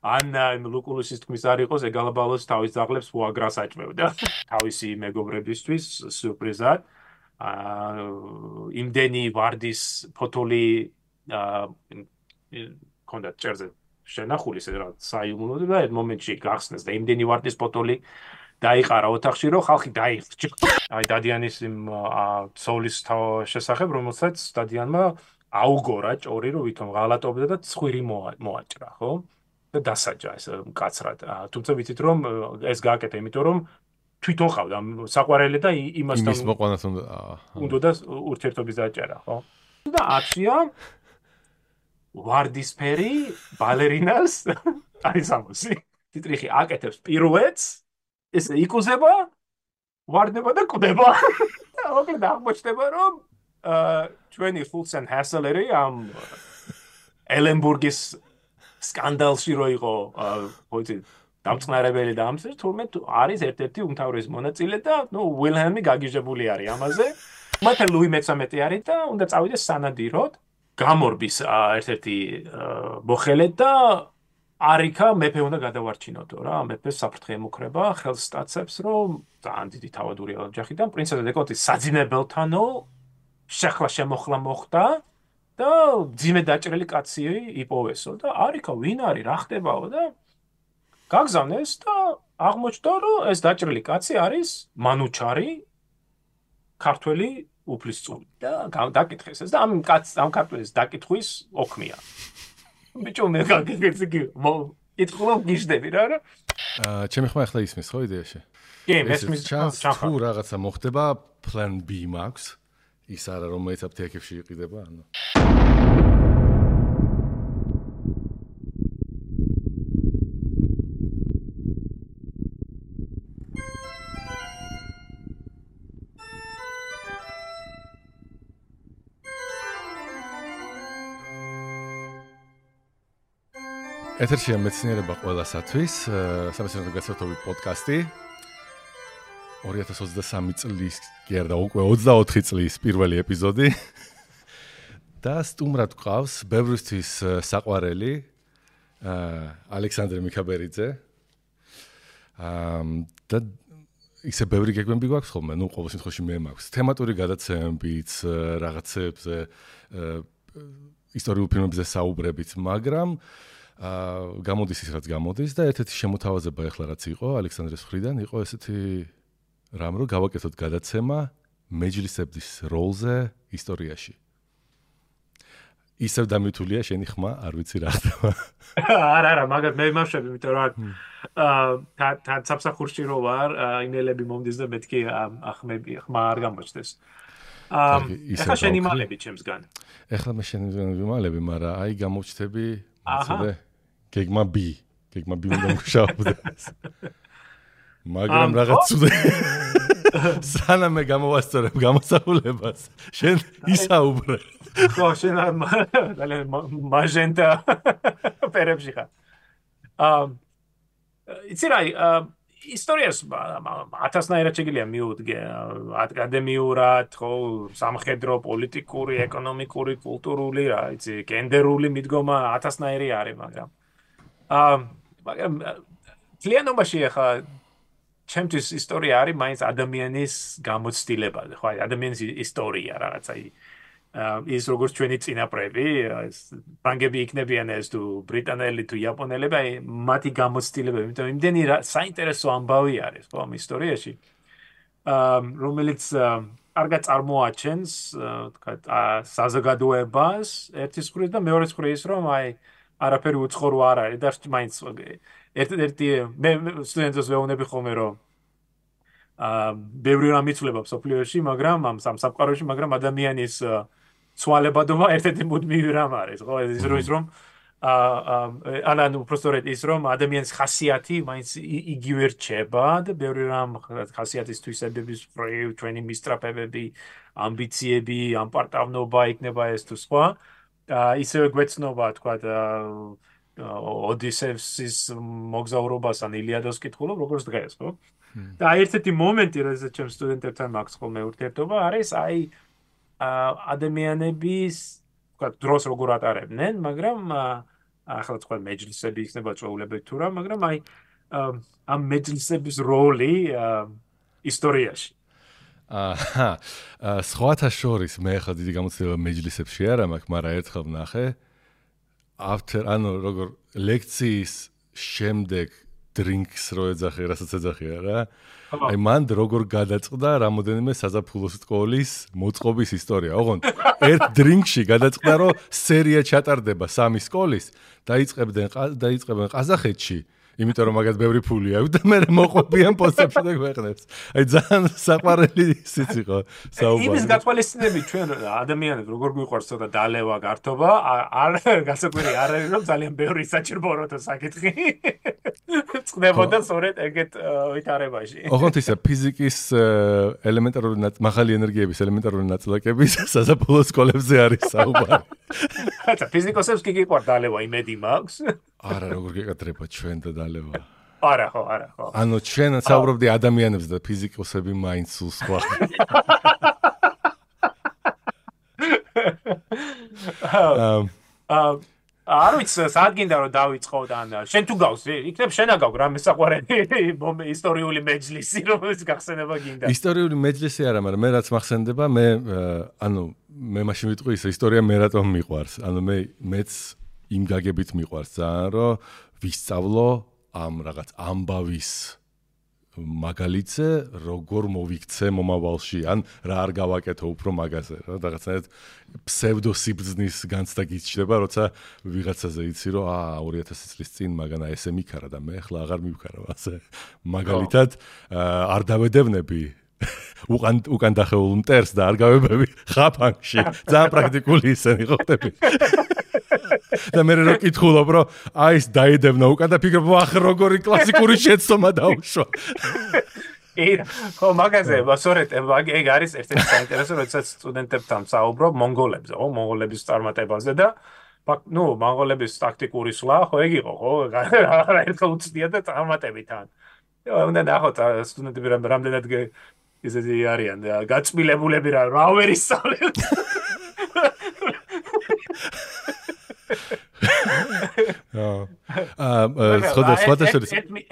ან ლუკულუსის თქმის არ იყოს, ეგალაბალოს თავის ძაღლებს ფუაგრას აჭმევდა. თავისი მეგობრებისთვის სიურპრიზად. იმდენი ვარდის ფოთოლი კონდა წერზე შენახული რა საიუმლოდ და ერთ მომენტში გახსნეს და იმდენი ვარდის ფოთოლი დაიყარა ოთახში, რომ ხალხი დაიხჭა. აი დადიანის იმ ცოლის შესახებ, რომელსაც დადიანმა აუგორა ჭორი, რომ ვითომ ღალატობდა და ცხვირი მოაჭრა, ხო? და დასაჯა ეს მკაცრად. თუმცა ვიცით რომ ეს გააკეთა, იმიტომ რომ თვითონ ყავდა საყვარელი და იმასთან იმის მოყვანას უნდა ურთიერთობის დაჭერა, ხო? და აცია ვარდისფერი ბალერინას არის ამოსი. ტიტრიხი აკეთებს პირუეტს, ეს იკუზება, ვარდება და კვდება. და მოკლედ აღმოჩნდება რომ ჩვენი ხულცენ ჰასელერი ამ ელენბურგის სკანდალში რო იყო, ხო იცი, დამწყნარებელი და ამის თურმე არის ერთ-ერთი უმთავრესი მონაწილე და ვილჰელმი გაგიჟებული არის ამაზე. მათ ლუი მე-13 არის და უნდა წავიდეს სანადიროდ. გამორბის ერთ-ერთი მოხელე და არიქა მეფე უნდა გადავარჩინოდო რა. მეფე საფრთხე ემუქრება, ხელს სტაცებს, რომ ძალიან დიდი თავადურია ოჯახიდან პრინცესა დეკოტის საძინებელთანო შეხლა შემოხლა მოხდა. და ძიმე დაჭრილი კაცი იპოვესო და არიქა ვინ არის რა ხდებაო და გაგზავნეს და აღმოჩნდა რომ ეს დაჭრილი კაცი არის მანუჩარი ქართველი უფლისწული და დაკითხეს ეს და ამ ქართველის დაკითხვის ოქმია ბიჭო მე გაგიგეცი იტყულობ გიждები რა ჩემი ხმა ახლა ისმის ხო იდეაში კი მესმის თუ რაღაცა მოხდება plan B მაქვს ის არა რომელიც აფთიაქებში იყიდება ანუ ეთერშია მეცნიერება ყველასათვის სამეცნიერო გასართობი პოდკასტი 2023 წლის კი არა უკვე 24 წლის პირველი ეპიზოდი და სტუმრად გვყავს ბევრისთვის საყვარელი ალექსანდრე მიქაბერიძე და ისე ბევრი გეგმები გვაქვს ხოლმე ნუ ყოველ შემთხვევაში მე მაქვს თემატური გადაცემებიც რაღაცებზე ისტორიულ ფილმებზე საუბრებით მაგრამ გამოდის ის რაც გამოდის და ერთ-ერთი შემოთავაზება ახლა რაც იყო ალექსანდრეს მხრიდან იყო ესეთი რამ რო გავაკეთოთ გადაცემა მეჯლისების როლზე ისტორიაში. ისევ დამითულია შენი ხმა, არ ვიცი რა ხდება. არა, მაგათ მე მახშები, იმიტომ რომ თან საფსახურში რო ვარ, იმეილები მომდის და მეთქი ხმა არ გამოჩნდეს. ეხლა შენი მალები ჩემსგან. ეხლა მე შენი მალები, მაგრამ აი გამოჩნდები, მოცდე გეგმა B უნდა მუშაობდეს. მაგრამ რაღაც ცუდე სანამ მე გამოვასწორებ გამოსახულებას შენ ისაუბრე ხო შენ მაგენტა პერებში ხარ იცი რა ისტორიას ათასნაირად შეგიძლია მიუდგე აკადემიურად ხო სამხედრო პოლიტიკური ეკონომიკური კულტურული რა იცი გენდერული მიდგომა ათასნაირი არის მაგრამ ძალიანობაში ახლა ჩემთვის ისტორია არის მაინც ადამიანის გამოცდილება ხო აი ადამიანის ისტორია რაღაცა ის როგორც ჩვენი წინაპრები ფრანგები იქნებიან ეს თუ ბრიტანელი თუ იაპონელები აი მათი გამოცდილება იმიტომ იმდენი საინტერესო ამბავი არის ხო ამ ისტორიაში რომელიც კარგად წარმოაჩენს თქვა საზოგადოებას ერთის მხრივ და მეორეს მხრივ ის რომ აი არაფერი უცხორო არ არის და მაინც ერთ-ერთი მე სტუდენტებს ვეუბნები ხოლმე რომ ბევრი რამ იცვლება სოფლიოში, მაგრამ ამ სამყაროში, მაგრამ ადამიანის ცვალებადობა ერთ-ერთი მუდმივი რამ არის, ხო? ის რომ ანუ უბრალოდ ის რომ ადამიანის ხასიათი მაინც იგივე რჩება და ბევრი რამ ხასიათის თვისებების ფრევ, ჩვენი მისწრაფებები, ამბიციები, ამპარტავნობა იქნება ეს თუ სხვა. ისევე გვეცნობა, თქვა ოდისევსის მოგზაურობას ან ილიადას კითხულობ, როგორც დღეს, ხო? და ერთ-ერთი მომენტი, როდესაც ჩემ სტუდენტებთან მაქვს ხოლმე ურთიერთობა, არის აი ადამიანების, თქვა დროს როგორ ატარებდნენ, მაგრამ ახლა თქვენ მეჯლისები იქნება წვეულებები თუ რა, მაგრამ აი ამ მეჯლისების როლი ისტორიაში. სხვათა შორის მე ახლა დიდი გამოცდილება მეჯლისებში არ მაქვს, მაგრამ ერთხელ ვნახე ანუ როგორ ლექციის შემდეგ drinks რო ეძახე, რასაც ეძახია რა. აი მან როგორ გადაწყდა რამოდენიმე საზაფხულო სკოლის მოწყობის ისტორია. ოღონდ ერთ დრინკში გადაწყდა რომ სერია ჩატარდება 3 სკოლის, დაიწყებენ ყაზახეთში. იმიტომ რომ მაგათ ბევრი ფული აქვს და მე მოყვებიან პოსტებში და გვეყნებს. აი ძალიან საყვარელი ისიც იყო საუბარი. იმის გათვალისწინებით ჩვენ ადამიანებს როგორ გვიყვარს ცოტა დალევა, გართობა, არ გასაკვირი არ არის რომ ძალიან ბევრი საჭიროა საკითხი. წდებოდა სწორედ ეგეთ ვითარებაში. ოღონდ ისა ფიზიკის ელემენტარული მაღალი ენერგიების ელემენტარული ნაწილაკების საზაფხულო სკოლებზე არის საუბარი. ხაცა ფიზიკოსებს კი გიყვარს დალევა, იმედი მაქვს. არა, როგორ გეკადრება ჩვენ და დალევა. არა ხო. ანუ ჩვენ საუბრობდი ადამიანებს და ფიზიკოსები მაინც სულ სხვა. არ ვიცი, სად გინდა რომ დავიწყო და შენ თუ გავს, იქნებ შენა გაქვს რამე საყვარელი ისტორიული მეჯლისი, რომელიც გახსენება გინდა. ისტორიული მეჯლისი არა, მაგრამ მე რაც მახსენდება, მე მაშინ ვიტყვი ის ისტორია მე რატომ მიყვარს. მეც იმ გაგებით მიყვარს ძალიან, რომ ვისწავლო ამ რაღაც ამბავის მაგალითზე, როგორ მოვიქცე მომავალში, ან რა არ გავაკეთო უფრო მაგაზე, რა რაღაცნაირად ფსევდოსიბრძნის განცდა გიჩნდება, როცა ვიღაცაზე იცი, რომ 2000 წლის წინ მაგანა ესე მიქარა და მე ახლა აღარ მივქარავ ასე. მაგალითად არ დავედევნები უკან დახეულ მტერს და არ გავებები ხაფანგში. ძალიან პრაქტიკული ისენი ხო ხდები. და მე რო კითხულობ, რომ ეს დაედევნა უკან და ფიქრობ, ახ როგორი კლასიკური შეცდომა დაუშვა. ხო, მაგაზე, სწორედ ეგ არის ერთ-ერთი საინტერესო, როდესაც სტუდენტებთან საუბრობ მონღოლებზე, მონღოლების წარმატებაზე და მონღოლების ტაქტიკური სვლა, ხო, ეგ იყო, ხო, ერთხელ უცდია და წარმატებიდან. უნდა ნახოთ სტუდენტები რამდენად ისეთი არიან, გაწმილებულები რა ვერ ისწავლენ.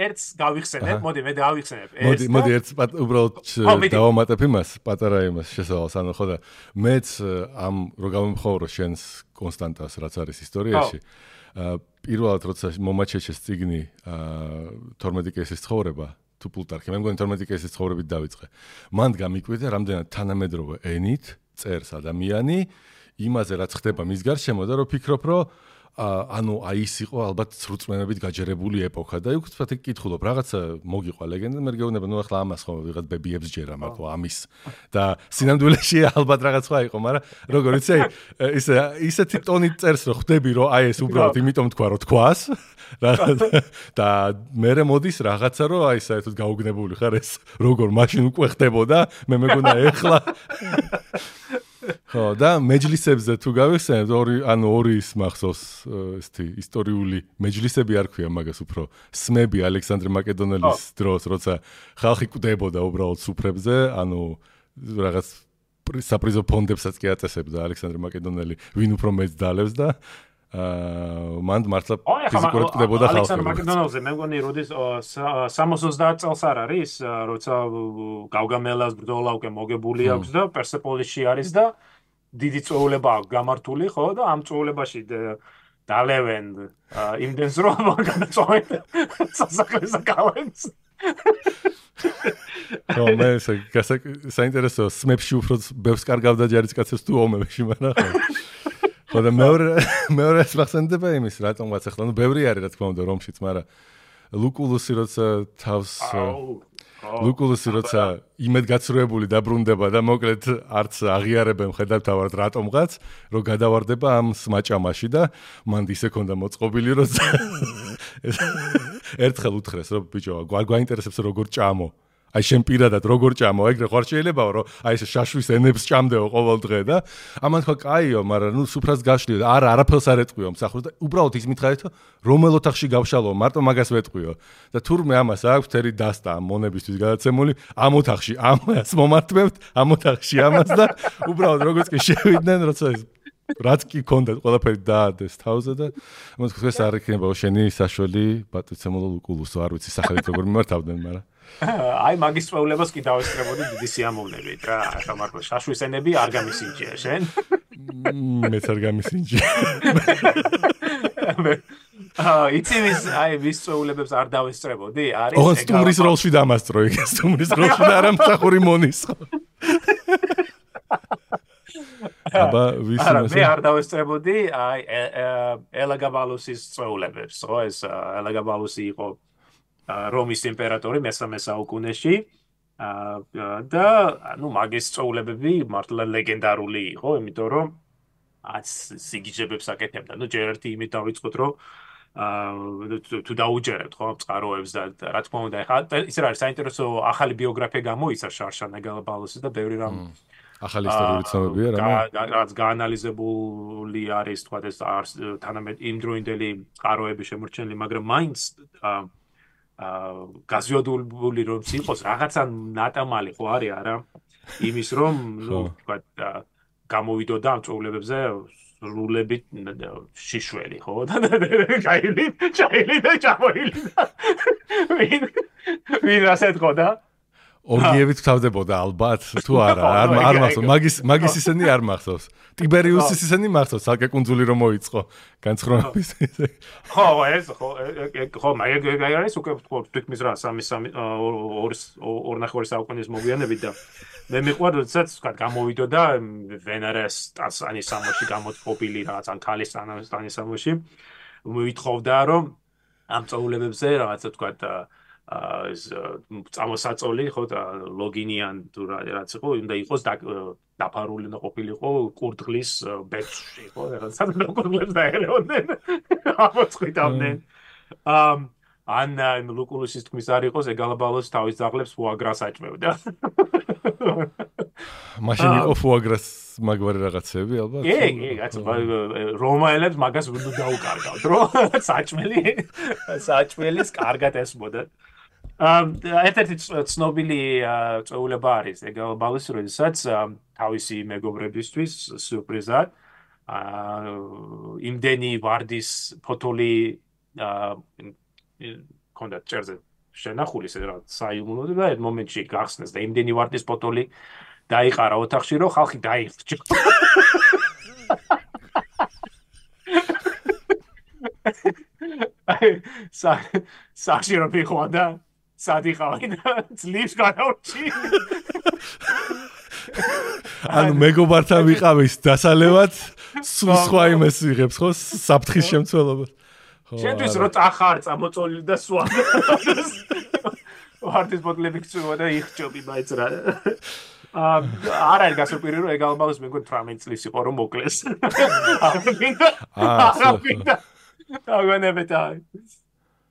ერთს გავიხსენებ, მოდი მე დავიხსენებ. მოდი ერთს უბრალოდ დავამატებ იმას, პატარა იმას შესავალს, ანუ ხო და მეც ამ რო გამომხმოვრო შენს კონსტანტას, რაც არის ისტორიაში. პირველად როცა მომაჩეჩეს წიგნი 12 კეისის ცხოვრება თუ პლუტარქი, მე მგონი 12 კეისის ცხოვრებით დავიწყე. მან გამიკვირდა რამდენად თანამედროვე ენით წერს ადამიანი იმაზე რაც ხდება მის გარშემო და რო ფიქრობ, რომ ის იყო ალბათ სრულწმენებით გაჯერებული ეპოქა და იქ ვთქვათ კითხულობ რაღაცა მოგიყვა ლეგენდა მე გეუბნება ახლა ამას ხო ვიღაც ბებიებს ჯერა მარტო ამის და სინამდვილეში ალბათ რაღაც სხვა იყო მაგრამ როგორ იცი ისეთი ტონით წერს რომ ხვდები რომ ეს უბრალოდ იმიტომ თქვა რომ თქვას და მე მოდის რაღაცა რომ საერთოდ გაუგნებული ხარ ეს როგორ მაშინ უკვე ხდებოდა მე მეგონა ეხლა ხო და მეჯლისებზე თუ გავიხსენებთ ორი ის მახსოვს ესეთი ისტორიული მეჯლისები არ ქვია მაგას უფრო სმები ალექსანდრე მაკედონელის დროს როცა ხალხი კვდებოდა უბრალოდ სუფრებზე რაღაც საპრიზო ფონდებსაც კი აწესებდა ალექსანდრე მაკედონელი ვინ უფრო მეც დალევს და მან მართლა ფიზიკურად კვდებოდა ხალხი ალექსანდრე მაკედონელზე მე მგონი როდის 60-30 წელს არ არის როცა გავგამელას ბრძოლა უკვე მოგებული აქვს და პერსეპოლისში არის და დიდი წვეულება აქვს გამართული ხო და ამ წვეულებაში დალევენ იმდენს რომ განაწოვენ სასახლეს კალენს ხო მე საინტერესო სმებში უფრო ბევრს კარგავდა ჯარისკაცებს თუ ომებში მაგრამ ხო და მეორე ახსენდება იმის რატომღაც ახლა ბევრი არის რა თქმა უნდა რომშიც მაგრამ ლუკულუსი როცა თავს ლუკულუსი როცა იმედგაცრუებული დაბრუნდება და მოკლედ არც აღიარებენ ხედავთავად რატომღაც რომ გადავარდება ამ სმაჭამაში და მანდ ისე ქონდა მოწყობილი რომ ერთხელ უთხრეს რომ ბიჭო გვაინტერესებს როგორ ჭამო აი შენ პირადად როგორ ჭამო ეგრე ხარ შეიძლებაო რომ ეს შაშვის ენებს ჭამდეო ყოველ დღე და ამან თქვა კაიო მაგრამ სუფრას გაშლიო და არაფერს არ ეტყვიო მსახურს და უბრალოდ ის მითხარით რომელ ოთახში გავშალო მარტო მაგას ვეტყვიო და თურმე ამას აქვს თერი დასტა მონებისთვის გადაცემული ამ ოთახში ამას მომართმევთ ამ ოთახში ამას და უბრალოდ როგორც კი შევიდნენ როცა რაც კი ქონდა ყველაფერი დაადეს თავზე და ამას ხეს არ იქნება შენი საშველი პატრიცემოლო ლუკულუსო არ ვიცი სახელით როგორ მიმართავდნენ მაგრამ აი მაგის წვეულებას კი დავესწრებოდი დიდი სიამოვნებით რა ახლა მარტო შაშვის ენები არ გამისინჯია შენ მეც არ გამისინჯია იცი ვის წვეულებებს არ დავესწრებოდი არის ოღონდ სტუმრის როლში დამასწრო იქ სტუმრის როლში და არა მსახური მონისხო აბა მე არ დავესწრებოდი აი ელაგაბალუსის წვეულებებს ხო ეს ელაგაბალუსი იყო რომის იმპერატორი მე-13 საუკუნეში და ნუ მაგის წვეულებები მართლა ლეგენდარული იყო იმიტომ რომ სიგიჟებებს აკეთებდა ნუ ჯერ ერთი იმით დავიწყოთ რომ თუ დაუჯერებთ ხო წყაროებს და რა თქმა უნდა ეხლა ის არის საინტერესო ახალი ბიოგრაფია გამოიცა შარშან ელაგაბალუსის და ბევრი რამ ახალი ისტორიული ცნობებია რაც გაანალიზებული არის თქვა ეს თანამედ იმდროინდელი წყაროები შემორჩენილი მაგრამ მაინც გაზიოდული რომ იყოს რაღაცა ნატამალი ხო არის არა იმის რომ ნუ თქვა გამოვიდოდა ამ წვეულებებზე სრულებით შიშველი ხო და ჩაილი და ჩამოილი ვინ ასეთ ხო და ორგიებით თავდებოდა ალბათ თუ არა არ მახსოვს მაგის ისენი არ მახსოვს ტიბერიუსის ისენი მახსოვს ალკე კუნძული რომ მოიწყო განცხრომების ხო ეს ხო მაგ არის უკვე თვითმის რა 2.5 საუკუნის მოგვიანებით და მე მიყვარდა როდესაც თქვა გამოვიდოდა ვენერას ტანსანის სამოში გამოწყობილი რაღაც ან ქალის ტანსანის სამოში მოითხოვდა რომ ამ წვეულებებზე რაღაცა თქვა ეს წამოსაწოლი ხო და ლოგინიან თუ რაც იყო უნდა იყოს დაფარული და ყოფილიყო კურდღლის ბეჭში ხო რაღაცა კურდღლებს დაერეოდნენ ამოწყვიტავდნენ ან ლუკულუსის თქმის არ იყოს ელაგაბალუსი თავის ძაღლებს ფუაგრას აჭმევდა მაშინ იყო ფუაგრას მაგვარი რაღაცები ალბათ კი კაცო რომაელებს მაგას უნდა დაუკარგავთ რომ საჭმელის კარგად ესმოდათ ერთ-ერთი ცნობილი წვეულება არის ელაგაბალუსი როდესაც თავისი მეგობრებისთვის სიურპრიზად იმდენი ვარდის ფოთოლი კონდა წერზე შენახული რა საიუმნო და ერთ მომენტში გახსნეს და იმდენი ვარდის ფოთოლი დაიყარა ოთახში რომ ხალხი დაიხრჩა საჭი რომ მიხოდა სადიხავენ ძლივს განავრჩი ანუ მეგობართან ვიყავის დასალევად სულ სხვა იმეს იღებს ხო საფრთხის შემცველობას შენთვის რო წახარ წამოწოლილი და სვა ვარდის ბოთლები გწუვა და იხჭობი მაინც რა არ არის გასაკვირი რომ ელაგაბალუსი მე მგონი 18 წლის იყო რომ მოკლეს აგონებდა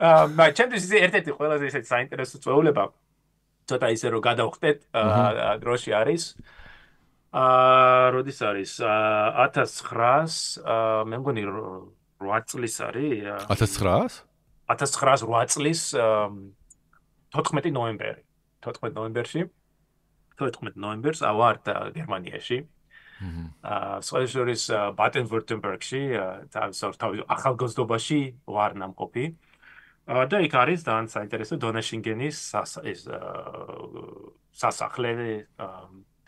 ჩემთვის ერთ-ერთი ყველაზე ისეთი საინტერესო წვეულება ცოტა ისე რომ გადავხდეთ დროში არის როდის არის 1900 მე მგონი 8 წლის არის 1908 წლის 14 ნოემბერში 14 ნოემბერს ავართ გერმანიაში სოციალიზმის ბადენ-ვიურტემბერგში თავის ახალგაზრდობაში ვარ ნამყოფი და იქ არის ძალიან საინტერესო დონაშინგენის სასახლე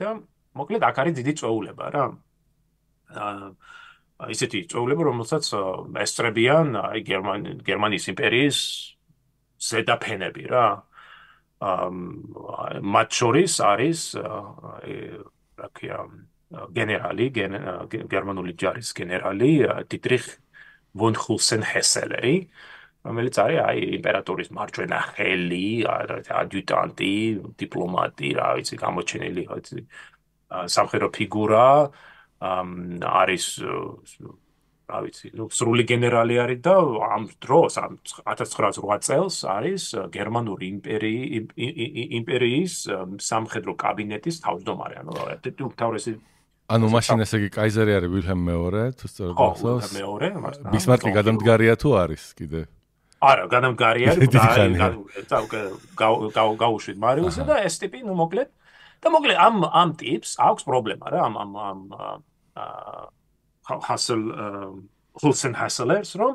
და მოკლედ აქ არის დიდი წვეულება რა ისეთი წვეულება რომელსაც ესწრებიან გერმანიის იმპერიის ზედაფენები რა მათ შორის არის რა ქვია გენერალი გერმანული ჯარის გენერალი დიტრიხ ვონ ჰულსენ-ჰესელერი რომელიც არის აი იმპერატორის მარჯვენა ხელი ადიუტანტი დიპლომატი რა ვიცი გამოჩენილი სამხედრო ფიგურა არის რა ვიცი ნუ სრული გენერალი არის და ამ დროს 1908 წელს არის გერმანული იმპერიის სამხედრო კაბინეტის თავმჯდომარე ანუ ერთ-ერთი უმთავრესი ანუ მაშინ ესე იგი კაიზერი არის ვილჰელმ მეორე თუ სწორად გახსოვს მეორე ბისმარკი გადამდგარია თუ არის კიდე არა გადამდგარია გაუშვით მარიუსი და ეს ტიპი ნუ მოკლედ და მოკლედ ამ ტიპს აქვს პრობლემა რა ამ ჰასელ ჰულსენ ჰასელერს რომ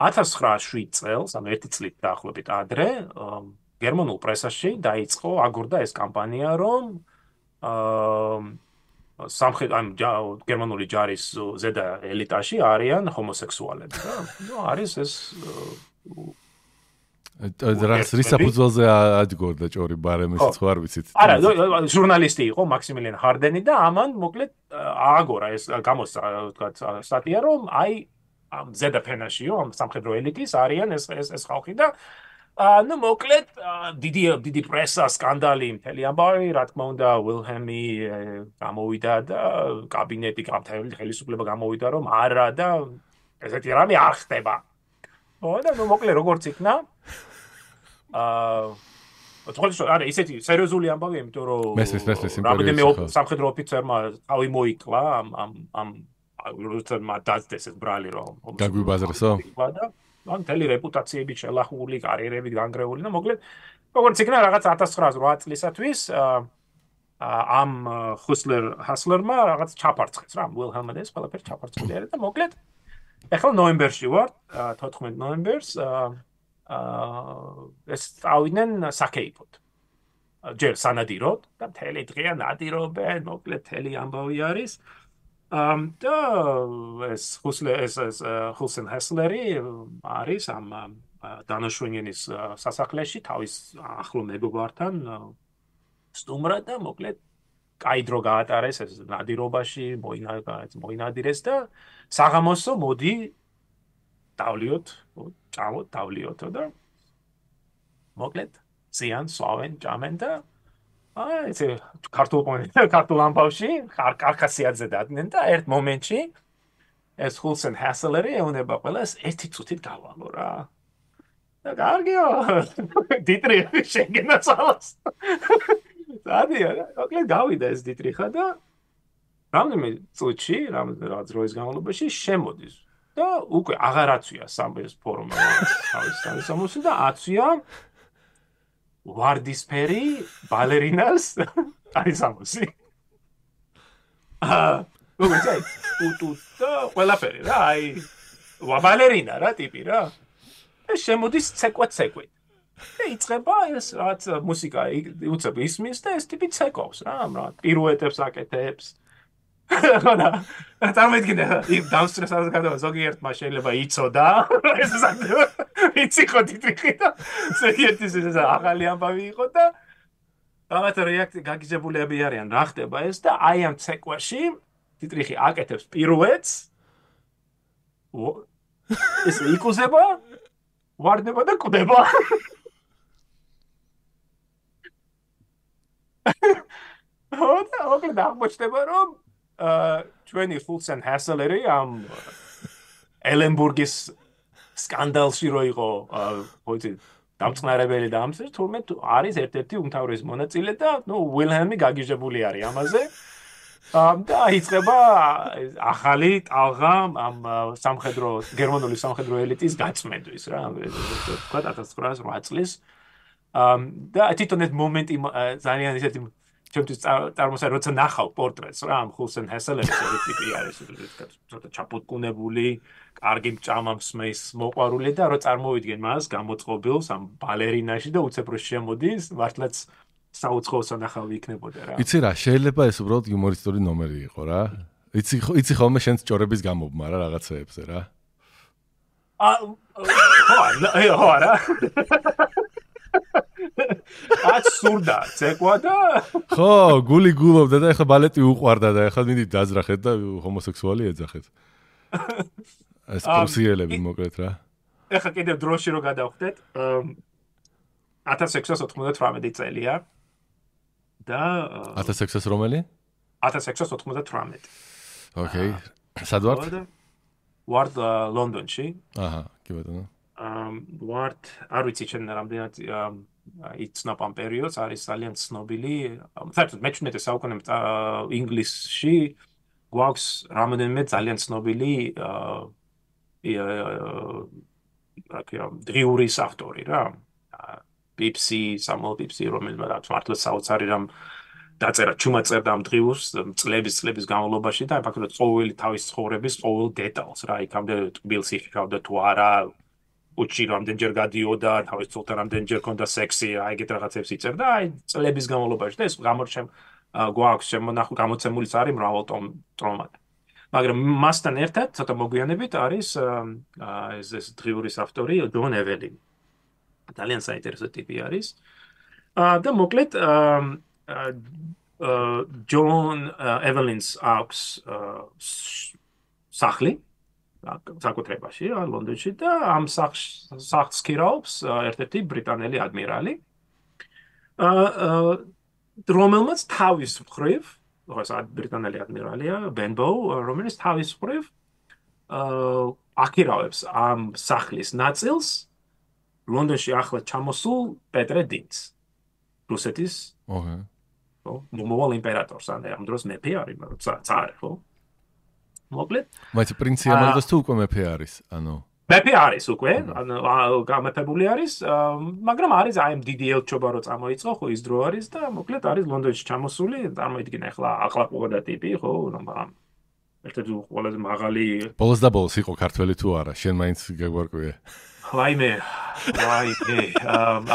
1907 წელს, ანუ 1 წლით დაახლოებით ადრე, გერმანულ პრესაში დაიწყო აგორდა ეს კამპანია, რომ გერმანული ჯარის ზედა ელიტაში არიან ჰომოსექსუალები და არის ეს რის საფუძველზე ადგორდა ჭორი ბარემის ხო არ ვიცით. არა, ჟურნალისტი იყო მაქსიმილიან ჰარდენი და ამან მოკლედ ააგორა ეს გამოსცა თქვათ სტატია რომ აი ამ ზედა ფენაშიო ამ სამხედრო ელიტის არიან ეს ხალხი და ну მოკლედ დიდი პრესა სკანდალი მთელი ამბავი რა თქმა უნდა ვილჰემი გამოვიდა და კაბინეტი ხელისუფლება გამოვიდა რომ არა და ესეთი რამე არ ხდება. ხო და ну მოკლედ როგორც იქნა არა ისეთი სერიოზული ამბავია იმიტომ რომ რამდენიმე სამხედრო ოფიცერმა თავი მოიკლა ამ როცა დაძდეს ეს ბრალი რომ გაგვიბაზრესო ან მთელი რეპუტაციები შელახული, კარიერები განგრეული და მოკლედ როგორც იქნა რაღაც 1908 წლისათვის ამ ჰასლერმა რაღაც ჩაფარცხეს რა ვილჰელმმა ეს ყველაფერი ჩაფარცხული არის და მოკლედ ახლა ნოემბერში ვარ 14 ნოემბერს ეს წავიდნენ საკეიფოდ ჯერ სანადიროდ და მთელი დღეა ნადირობენ მოკლედ მთელი ამბავი არის და ეს ჰულსენ ჰესლერი არის ამ დანაშვენინის სასახლეში თავის ახლო მეგობართან სტუმრად და მოკლედ კაი დრო გაატარეს ეს ნადირობაში მოინადირეს და საღამოსო მოდი დავლიოთ ჭამოთ დავლიოთო და მოკლედ ზიან სვავენ ჭამენ და ესე ქართულ ამბავში ხარკასიაძე დადგნენ და ერთ მომენტში ეს ჰულსენ ჰასელერი ეუნება ყველას ერთი წუთით გავალო რა და კარგია დიტრიხი შეგენაცალოს სადია მოკლედ გავიდა ეს დიტრიხა და რამდენიმე წუთში რაღაც დროის განმავლობაში შემოდის და უკვე აღარ აცვია სამბეს ფორმა თავის სამოსი და აცვია ვარდისფერი ბალერინას არის ამოსი. როგორც აი, უტუტა ყველაფერი რა, აი ბალერინა რა ტიპი რა. ეს შემოდის ცეკვეთ. და იწყება ეს რაც მუსიკა უცებ ისმის და ეს ტიპი ცეკავს რა, პირუეტებს აკეთებს. ხოდა წარმოიდგინე იმ დაუსტრესას გადავა ზოგიერთმა შეიძლება იცოდა ეს საკუთარ იცი ხო დიტრიხი და ზოგიერთის ეს ახალი ამბავი იყო და რაღაც რეაქცია გაგიჟებულები არიან რა ხდება ეს და აი ამ ცეკვაში დიტრიხი აკეთებს პირუეტს ეს იკუზება ვარდება და კვდება ხოდა ოკლედ აღმოჩნდება რომ ჩვენი ჰულსენ ჰასელერი ამ ელენბურგის სკანდალში რო იყო ხოთი დამწყნარებელი და ამის თურმე არის ერთ-ერთი უმთავრესი მონაწილე და ნუ ვილჰემი გაგიჟებული არის ამაზე და იწყება ახალი ტალღა ამ გერმანული სამხედრო ელიტის გაწმენდვის რა თქვა 1908 წლის და თვითონ ეს მომენტი ძალიან ისეთი ჩემთვის წარმოსა როცა ნახავ პორტრეტს რა ამ ჰულსენ ჰესელერის ეს ტიპი არის ცოტა ჩაპუტკუნებული, კარგი ჭამა მსმის მოყვარული და რო წარმოვიდგენ მას გამოწყობილს ამ ბალერინაში და უცებ რო შემოდის მართლაც საუცხოო სანახავი იქნებოდა რა. იცი რა, შეიძლება ეს უბრალოდ იუმორისტული ნომერი იყო რა. იცი ხოლმე შენს ჭორების გამობმა რა რაღაცეებზე რა. ხო არა. აც სურდა ცეკვა და ხო გული გულობდა და ეხლა ბალეტი უყვარდა და ეხლა მინდი დაძრახეთ და ჰომოსექსუალი ეძახეთ ეს პრუსიელები მოკლედ რა ეხლა კიდევ დროში რო გადავხდეთ 1698 წელია და 1600 რომელი 1698 ოკეი სად ვართ ვართ ლონდონში აჰა კი ბატონო ვართ არ ვიცი ჩვენ რამდენად იცნობ ამ პერიოდს არის ძალიან ცნობილი საერთოდ მე-17 საუკუნემდე ინგლისში გვაქვს რამდენიმე ძალიან ცნობილი დრიურის ავტორი რა პიპსი სამუელ პიპსი რომელმაც მართლა საოცარი რამ დაწერა ჩუმად წერდა ამ დღიურს წლების განმავლობაში და ფაქტობრივად ყოველი თავის ცხოვრების ყოველ დეტალს რა იქამდე ტკბილს იხავდა თუ არა უჩი რამდენჯერ გადიოდა თავის ცოლთან რამდენჯერ ქონდა სექსი აი ეგეთ რაღაცებს იწერდა აი წლების განმავლობაში და ეს გვაქვს შემონახული გამოცემულიც არის მრავალ ტომად მაგრამ მასთან ერთად ცოტა მოგვიანებით არის ეს დღიურის ავტორი ჯონ ეველინი ძალიან საინტერესო ტიპი არის და მოკლედ ჯონ ეველინს აქვს სახლი საკუთრებაში ლონდონში და ამ სახლს ქირაობს ერთ-ერთი ბრიტანელი ადმირალი რომელმაც თავის მხრივ ბრიტანელი ადმირალია ბენბო რომელიც თავის მხრივ აქირავებს ამ სახლის ნაწილს ლონდონში ახლა ჩამოსულ პეტრე დინს რუსეთის მომავალ იმპერატორს ამ დროს მეფე არის ცარი ხო მოკლედ მაინც პრინცი ამალდას თუ უკვე მეფე არის ანუ მეფე არის უკვე გამეფებული არის მაგრამ არის აი ამ დიდი ელჩობა რო წამოიწყო ხო ის დრო არის და მოკლედ არის ლონდონში ჩამოსული წარმოიდგინე ახლა ახლაყურდა ტიპი ხო ერთ-ერთი ყველაზე მაღალი ბოლოს და ბოლოს იყო ქართველი თუ არა შენ მაინც გაგვარკვია ვაიმე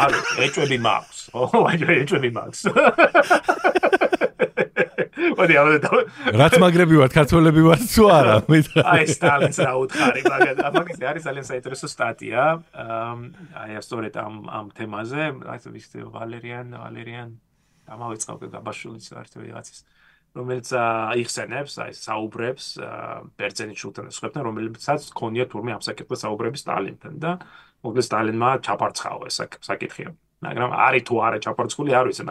არა ეჭვები მაქვს ხო ეჭვები მაქვს რაც მაგრები ვართ ქართველები ვართ თუ არა აი სტალინს რა უთხარი მაგას არის ძალიან საინტერესო სტატია აი სწორედ ამ თემაზე აი ვიცი ვალერიან დამავიწყავ გაბაშვილის ერთი ვიღაცის რომელიც იხსენებს აი საუბრებს ბერძენის შულთან სხვებთან რომელიცაც ქონია თურმე ამ საკითხზე საუბრები სტალინთან და მოკლედ სტალინმა ჩაპარცხაო ეს საკითხი მაგრამ არის თუ არა ჩაპარცხული არ ვიცი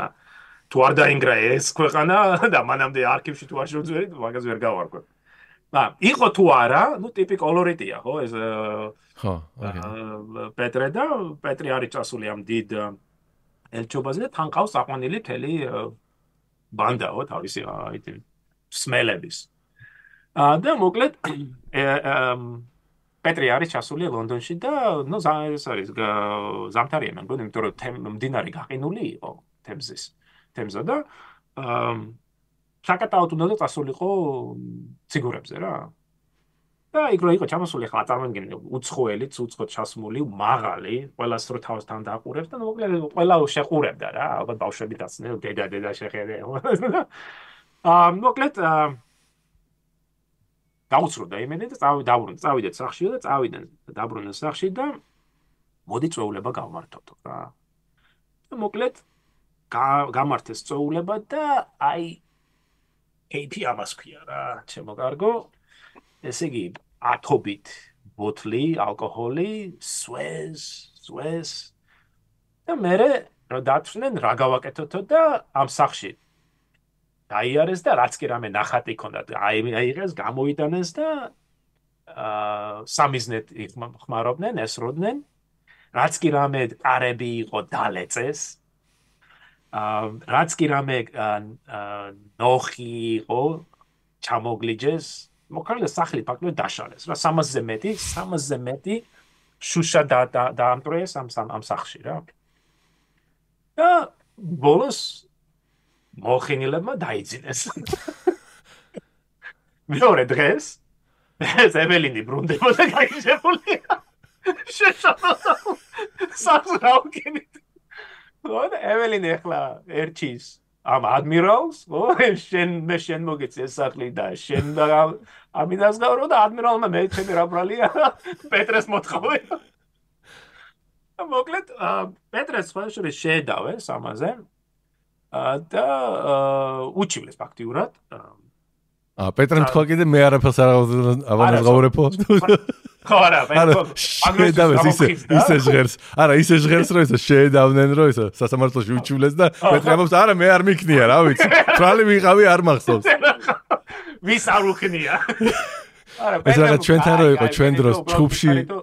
თუ არ დაინგრა ეს ქვეყანა და მანამდე არქივში თუ არ შევძვერი მაგას ვერ გავარკვევ იყო თუ არა ნუ ტიპი კოლორიტია ხო ეს ხო პეტრე და პეტრი არის წასული ამ დიდ ელჩობაზე და თან ყავს აყვანილი მთელი ბანდაო თავისი სმელების და მოკლედ პეტრი არის ჩასული ლონდონში და ნუ ეს არის ზამთარია მე მგონი იმიტომ რომ მდინარე გაყინული იყო თემზა და საკატაოდ უნდა წასულიყო ციგურებზე რა და იქ რო იყო ჩამოსული ხა წარმოგიდგენთ უცხოელი უცხოდ ჩასმული მაღალი ყველას რო თავსთან დაყურებს და მოკლედ ყველა შეყურებდა რა ალბათ ბავშვები დაცნენ დედა შეხედე მოკლედ გაუცროდა იმედი და წავიდეთ სახლში და წავიდნენ დაბრუნდნენ სახლში და მოდი წვეულება გავმართოთ რა და მოკლედ გამართეს წვეულება და აი AP ამას ქვია რა ჩემო კარგო ესე იგი ათობით ბოთლი ალკოჰოლი სვეს და მე რა დათვნენ რა გავაკეთოთო და ამ სახლში დაიარეს და რაც კი რამე ნახატი ქონდათ აიღეს გამოიტანეს და სამიზნედ ხმარობდნენ ესროდნენ რაც კი რამე კარები იყო დალეწეს რაც კი რამე ნოხი იყო ჩამოგლიჯეს მოკლედ სახლი ფაქტობრივად დაშალეს რა 300-ზე მეტი შუშა დაამტვრიეს ამ სახლში რა და ბოლოს მოხინილებმა დაიძინეს მეორე დღეს ეს ეველინი ბრუნდებოდა გაიჟებული შეშალოდა სახლს რაუკენით და ეველინი ახლა ერჩის ამ ადმირალს მე შენ მოგეცი ეს სახლი და შენ ამიდას გავრო და ადმირალმა მე ჩემი რა ბრალია პეტრეს მოთხოვე მოკლედ პეტრეს ხვალშური შეედავეს ამაზე და უჩივლეს ფაქტიურად პეტრემ თქვა კიდე მე არაფერს არ ავანაზღაურებო ხო არა შეედავეს ისე ჟღერს არა ისე ჟღერს რომ ისე შეედავნენ რომ ისე სასამართლოში უჩივლეს და პეტრე ამბობს არა მე არ მიქნია რა ვიცი თვალი ვიყავი არ მახსოვს ვის არ უქნია ეს რაღაც ჩვენთან რო იყო ჩვენ დროს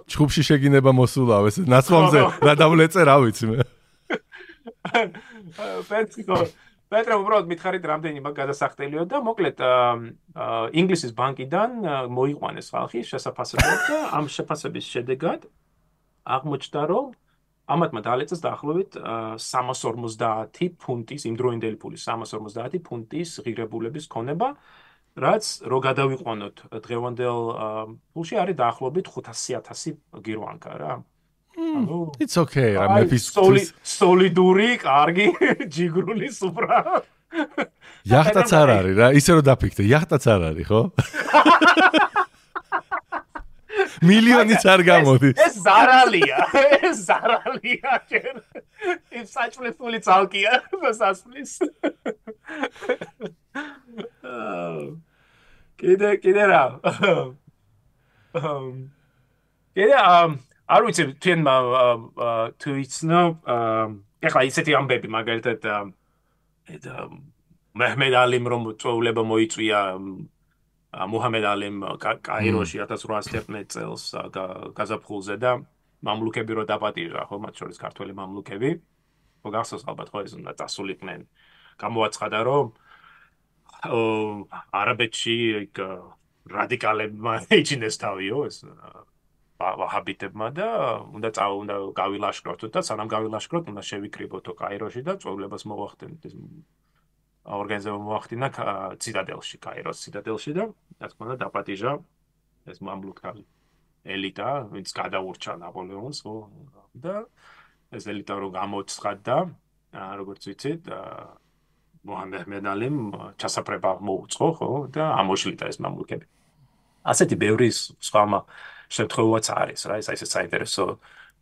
ჩხუბში შეგინება მოსულავ ეს ნაცვლამდე რა დავლეწე რა ვიცი მე პეტრე უბრალოდ მითხარით რამდენი მაგ გადასახტელიო და მოკლედ ინგლისის ბანკიდან მოიყვანეს ხალხი შესაფასებლად და ამ შეფასების შედეგად აღმოჩნდა რომ ამათმა დაალეწეს დაახლოებით 350 ფუნტის, იმდროინდელი ფულის 350 ფუნტის ღირებულების ქონება, რაც რო გადავიყვანოთ დღევანდელ ფულში არის დაახლოებით 500,000 გირვანკა რა. ანუ It's okay, რა მეფის სოლიდური, კარგი, ჯიგრული სუფრა. იახტაც არ არის რა, ისე რომ დაფიქრე, იახტაც არ არის, ხო? მილიონიც არ გამოდის. ეს ზარალია, ეს ზარალია ჯერ. ის საჭმელი ცალკია, სასმლის. კიდე რა. კიდე არ ვიცი თქვენ თუ იცნო ეხლა ისეთი ამბები მაგალითად მეჰმედ ალიმ რომ წვეულება მოიწვია მუჰამედ ალიმ კაიროში 1811 წელს გაზაფხულზე და მამლუქები რო დაპატიჟა ხო მათ შორის ქართველი მამლუქები ხო გახსოვს ალბათ ხო ეს უნდა დასულიყვნენ გამოაცხადა რომ არაბეთში რადიკალებმა ეჩინეს თავიო ეს ვაჰაბიტებმა და უნდა გავილაშქროთ და სანამ გავილაშქროთ უნდა შევიკრიბოთ კაიროში და წვეულებას მოვახდენთ ეს ორგანიზება მოახდინა ციტადელში კაიროს ციტადელში და რა თქმა უნდა დაპატიჟა ეს მამლუქი ელიტა ვინც გადაურჩა ნაპოლეონს ხო და ეს ელიტა რო გამოცხადდა როგორც ვიცით მუჰამედ ალიმ ჩასაფრება მოუწყო ხო და ამოშლიდა ეს მამლუქები ასეთი ბევრი სხვა შემთხვევაც არის რა ეს ისე საინტერესო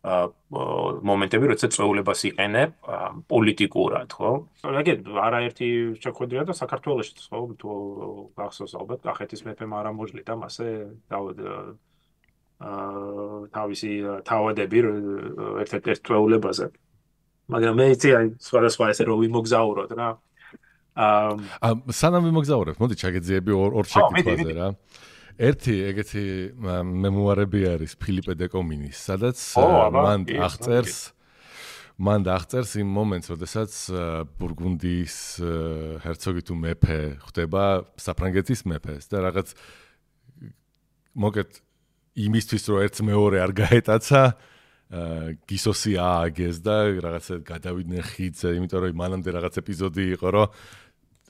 მომენტები როცა წვეულებას იყენებ პოლიტიკურად ხო რაგენ არაერთი შეხვედრია და საქართველოში ხო თუ გახსოვს ალბათ კახეთის მეფემ არ ამოშლიდა მასე თავისი თავადები ერთ-ერთ წვეულებაზე მაგრამ მე იცი აი სხვადასხვა ესე რომ ვიმოგზაუროთ რა სანამ ვიმოგზაურებ მოდი ჩაგეძიები ორ შეკითხვაზე რა ერთი ეგეთი მემუარები არის ფილიპე დეკომინის, სადაც მან აღწერს იმ მომენტს, როდესაც ბურგუნდიის ჰერცოგი თუ მეფე ხდება საფრანგეთის მეფეს და რაღაც მოკეთ იმისთვის რომ ერთ მეორე არ გაეტაცა გისოსი ააგეს და რაღაცა გადავიდნენ ხიდზე, იმიტომ რომ მანამდე რაღაც ეპიზოდი იყო, რომ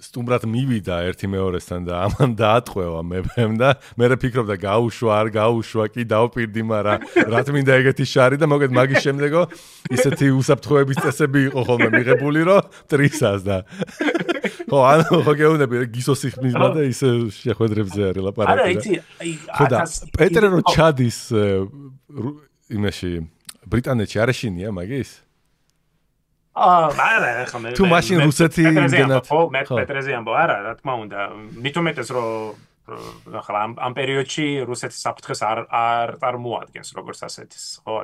სტუმრად მივიდა ერთი მეორესთან და ამან დაატყვევა მეფემ და მე ფიქრობდა გაუშვა არ გაუშვა კი დავპირდი მაგრამ რა თმინდა ეგეთი შარი და მოგეთ მაგის შემდეგო ისეთი უსაფრთხოების წესები იყო ხოლმე მიღებული რომ ტრისას და ხო ანუ ხო გეუბნები გისოსი ხმიზმა და ისე შეხვედრებზე არის ლაპარაკი არა იცი ხო და პეტრე რო ჩადის იმაში ბრიტანეთში არ ეშინია მაგის არა ხომ თუ მაშინ რუსეთი იმდენად ხო მე პეტრეზე ამბო არა რა თქმა უნდა მithumetes რომ ახლა ამ პერიოდში რუსეთის საფრთხეს არ წარმოადგენს როგორც ასეთის ხო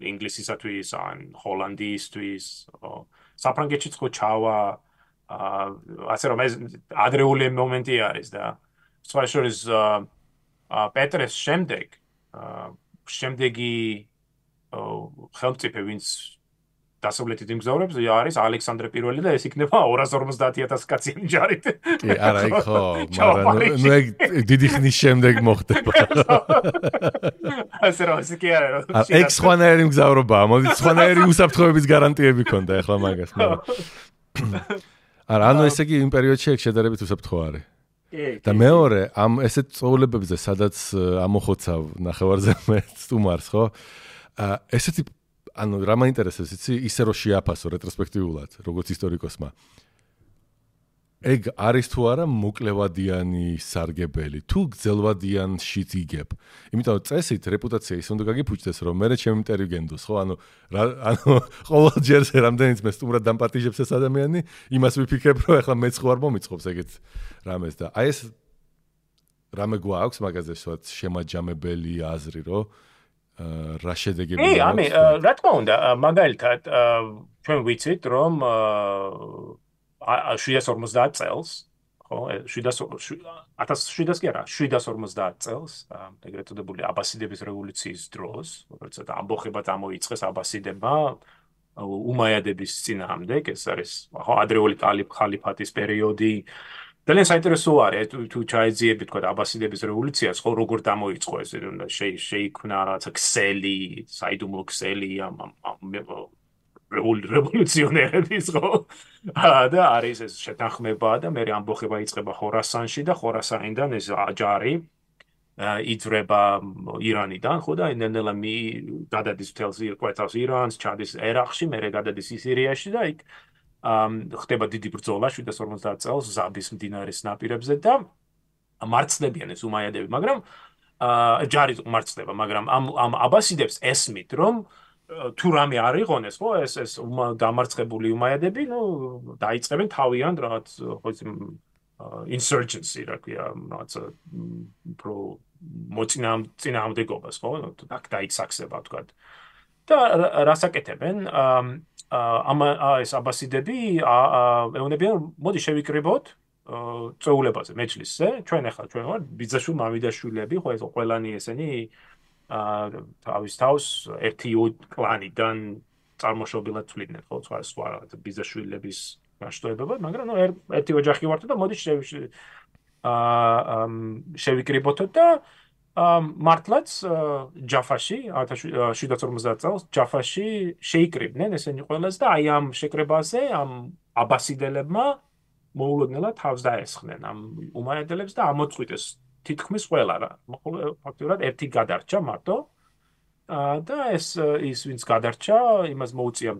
ინგლისისათვის ან ჰოლანდიისთვის ხო საფრანგეთშიც ხო ჩავა ასე რომ ეს ადრეული მომენტი არის და სხვა შორის პეტრეს შემდეგი ხელმწიფე ვინც დასავლეთით იმგზავრებს არის ალექსანდრე პირველი და ეს იქნება 250,000 კაციანი ჯარით. კი, არა, იქ ხო, მაგრამ ნუ ეგ დიდი ხნის შემდეგ მოხდება. ასე რომ ის კი არა. ეგ სხვანაირი მგზავრობაა, მოდი სხვანაირი უსაფრთხოების გარანტიები ქონდა ახლა მაგას, მაგრამ არა, ანუ ესე იგი იმ პერიოდში ეგ შედარებით უსაფრთხო არის. და მეორე, ამ ესეთ წვეულებებზე, სადაც ამოხოცავ ნახევარზე სტუმარს, ხო? ესეთი ანუ რა მაინტერესებს იცი ისე რომ შეაფასო რეტროსპექტიულად როგორც ისტორიკოსმა ეგ არის თუ არა მოკლევადიანი სარგებელი თუ გძელვადიანშიც იგებ იმიტომ რომ წესით რეპუტაცია ის უნდა გაგიფუჭდეს რომ მე ჩემი მტერი გენდოს ხო ანუ ყოველ ჯერზე რამდენიც მე სტუმრად დამპატიჟებს ეს ადამიანი იმას ვიფიქრებ რომ ეხლა მეც ხო არ მომიწყობს ეგეთ რამეს და აი ეს რამე გვაქვს მაგაზე ვთქვათ შემაჯამებელი აზრი რომ რა შედეგები აქვს? ამი რა თქმა უნდა, მაგალითად, ჩვენ ვიცით, რომ 750 წელს, ხო, 1700 კი არა, 750 წელს, ეგრეთ წოდებული აბასიდების რევოლუციის დროს, როცა ამბოხება წამოიწყეს აბასიდებმა უმაიადების წინააღმდეგ, ეს არის ხო ადრეული ხალიფატის პერიოდი ძალიან საინტერესო არის თუ ჩაეძიები თქვა აბასიდების რევოლუციას, ხო როგორ გამოიწყო ეს შეიქმნა რაღაცა ქსელი, საიდუმლო ქსელი რევოლუციონერების ხო და არის ეს შეთანხმება და მე ამბოხება იწყება ხორასანში და ხორასანიდან ეს ჯარი იძრება ირანიდან ხო და ნელ-ნელა გადადის მთელს კვეთავს ირანს, ჩადის ერაყში, მერე გადადის სირიაში და იქ ხდება დიდი ბრძოლა 750 წელს ზაბის მდინარის ნაპირებზე და მარცხდებიან ეს უმაიადები, მაგრამ ჯარი მარცხდება, მაგრამ ამ აბასიდებს ესმით, რომ თუ რამე არ იყონეს, ხო, ეს დამარცხებული უმაიადები, ნუ დაიწყებენ თავიანთ რაღაც ხო insurgency, რა ქვია, რაღაც პრო მოწინააღმდეგობას, ხო, აქ დაიწყება, თქვა. და რასაკეთებენ? ეს აბასიდები ეუბნებიან, მოდი შევიკრიბოთ წეულებაზე, მეჯლისზე, ჩვენ ვარ ბიძაშვილ მამიდაშვილები, ხო, ეს ყველანი ესენი თავის თავს ერთი კლანიდან წარმოშობილად თვლიდნენ, ხო, სხვა ბიძაშვილების განშტოებებად, მაგრამ ნუ ერთი ოჯახი ვართ და მოდი შევიკრიბოთ და მართლაც ჯაფაში 1750 წელს ჯაფაში შეიკრიბნენ ესენი ყველას და აი ამ შეკრებაზე ამ აბასიდელებმა მოულოდნელად თავს დაესხნენ ამ უმაიადელებს და ამოწყვიტეს თითქმის ყველა რა ფაქტობრივად ერთი გადარჩა მარტო და ის ვინც გადარჩა იმას მოუწია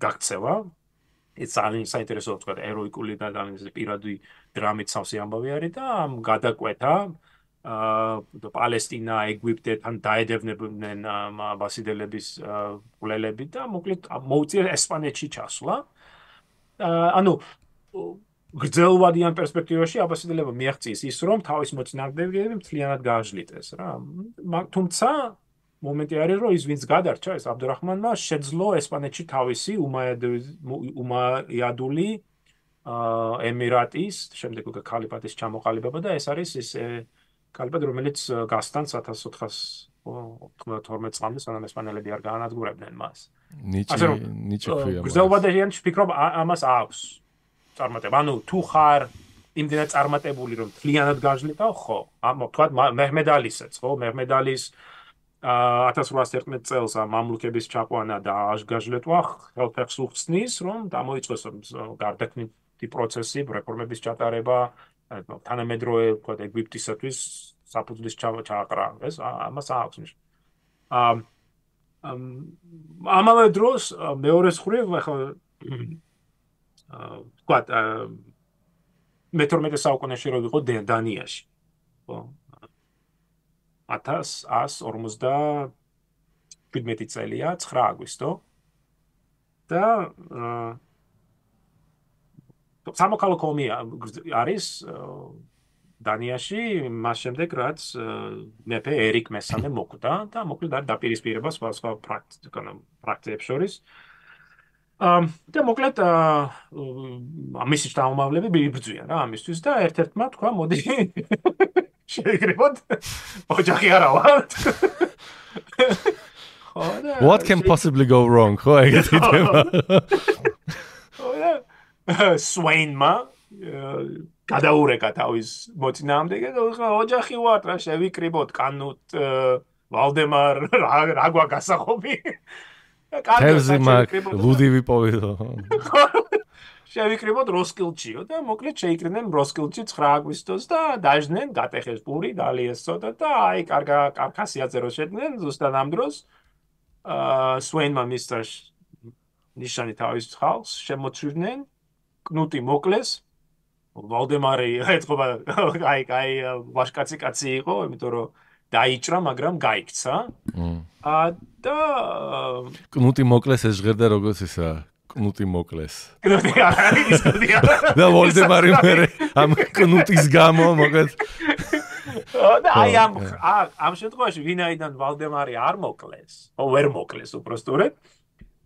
გაქცევა ეს ძალიან საინტერესო თქვა ეროიკული და ძალიან პირადი დრამით სავსე ამბავი არის და ამ გადაკვეთა პალესტინა, ეგვიპტეთან დაედევნებდნენ აბასიდელების მკვლელები და მოკლედ მოუწია ესპანეთში ჩასვლა. ანუ გრძელვადიან პერსპექტივაში აბასიდელებმა მიაღწიეს ის, რომ თავის მოწინააღმდეგეები მთლიანად გააჟლიტეს რა. თუმცა მომენტი არის, რომ ის ვინც გადარჩა, ეს აბდურაჰმანმა შეძლო ესპანეთში თავისი უმაიადული ემირატის, შემდეგ უკვე ქალიფატის ჩამოყალიბება და ეს არის ის ქალიფატი, რომელიც გასთან 1492 წლამდე, სანამ ესპანელები არ გაანადგურებდნენ მას. ნიჭი ქვია. გრძელვადიან ვფიქრობ ამას აქვს წარმატება. ანუ თუ ხარ იმდენად წარმატებული, რომ მთლიანად გაჟლიტავ, ხო. თქვა მეჰმედ ალისეც, ხო, მეჰმედ ალის 1811 წელს მამლუქების ჩაყვანა და გაჟლეტვა ხელფეხს უხსნის, რომ გამოიწვეს გარდაქმნითი პროცესი, რეფორმების ჩატარება, თანამედროვე თქვა ეგვიპტისათვის საფუძვლის ჩააყრა, ეს ამას აქვს ნიშნა. ამავე დროს მეორე მხრივ ახლა თქვა მე-12 საუკუნეში რო ვიყო დანიაში, ხო? 1157 წელია 9 აგვისტო და სამოქალაქო ომი არის დანიაში მას შემდეგ რაც მეფე ერიკ მესამე მოკვდა და მოკლედ არ დაპირისპირება სხვა პრაქტიკებს შორის და მოკლედ მისი შთამომავლები იბრძვიან რა ამისთვის და ერთ-ერთმა თქვა მოდი შეიკრიბოთ ოჯახი არა ვართ What can possibly go wrong? ხო ეგეთი თემა. სვეინმა გადაურეკა თავის მოწინააღმდეგე და ოჯახი ვართ რა შევიკრიბოთ კანუტ ვალდემარ რა გვაგასახობი თევზი მაგ ლუდი ვიპოვიდო შევიკრიბოთ როსკილჩიო და მოკლედ შეიკრიბნენ როსკილჩი 9 აგვისტოს და დაჟდნენ გატეხეს პური დალიეს ცოტა და აი კარკასიაძე რო შედნენ ზუსტად ამ დროს სვეინმა მისტერ ნიშანი თავის ხალხს შემოწვიდნენ კნუტი მოკლეს ვალდემარი ეთქობა აი ვაშკაცი იყო იმიტომ რომ დაიჭრა მაგრამ გაიქცა და კნუტი მოკლეს ეს ჟღერდა როგორც ისა კნუტი მოკლეს კნუტი არის და ვალდემარი მერე ამ კნუტის გამო მოკლედ და აი ამ შემთხვევაში ვინაიდან ვალდემარი არ მოკლეს ვერ მოკლეს უბრალოდ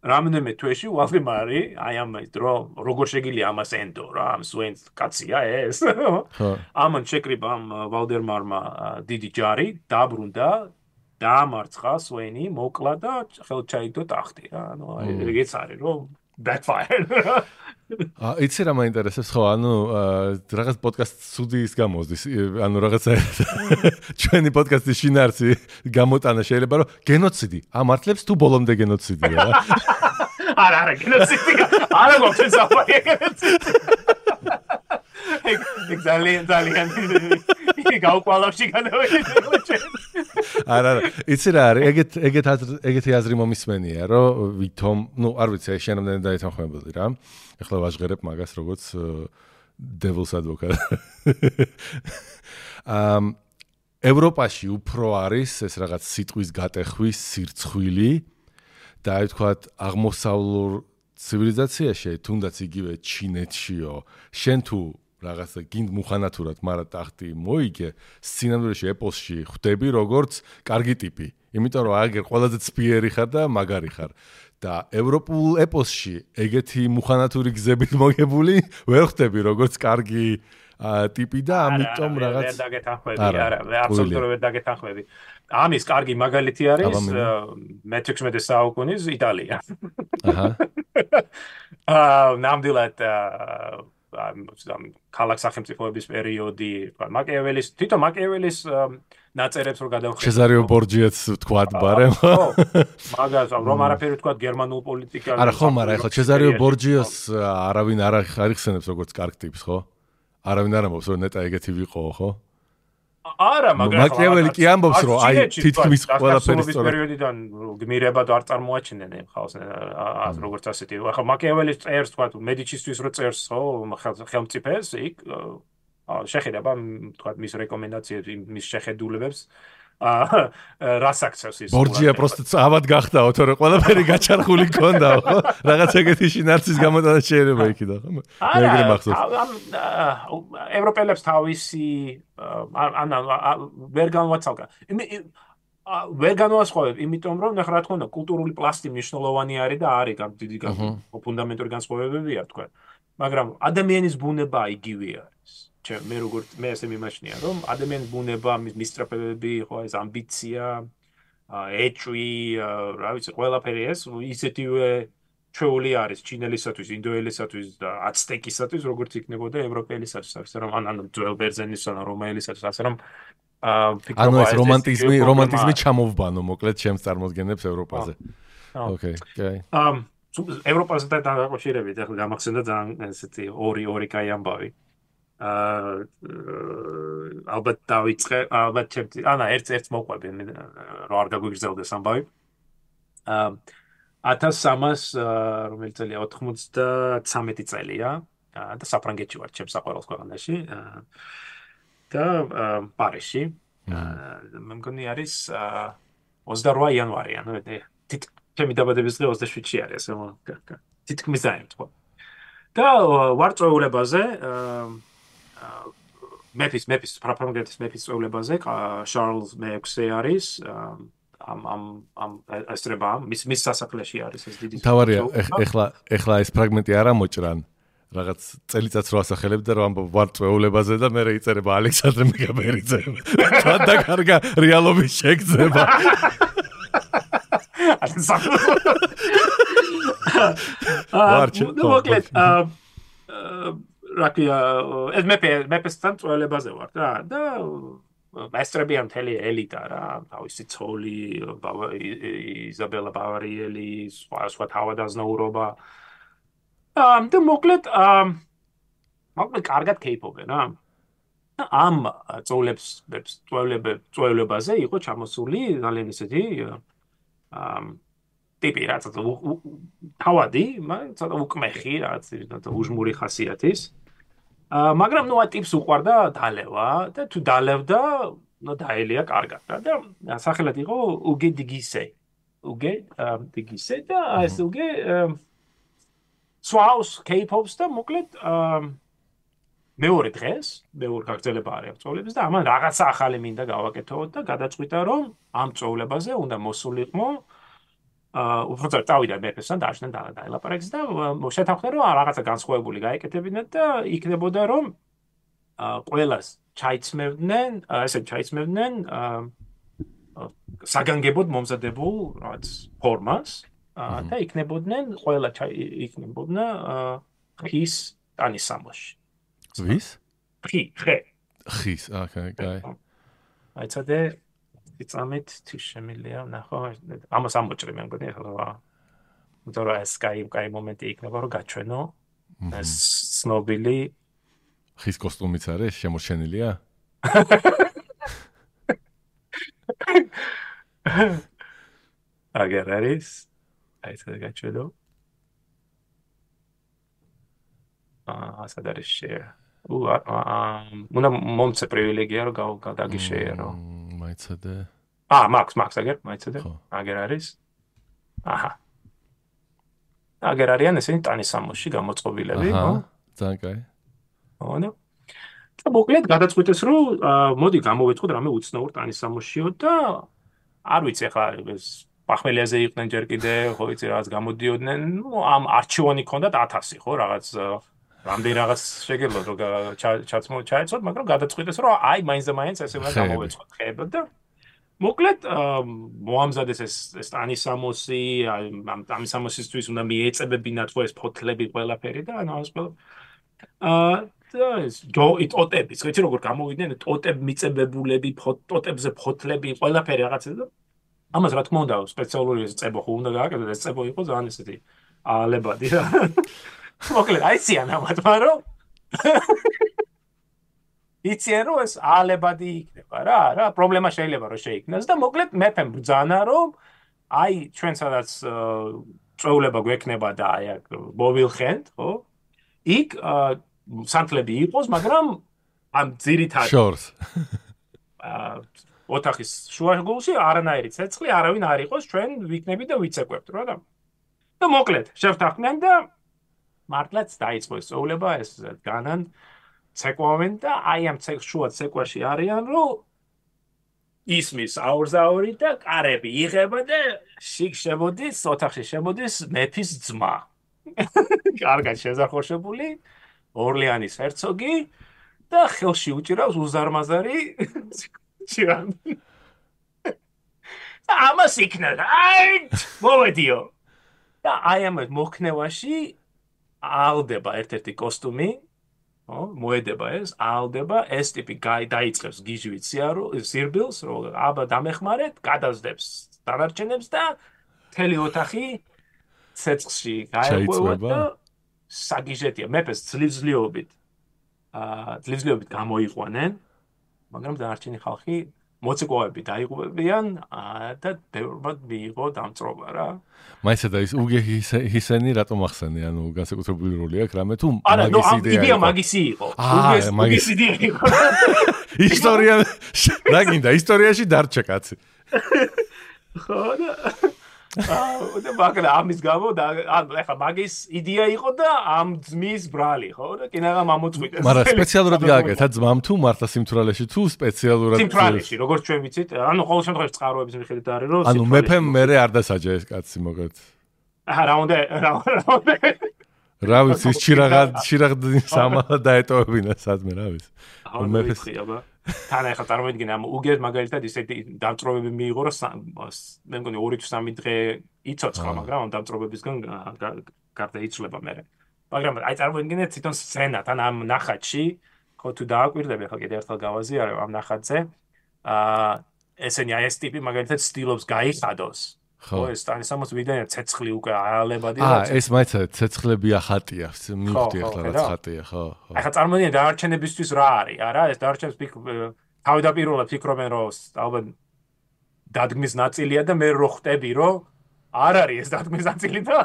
რამდენიმე თვეში ვალდემარი აი ამ დრო როგორ შეგიძლია ამას ენდო რა ამ სვენს კაცია ეს ამან შეკრიბა ამ ვალდემარმა დიდი ჯარი დაბრუნდა დაამარცხა სვენი მოკლა და ხელჩაიგდო ტახტი რა ანუ ეგეც არის რომ backfire იცი რა მაინტერესებს ხო ანუ რაღაც პოდკასტ სუდი ის გამოსდის ანუ რაღაცა ჩვენი პოდკასტის შინაარსი გამოტანა შეიძლება რომ გენოციდი ამართლებს თუ ბოლომდე გენოციდია რა არა გენოციდი არა გვაქვს საფარი გენოციდი ძალიან გაუყვალავში განავედი არა იცი რა არის ეგეთი აზრი მომისმენია რომ ვითომ ნუ არ ვიცი შენამდე დაეთანხმებოდი რა ეხლა ვაჟღერებ მაგას როგორც devil's advocate ევროპაში უფრო არის ეს რაღაც სიტყვის გატეხვის სირცხვილი და აი თქვათ აღმოსავლურ ცივილიზაციაში თუნდაც იგივე ჩინეთშიო შენ თუ რაღაცა გინდ მუხანათურად მაგრამ ტახტი მოიგე სცენარებში ეპოსში ხვდები როგორც კარგი ტიპი იმიტომ რომ აგერ ყველაზე ცფიერი ხარ და მაგარი ხარ და ევროპულ ეპოსში ეგეთი მუხანათური გზებით მოგებული ვერ ხვდები როგორც კარგი ტიპი და ამიტომ რაღაც ვერ დაგეთანხმები არა აბსოლუტურად ვერ დაგეთანხმები ამის კარგი მაგალითი არის მე-16 საუკუნის იტალია აჰა ნამდვილად ქალაქ სახელმწიფოების პერიოდი მაკიაველის თვითონ მაკიაველის ნაწერებს რო გადავხედავ ჩეზარიო ბორჯიაც თქვათ ბარემ მაგას რომ არაფერი თქვათ გერმანულ პოლიტიკას არა ხო მაგრამ ეხლა ჩეზარიო ბორჯიოს არავინ არ ახსენებს როგორც კარგ ტიპს ხო არავინ არ ამბობს რომ ნეტა ეგეთი ვიყო ხო არა მაგრამ მაკიაველი კი ამბობს რომ აი თითქმის ყველაფერი სწორად პერიოდიდან გმირებად არ წარმოაჩინენ ხალხს როგორც ასეთი ახლა მაკიაველის წერს თქვა მედიჩისთვის რო წერს ხო ხელმწიფეს იქ შეხედება თქვა მის რეკომენდაციებს მის შეხედულებებს რას აქცევს ის ბორჯია პროსტ ავად გახდაო თორე ყველაფერი გაჩარხული ქონდაო ხო რაღაც ეგეთი შინაარსის გამოტანა შეიძლება იქიდან ხო მეგრე მახსოვს ევროპელებს თავისი ან ვერ განვაცალკა ვერ განვასხვავებ იმიტომ რომ ნახე რა თქმა უნდა კულტურული პლასტი მნიშვნელოვანი არის და არის დიდი ფუნდამენტური განსხვავებებია თქვა მაგრამ ადამიანის ბუნება იგივე არის მე როგორც მე ესე მიმაჩნია რომ ადამიანის ბუნება მის სტრაფებები ხო ეს ამბიცია ეჭვი რა ვიცი ყველაფერი ეს ისეთივე ჩვეული არის ჩინელისათვის ინდოელისათვის და აცტეკისათვის როგორც იქნებოდა ევროპელისათვის ასე რომ ან ძველ ბერძენისათვის ან რომაელისათვის ასე რომ ანუ ეს რომანტიზმი ჩამოვბანო მოკლედ ჩემს წარმოდგენებს ევროპაზე ოკეი ევროპასთან დაკავშირებით ახლა გამახსენდა ძალიან ესეთი ორი კაი ამბავი ალბათ დავიწყე ალბათ ჩემთვის ანა ერთ მოყვები რა არ გაგვიგრძელდეს ამბავი 1300 რომელიც წელია 93 წელია და საფრანგეთში ვარ ჩემს საყვარელ ქვეყანაში და პარიზში მე მგონი არის 28 იანვარი ანუ ჩემი დაბადების დღე 27-ში არის ასე თითქმის დაემთხვა და ვარ წვეულებაზე მეფის ფრანგეთის მეფის წვეულებაზე შარლს მე-6 არის ამ ესტრება მის სასახლეში არის ეს დიდი თავარია ეხლა ეს ფრაგმენტი არ ამოჭრან რაღაც წელიწადს რო ასახელებ და რომ ვარ წვეულებაზე და მე იწერება ალექსანდრე მეგაბერიძე და კარგა რეალობის შეგრძნება მოკლედ რაკია ეს მეფესთან წვეულებაზე ვარ და მასტრები ამ თელი ელიტა რა თავისი ცოლი იზაბელა ბავარიელი სხვა თავადაზნაურობა და მოკლედ კარგად კეიპობენ რა ამ წვეულებაზე იყო ჩამოსული ძალიან ისეთი ტიპი რა თავადი ცოტა უკმეხი რა უჟმური ხასიათის მაგრამ ნუ ტიპს უყვარდა დალევა და თუ დალევდა ნუ დაელია კარგად და სახელად იყო უგე დგისე და ეს უგე სვაუს კეიპობს და მოკლედ მეორე დღეს მეორე გაგრძელება არის წვეულების და ამან რაღაცა ახალი მინდა გავაკეთოთ და გადაწყვიტა რომ ამ წვეულებაზე უნდა მოსულიყო უბრალოდ წავიდა მეფესთან დააშნა და დაელაპარაკეს და შეთანხმდა რომ რაღაცა განსხვავებული გაეკეთებინათ და იქნებოდა რომ ყველას ჩაიცმევდნენ საგანგებოდ მომზადებულ რაღაც ფორმას და იქნებოდა ხის ტანის სამოში. ვის? ხე. ხის, კაი. აი ცოტა იწამით თუ შემილია ნახო ამას ამოჭრე მე მგონი ახლა უძარა ეს კაი მომენტი იქნება რომ გაჩვენო ეს ცნობილი ხის კოსტუმიც არის შემორჩენილია? აგერ არის აი ცოტა გაჩვენო ასად არის share უნდა მომცე პრივილეგია რომ გადაგიშეერო მაიცადე მაქვს აგერ მაიცადე აგერ არის აჰა აგერ არიან ესენი ტანის სამოში გამოწყობილები ხო ძალიან კაი ხო და მოკლედ გადაწყვიტეს რომ მოდი გამოვეწყოთ რამე უცნაურ ტანის სამოშიო და არ ვიცი ახლა ეს პახმელიაზე იყვნენ ჯერ კიდე ხო იცი რაღაც გამოდიოდნენ ამ არჩევანი ქონდათ 1000 ხო რაღაც რამდენი რაღაც შეგეძლოთ რომ ჩაეცოთ მაგრამ გადაწყვიტეს რომ აი მაინც და მაინც ესე უნდა გამოვეწყოთ ხეებად და მოკლედ მოამზადეს ეს ტანის სამოსი ამ ტანის სამოსისთვის უნდა მიეწებებინათ ხო ეს ფოთლები ყველაფერი და ანუ ეს და ეს ტოტები ხეთი როგორ გამოვიდნენ ტოტებ მიწებებულები ტოტებზე ფოთლები ყველაფერი რაღაცა და ამას რა თქმა უნდა სპეციალური წებო ხო უნდა გააკეთოს ეს წებო იყო ძალიან ესეთი ალებადი რა მოკლედ აიციან ამათმა რომ იციან რომ ეს ალებადი იქნება რა პრობლემა შეიძლება რომ შეიქმნას და მოკლედ მეფემ ბრძანა რომ აი ჩვენ სადაც წვეულება გვექნება და აი აქ მოვილხენთ ხო იქ სანთლები იყოს მაგრამ ამ ძირითად შორს ოთახის შუაგულში არანაირი ცეცხლი არავინ არ იყოს ჩვენ ვიქნები და ვიცეკვებთ რა და მოკლედ შევთანხმდნენ და მართლაც დაიწყო ეს წვეულება ეს განან ცეკვავენ და აი ამ შუა ცეკვაში არიან რომ ისმის აურზაური და კარები იღება და შიგ შემოდის ოთახში შემოდის მეფის ძმა კარგად შეზახორშებული ორლეანის ჰერცოგი და ხელში უჭირავს უზარმაზარი ჭირან ამას იქნა აი მოვედიო და აი ამ მოქნევაში ალდება ერთ-ერთი კოსტუმი ხო მოედება ეს ალდება ეს ტიპი დაიწყებს გიჟვით სირბილს რომ აბა დამეხმარეთ გადაძდებს დანარჩენებს და მთელი ოთახი ცეცხლში გაეღვევა და საგიჟეტია მეფეს ძლივზლიობით გამოიყვანენ მაგრამ დანარჩენი ხალხი მოცეკვავები დაიღუპებიან და ბევრად მიიღო დამწრობა რა მაისა და ის უგე ჰისენი რატომ ახსენე ანუ განსაკუთრებული როლი აქვს რამე თუ მაგისი იყო უგეს იდეა იყო ისტორია რა გინდა ისტორიაში დარჩა კაცი ხო და მაგრამ ამის გამო და ახლა მაგის იდეა იყო და ამ ძმის ბრალი ხო და კინაღამ ამოწყვიტეს მაგრამ სპეციალურად გააკეთა ძმამ თუ მართლა სიმთვრალეში თუ სპეციალურად სიმთვრალეში როგორც ჩვენ ვიცით ანუ ყოველ შემთხვევაში წყაროების მიხედვით არის რომ ანუ მეფემ მერე არ დასაჯა ეს კაცი მოგეთ რა უნდა რა ვიცი ჩირაღდინ სამალა დაეტოვებინა სადმე რა ვიცი მეფეს თან ახლა წარმოიდგინე ამ უგეს მაგალითად ისეთი დამწრობები მიიღო რომ მე მგონი 2-3 დღე იცოცხლა მაგრამ ამ დამწრობებისგან გარდა იცვლება მე მაგრამ აი წარმოიდგინე თვითონ სცენა თან ამ ნახატში ხო თუ დააკვირდები ახლა კიდე ერთხელ გავაზიარებ ამ ნახატზე ესენი აი ეს ტიპი მაგალითად სტილობს გაიხადოს ხო ეს ტანის სამოს ვიდეო ცეცხლი უკვე ალებადი ეს მაიცა ცეცხლები ახატია მივხვდი ახლა რაც ხატია ხო ახლა წარმოიდგინე დაარჩენებისთვის რა არის არა ეს დაარჩენებს თავდაპირველად ფიქრობენ რომ ალბათ დადგმის ნაწილია და მე რო ხვდები რომ არ არის ეს დადგმის ნაწილი და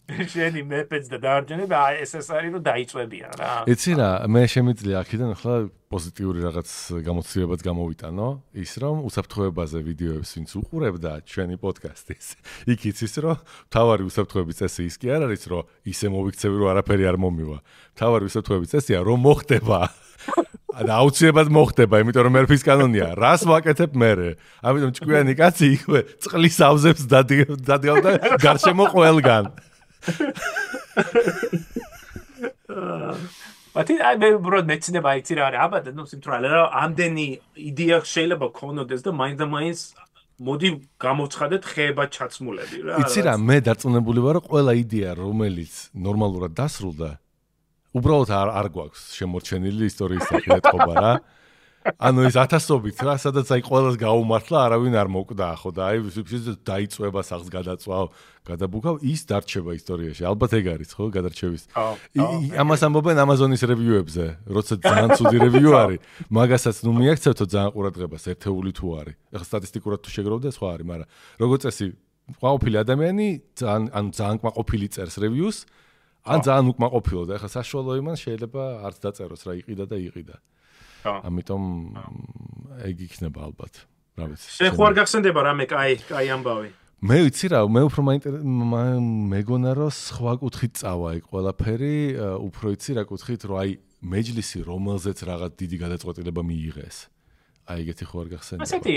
შენი მეფეც და დაარჩენები ეს არის რომ დაიწვებიან რა იცი რა მე შემიძლია აქედან ახლა პოზიტიური რაღაც გამოცდილებაც გამოვიტანო ის რომ უსაფრთხოებაზე ვიდეოებს ვინც უყურებდა ჩვენი პოდკასტის იქ იცის რომ თავარი უსაფრთხოების წესი ის კი არ არის რომ ისე მოვიქცევი რომ არაფერი არ მომივა თავარი უსაფრთხოების წესია რომ მოხდება და აუცილებლად მოხდება იმიტომ რომ მერფის კანონია რას ვაკეთებ მე ამიტომ ჭკვიანი კაცი იქვე წყლის ავზებს დადგავდა გარშემო ყველგან მათი აი მე უბრალოდ მეცნობა იცი რა არის აბა ნუ სიმთვრალე რა ამდენი იდეა შეიძლება ქონოდეს და მაინც მოდი გამოცხადეთ ხეება ჩაცმულები რა იცი რა მე დარწმუნებული ვარ რომ ყველა იდეა რომელიც ნორმალურად დასრულდა უბრალოდ არ გვაქვს შემორჩენილი ისტორიის სახე ეთყობა რა. ანუ ეს ათასობით რა, სადაც აი ყველას გაუმართლა, არავინ არ მოკვდა, ხო და აი დაიწვება სახს გადაწვავ, გადაბუქავ, ის დარჩება ისტორიაში. ალბათ ეგ არის, ხო, გადარჩევის. ამას ამბობენ Amazon-ის რევიუებზე, როცა ძალიან ცუდი რევიუ არის, მაგასაც ნუ მიაქცევთო ძალიან ყურადღებას, ერთეული თუ არის. ეხლა სტატისტიკურად თუ შეგროვდა, სხვა არის, მაგრამ როგორც წესი, ყოფილი ადამიანი ძალიან კმაყოფილი წერს რევიუს, ან ძალიან უკმაყოფილო და ეხლა საშუალო იმან შეიძლება არც დაწეროს რა იყიდა და იყიდა. ამიტომ ეგ იქნება ალბათ. რა ვიცი. შენ ხო არ გახსენდება რამე კაი ამბავი? მე ვიცი რა, მე უფრო მეგონა რომ სხვა კუთხით წავა ეგ ყველაფერი, უფრო იცი რა კუთხით, რომ აი მეჯლისი რომელზეც რაღაც დიდი გადაწყვეტილება მიიღეს. აი ეგეთი ხო არ გახსენდება? ასეთი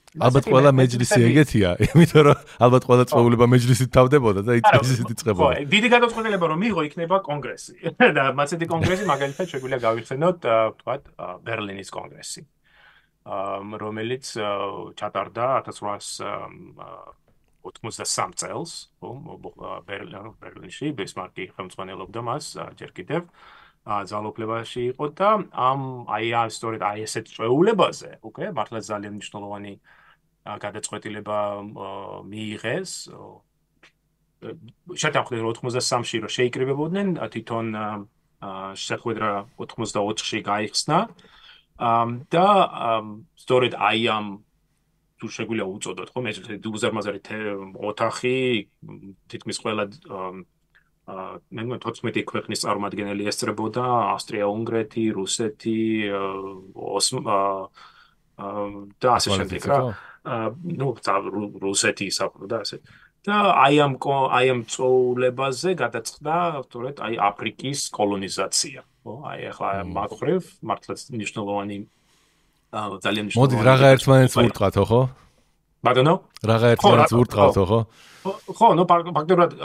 ალბათ ყველა მეჯლისი ეგეთია, იმიტომ რომ ალბათ ყველა წვეულება მეჯლისით თავდებოდა და მეჯლისით იწყებოდა. ხო, დიდი გადაწყვეტილება რომ მიიღო იქნება კონგრესი. და მასეთი კონგრესი მაგალითად შეგვიძლია გავიხსენოთ, თქვათ, ბერლინის კონგრესი. რომელიც ჩატარდა 1883 წელს, ხო, ბერლინში ბისმარკი ხელმძღვანელობდა მას ჯერ კიდევ ძალაუფლებაში იყო და აი სწორედ აი ესეთ წვეულებაზე, უკვე მართლა ძალიან მნიშვნელოვანი გადაწყვეტილება მიიღეს. შეთანხმდნენ 83-ში რომ შეიკრიბებოდნენ, თვითონ შეხვედრა 84-ში გაიხსნა. და სწორედ აი ამ თუ შეგვიძლია უწოდოთ, ხო, მეჯლისი უზარმაზარი ოთახი, თითქმის ყველა მე მგონი 14 ქვეყნის წარმომადგენელი ესწრებოდა, ავსტრია-უნგრეთი, რუსეთი, და ასე შემდეგ რა. ნუ რუსეთი ისაუბრა და ასე. და აი ამ წვეულებაზე გადაწყდა სწორედ აი აფრიკის კოლონიზაცია. აი ახლა მაგხრივ მართლაც მნიშვნელოვანი ძალიან მნიშვნელოვანი. მოდი რაღა ერთმანეთს ვურტყავთო, ხო? ბატონო? რაღა ერთმანეთს ვურტყავთო, ხო? ხო, ნუ ფაქტობრივად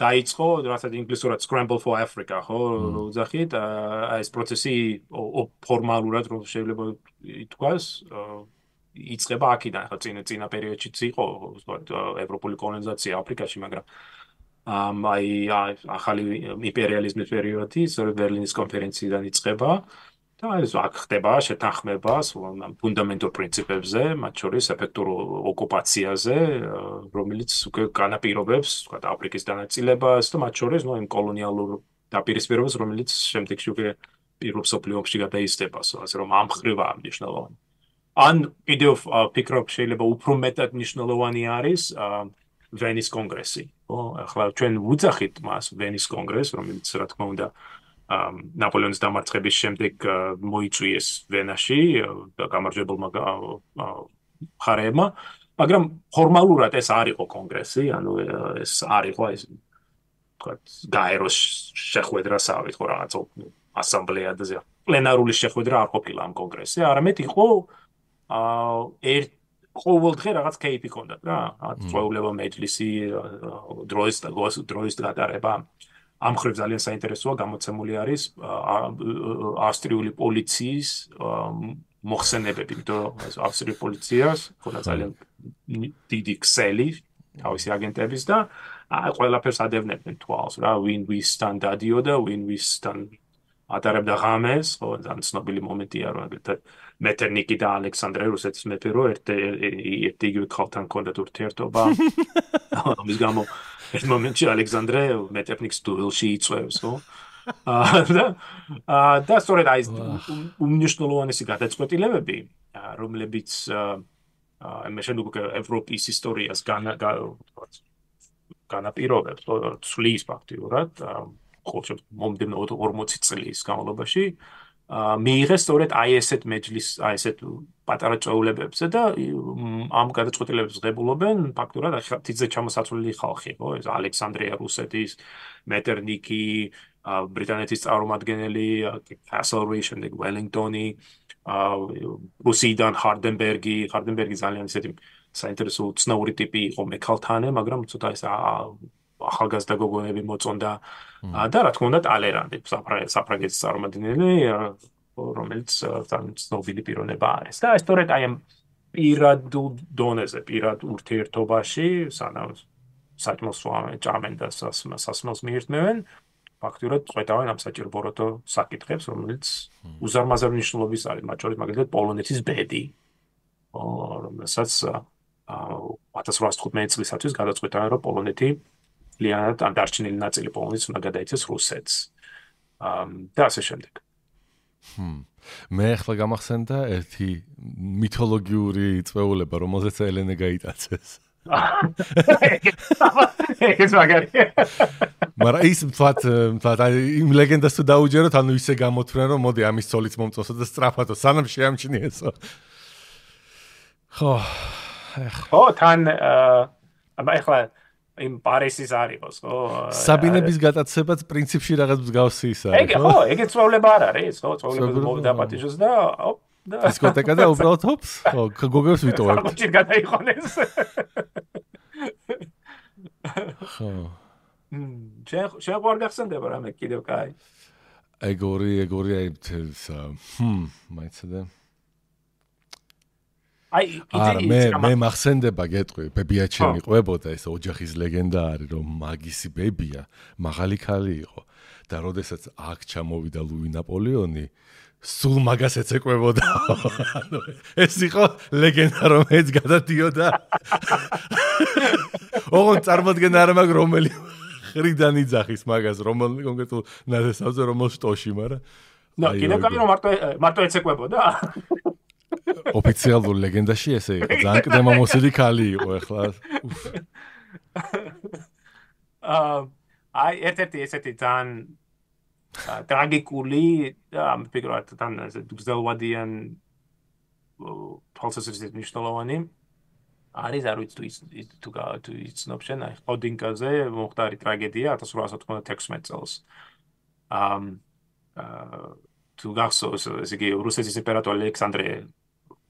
დაიწყო, რასაც ინგლისურად Scramble for Africa, ხო, უძახით, ეს პროცესი ფორმალურად რომ შეიძლება ითქვას, იწყება აქედან, ხო, წინა პერიოდშიც იყო, ევროპული კოლონიზაცია აფრიკაში, მაგრამ აი ახალი იმპერიალიზმის პერიოდი, სწორედ ბერლინის კონფერენციიდან იწყება და ეს აქ ხდება შეთანხმება ფუნდამენტურ პრინციპებზე, მათ შორის ეფექტურ ოკუპაციაზე, რომელიც უკვე განაპირობებს, თქვა, აფრიკის დანაწილებას და მათ შორის იმ კოლონიალურ დაპირისპირებას, რომელიც შემდეგში უკვე პირველ მსოფლიო ომში გადაიზრდება, ასე რომ ამ ხრივაა მნიშვნელოვანი. ან კიდევ ფიქრობ შეიძლება უფრო მეტად მნიშვნელოვანი არის ვენის კონგრესი. ხო, ახლა ჩვენ ვუძახით მას ვენის კონგრესს, რომელიც რა თქმა უნდა ნაპოლეონის დამარცხების შემდეგ მოიწვიეს ვენაში და გამარჯვებულმა მხარეებმა, მაგრამ ფორმალურად ეს არ იყო კონგრესი, ანუ ეს არ იყო ეს თქვათ გაეროს შეხვედრასავით, ხო რაღაც ასამბლეა და პლენარული შეხვედრა არ ყოფილა ამ კონგრესზე, არამედ იყო ყოველდღე რაღაც кейპი ჰქონდათ რა, წვეულება მეჯლისი, დროის გატარება. ამ ხრივ ძალიან საინტერესოა, გამოცემული არის ავსტრიული პოლიციის მოხსენებები, იმიტომ რომ ავსტრიული პოლიციას ქონდა ძალიან დიდი ქსელი თავისი აგენტების და ყველაფერს ადევნებდნენ თვალს რა, ვინ ვისთან დადიოდა, ვინ ვისთან ატარებდა ღამეს, ხო, ძალიან ცნობილი მომენტია, რომ აგრეთვე მეტერნიკი და ალექსანდრე რუსეთის მეფე რო ერთ-იგივე ხალხთან ჰქონდათ ურთიერთობა. ამის გამო ერთ მომენტში ალექსანდრე მეტერნიკს დუელში იწვევს, ხო? და სწორედ აი ეს უმნიშვნელოვანესი გადაწყვეტილებები, რომლებიც მე შემდგომ ევროპის ისტორიას განაპირობებს, ცვლის ფაქტიურად, ხოლმე მომდევნო 40 წლის განმავლობაში მიიღეს სწორედ აი ესეთ მეჯლისს, აი ესეთ პატარა წვეულებებზე და ამ გადაწყვეტილებებს ღებულობენ ფაქტურად თითზე ჩამოსაცვლელი ხალხი, ხო? ეს ალექსანდრია რუსეთის, მეტერნიკი, ბრიტანეთის წარმომადგენელი, კასლრი, შემდეგ ველინგტონი, რუსიდან ჰარდენბერგი ძალიან ისეთი საინტერესო უცნაური ტიპი იყო მექალთანე, მაგრამ ცოტა ეს ახალგაზრდა გოგონები მოწონდა და რა თქმა უნდა ტალერანდი საფრანგეთის წარმომადგენელი, რომელიც ძალიან ცნობილი პიროვნება არის. და სწორედ აი ამ პირად დონეზე, პირად ურთიერთობაში, სანამ საჭმელს ჭამენ და სასმელს მიირთმევენ, ფაქტურად წვეტავენ ამ საჭიროებო საკითხებს, რომელიც უზარმაზარ მნიშვნელობის არის, მათ შორის მაგალითად პოლონეთის ბედი, რომელსაც 1815 წლისათვის გადაწყვეტავენ, რომ პოლონეთი ლიანად ან დარჩენილი ნაწილი პოლონეთის უნდა გადაიცეს რუსეთს. და ასე შემდეგ. მე ახლა გამახსენდა ერთი მითოლოგიური წვეულება, რომელზეც ელენე გაიტაცეს. ეს მაგარია. მაგრამ ის მთლად იმ ლეგენდას თუ დაუჯეროთ, ანუ ისე გამოთვლენ, რომ მოდი ამის ცოლიც მომწოსო და სწრაფადო, სანამ შეამჩნიესო. ხო, თან ახლა იმ პარისის არისო, ხო? საბინების გატაცებაც პრინციპში რაღაც მსგავსი ის არის, ხო? ეგეც წვეულება არ არის, ხო? წვეულებას მოვდაპატიჟოს და დისკოტეკა და უბრალოდ ჰოპს, ხო, გოგებს ვიტოვებ. ხო, ჩი გადაიხონეს. ხო. შენ ყوار გახსენდება რამე კიდევ კაი. ეგორი აი მაიცადე. მე მახსენდება გეტყვი, ბებიაჩემი ყვებოდა ეს ოჯახის ლეგენდა არის, რომ მაგისი ბებია მაღალი ქალი იყო და როდესაც აქ ჩამოვიდა ლუი ნაპოლეონი, სულ მაგას ეცეკვებოდა. ანუ ეს იყო ლეგენდა, რომ ეს გადადიოდა. ოღონდ წარმოდგენა არ მაქვს რომელი ხრიდან იძახის მაგას, რომელ კონკრეტულ ნათესავზე, რომელ შტოში, მაგრამ კიდევ კაი რომ მარტო ეცეკვებოდა. ოფიციალურ ლეგენდაში ესე იყო, ძალიან კდემამოსილი ქალი იყო ახლა. აი ერთ-ერთი ესეთი ძალიან ტრაგიკული და მიფიქრობ თან გრძელვადიან თვალსაზრისით მნიშვნელოვანი არის, არ ვიცი თუ იცნობ შენ, აი ხოდინკაზე მომხდარი ტრაგედია 1896 წელს. თუ გახსოვს, ესე იგი რუსეთის იმპერატორი ალექსანდრე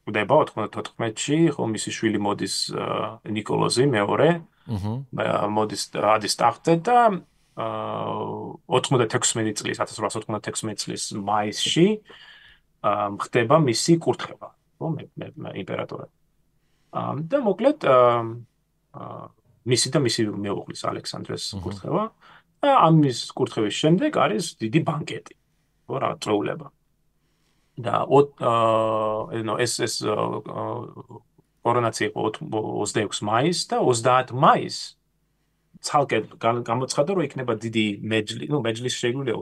ხვდება 94-ში, ხო, მისი შვილი მოდის ნიკოლოზი მეორე, მოდის ადის ტახტზე და 96 წლის 1896 წლის მაისში ხდება მისი კურთხევა, ხო, იმპერატორად. და მოკლედ მისი მეუღლის ალექსანდრეს კურთხევა და ამის კურთხევის შემდეგ არის დიდი ბანკეტი, ხო, რა წვეულება. და ეს კორონაცია იყო 26 მაისს და 30 მაისს ცალკე გამოცხადა, რომ იქნება დიდი მეჯლისი შეგვიძლია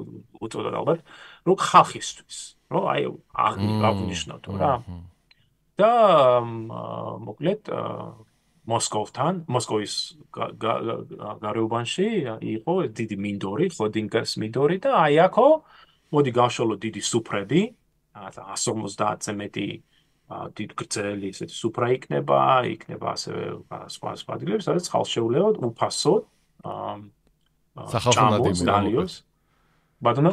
უწოდოთ ალბათ, რომ ხალხისთვის, რომ აი აღნიშნოთ რა. და მოკლედ მოსკოვის გარეუბანში იყო დიდი მინდორი, ხოდინკას მინდორი და აი აქო მოდი გავშალოთ დიდი სუფრები, 150-ზე მეტი დიდ გრძელი ესეთი სუფრა იქნება ასევე სხვა ადგილები, სადაც ხალხს შეუძლია უფასოდ სახალხო ნადიმი. ბატონო?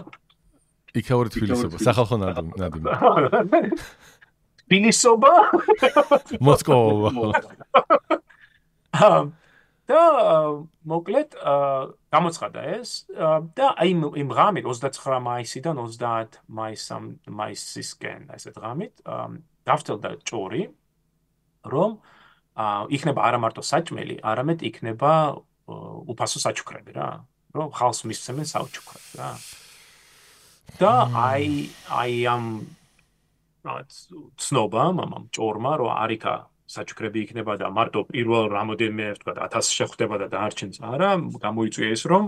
იქაური თბილისობა, სახალხო ნადიმი. თბილისობა? მოსკოვა. და მოკლედ გამოცხადა ეს და აი იმ ღამით 29 მაისიდან 30 მაისისკენ ესე ღამით დავწერდა ჭორი, რომ იქნება არა მარტო საჭმელი, არამედ იქნება უფასო საჩუქრები რა, რომ ხალხს მისცემენ საჩუქრებს რა. და აი ამ ცნობამ ამ ჭორმა რომ არიქა საჩუქრები იქნება და მარტო პირველ რამოდენიმე თქვა 1000 შეხვდება და დაარჩენს არა, გამოიწვია ეს რომ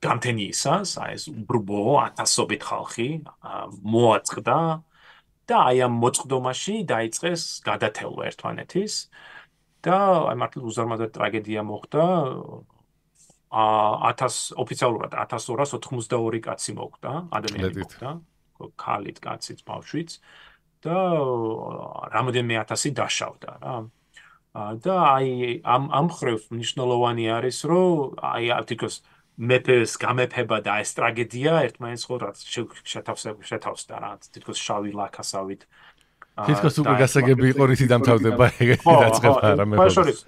გამთენიისას აი ეს უბრბო 1000-ობით ხალხი მოაწყდა და აი ამ მოწყდომაში დაიწყეს გადათელვა ერთმანეთის და აი მართლა უზარმაზარ ტრაგედია მოხდა. ოფიციალურად 1282 კაცი მოკვდა, ადამიანი მოკვდა, ქალით, კაცით, ბავშვით და რამოდენიმე 1000 დაშავდა რა. და აი ამ ხრივ მნიშვნელოვანი არის, რომ აი თითქოს მეფეს გამეფება და ეს ტრაგედია ერთმანეთს ხო რა შეთავსდა რა, თითქოს შავი ლაქასავით. თითქოს უკვე გასაგები იყო რითი დამთავრდება ეგეთი დაწყება რა მეფეს.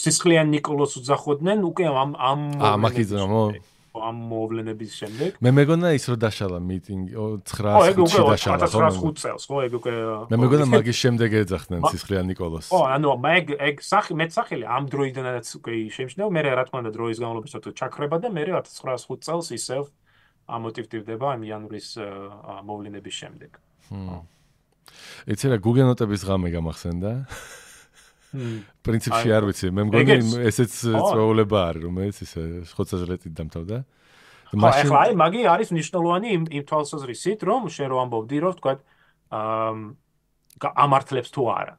სისხლიან ნიკოლოს უძახოდნენ უკვე ამ მაკიზნო ამ მოვლენების შემდეგ. მე მეგონა ის რო დაშალა მიტინგი 9-ში დაშალა ხო? 1905 წელს, ხო, ეგ უკვე მე მეგონა მაგის შემდეგ ეძახდნენ ცისხლიან ნიკოლოზს. ხო, ანუ ეგ მეტსახელი ამ დროიდანაც უკვე შეიმჩნევა, მე რა თქმა უნდა დროის განმავლობაში ცოტა ჩაქრება და მე 1905 წელს ისევ ამოტივტივდება ამ იანვრის მოვლენების შემდეგ. იცი რა გუგენოტების ღამე გამახსენდა? პრინციპში არ ვიცი, მე მგონი ესეც წვეულება არის, რომელიც ისე ხოცაჟლეტით დამთავრდა. ახლა აი მაგი არის მნიშვნელოვანი იმ თვალსაზრისით, რომ შენ რო ამბობდი, რომ თქვა ამართლებს თუ არა.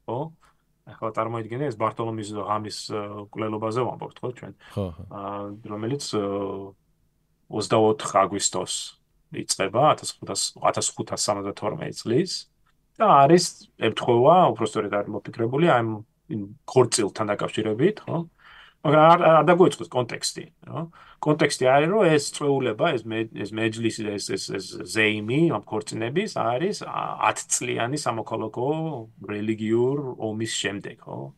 ხო? ახლა წარმოიდგინე ეს ბარტოლომის ღამის კვლელობაზე ვამბობთ, ხო ჩვენ? ხო. რომელიც 24 აგვისტოს იწყება 1572 წლის და არის ემთხვევა, უბრალოდ არის მოფიქრებული ამ ქორწილთან დაკავშირებით, ხო? მაგრამ არ დაგვეწყოს კონტექსტი, ხო? კონტექსტი არის, რომ ეს წვეულება, ეს მეჯლისი, ეს ზეიმი ამ ქორწინების არის 10 წლიანი სამოქალაქო რელიგიურ ომის შემდეგ, ხო?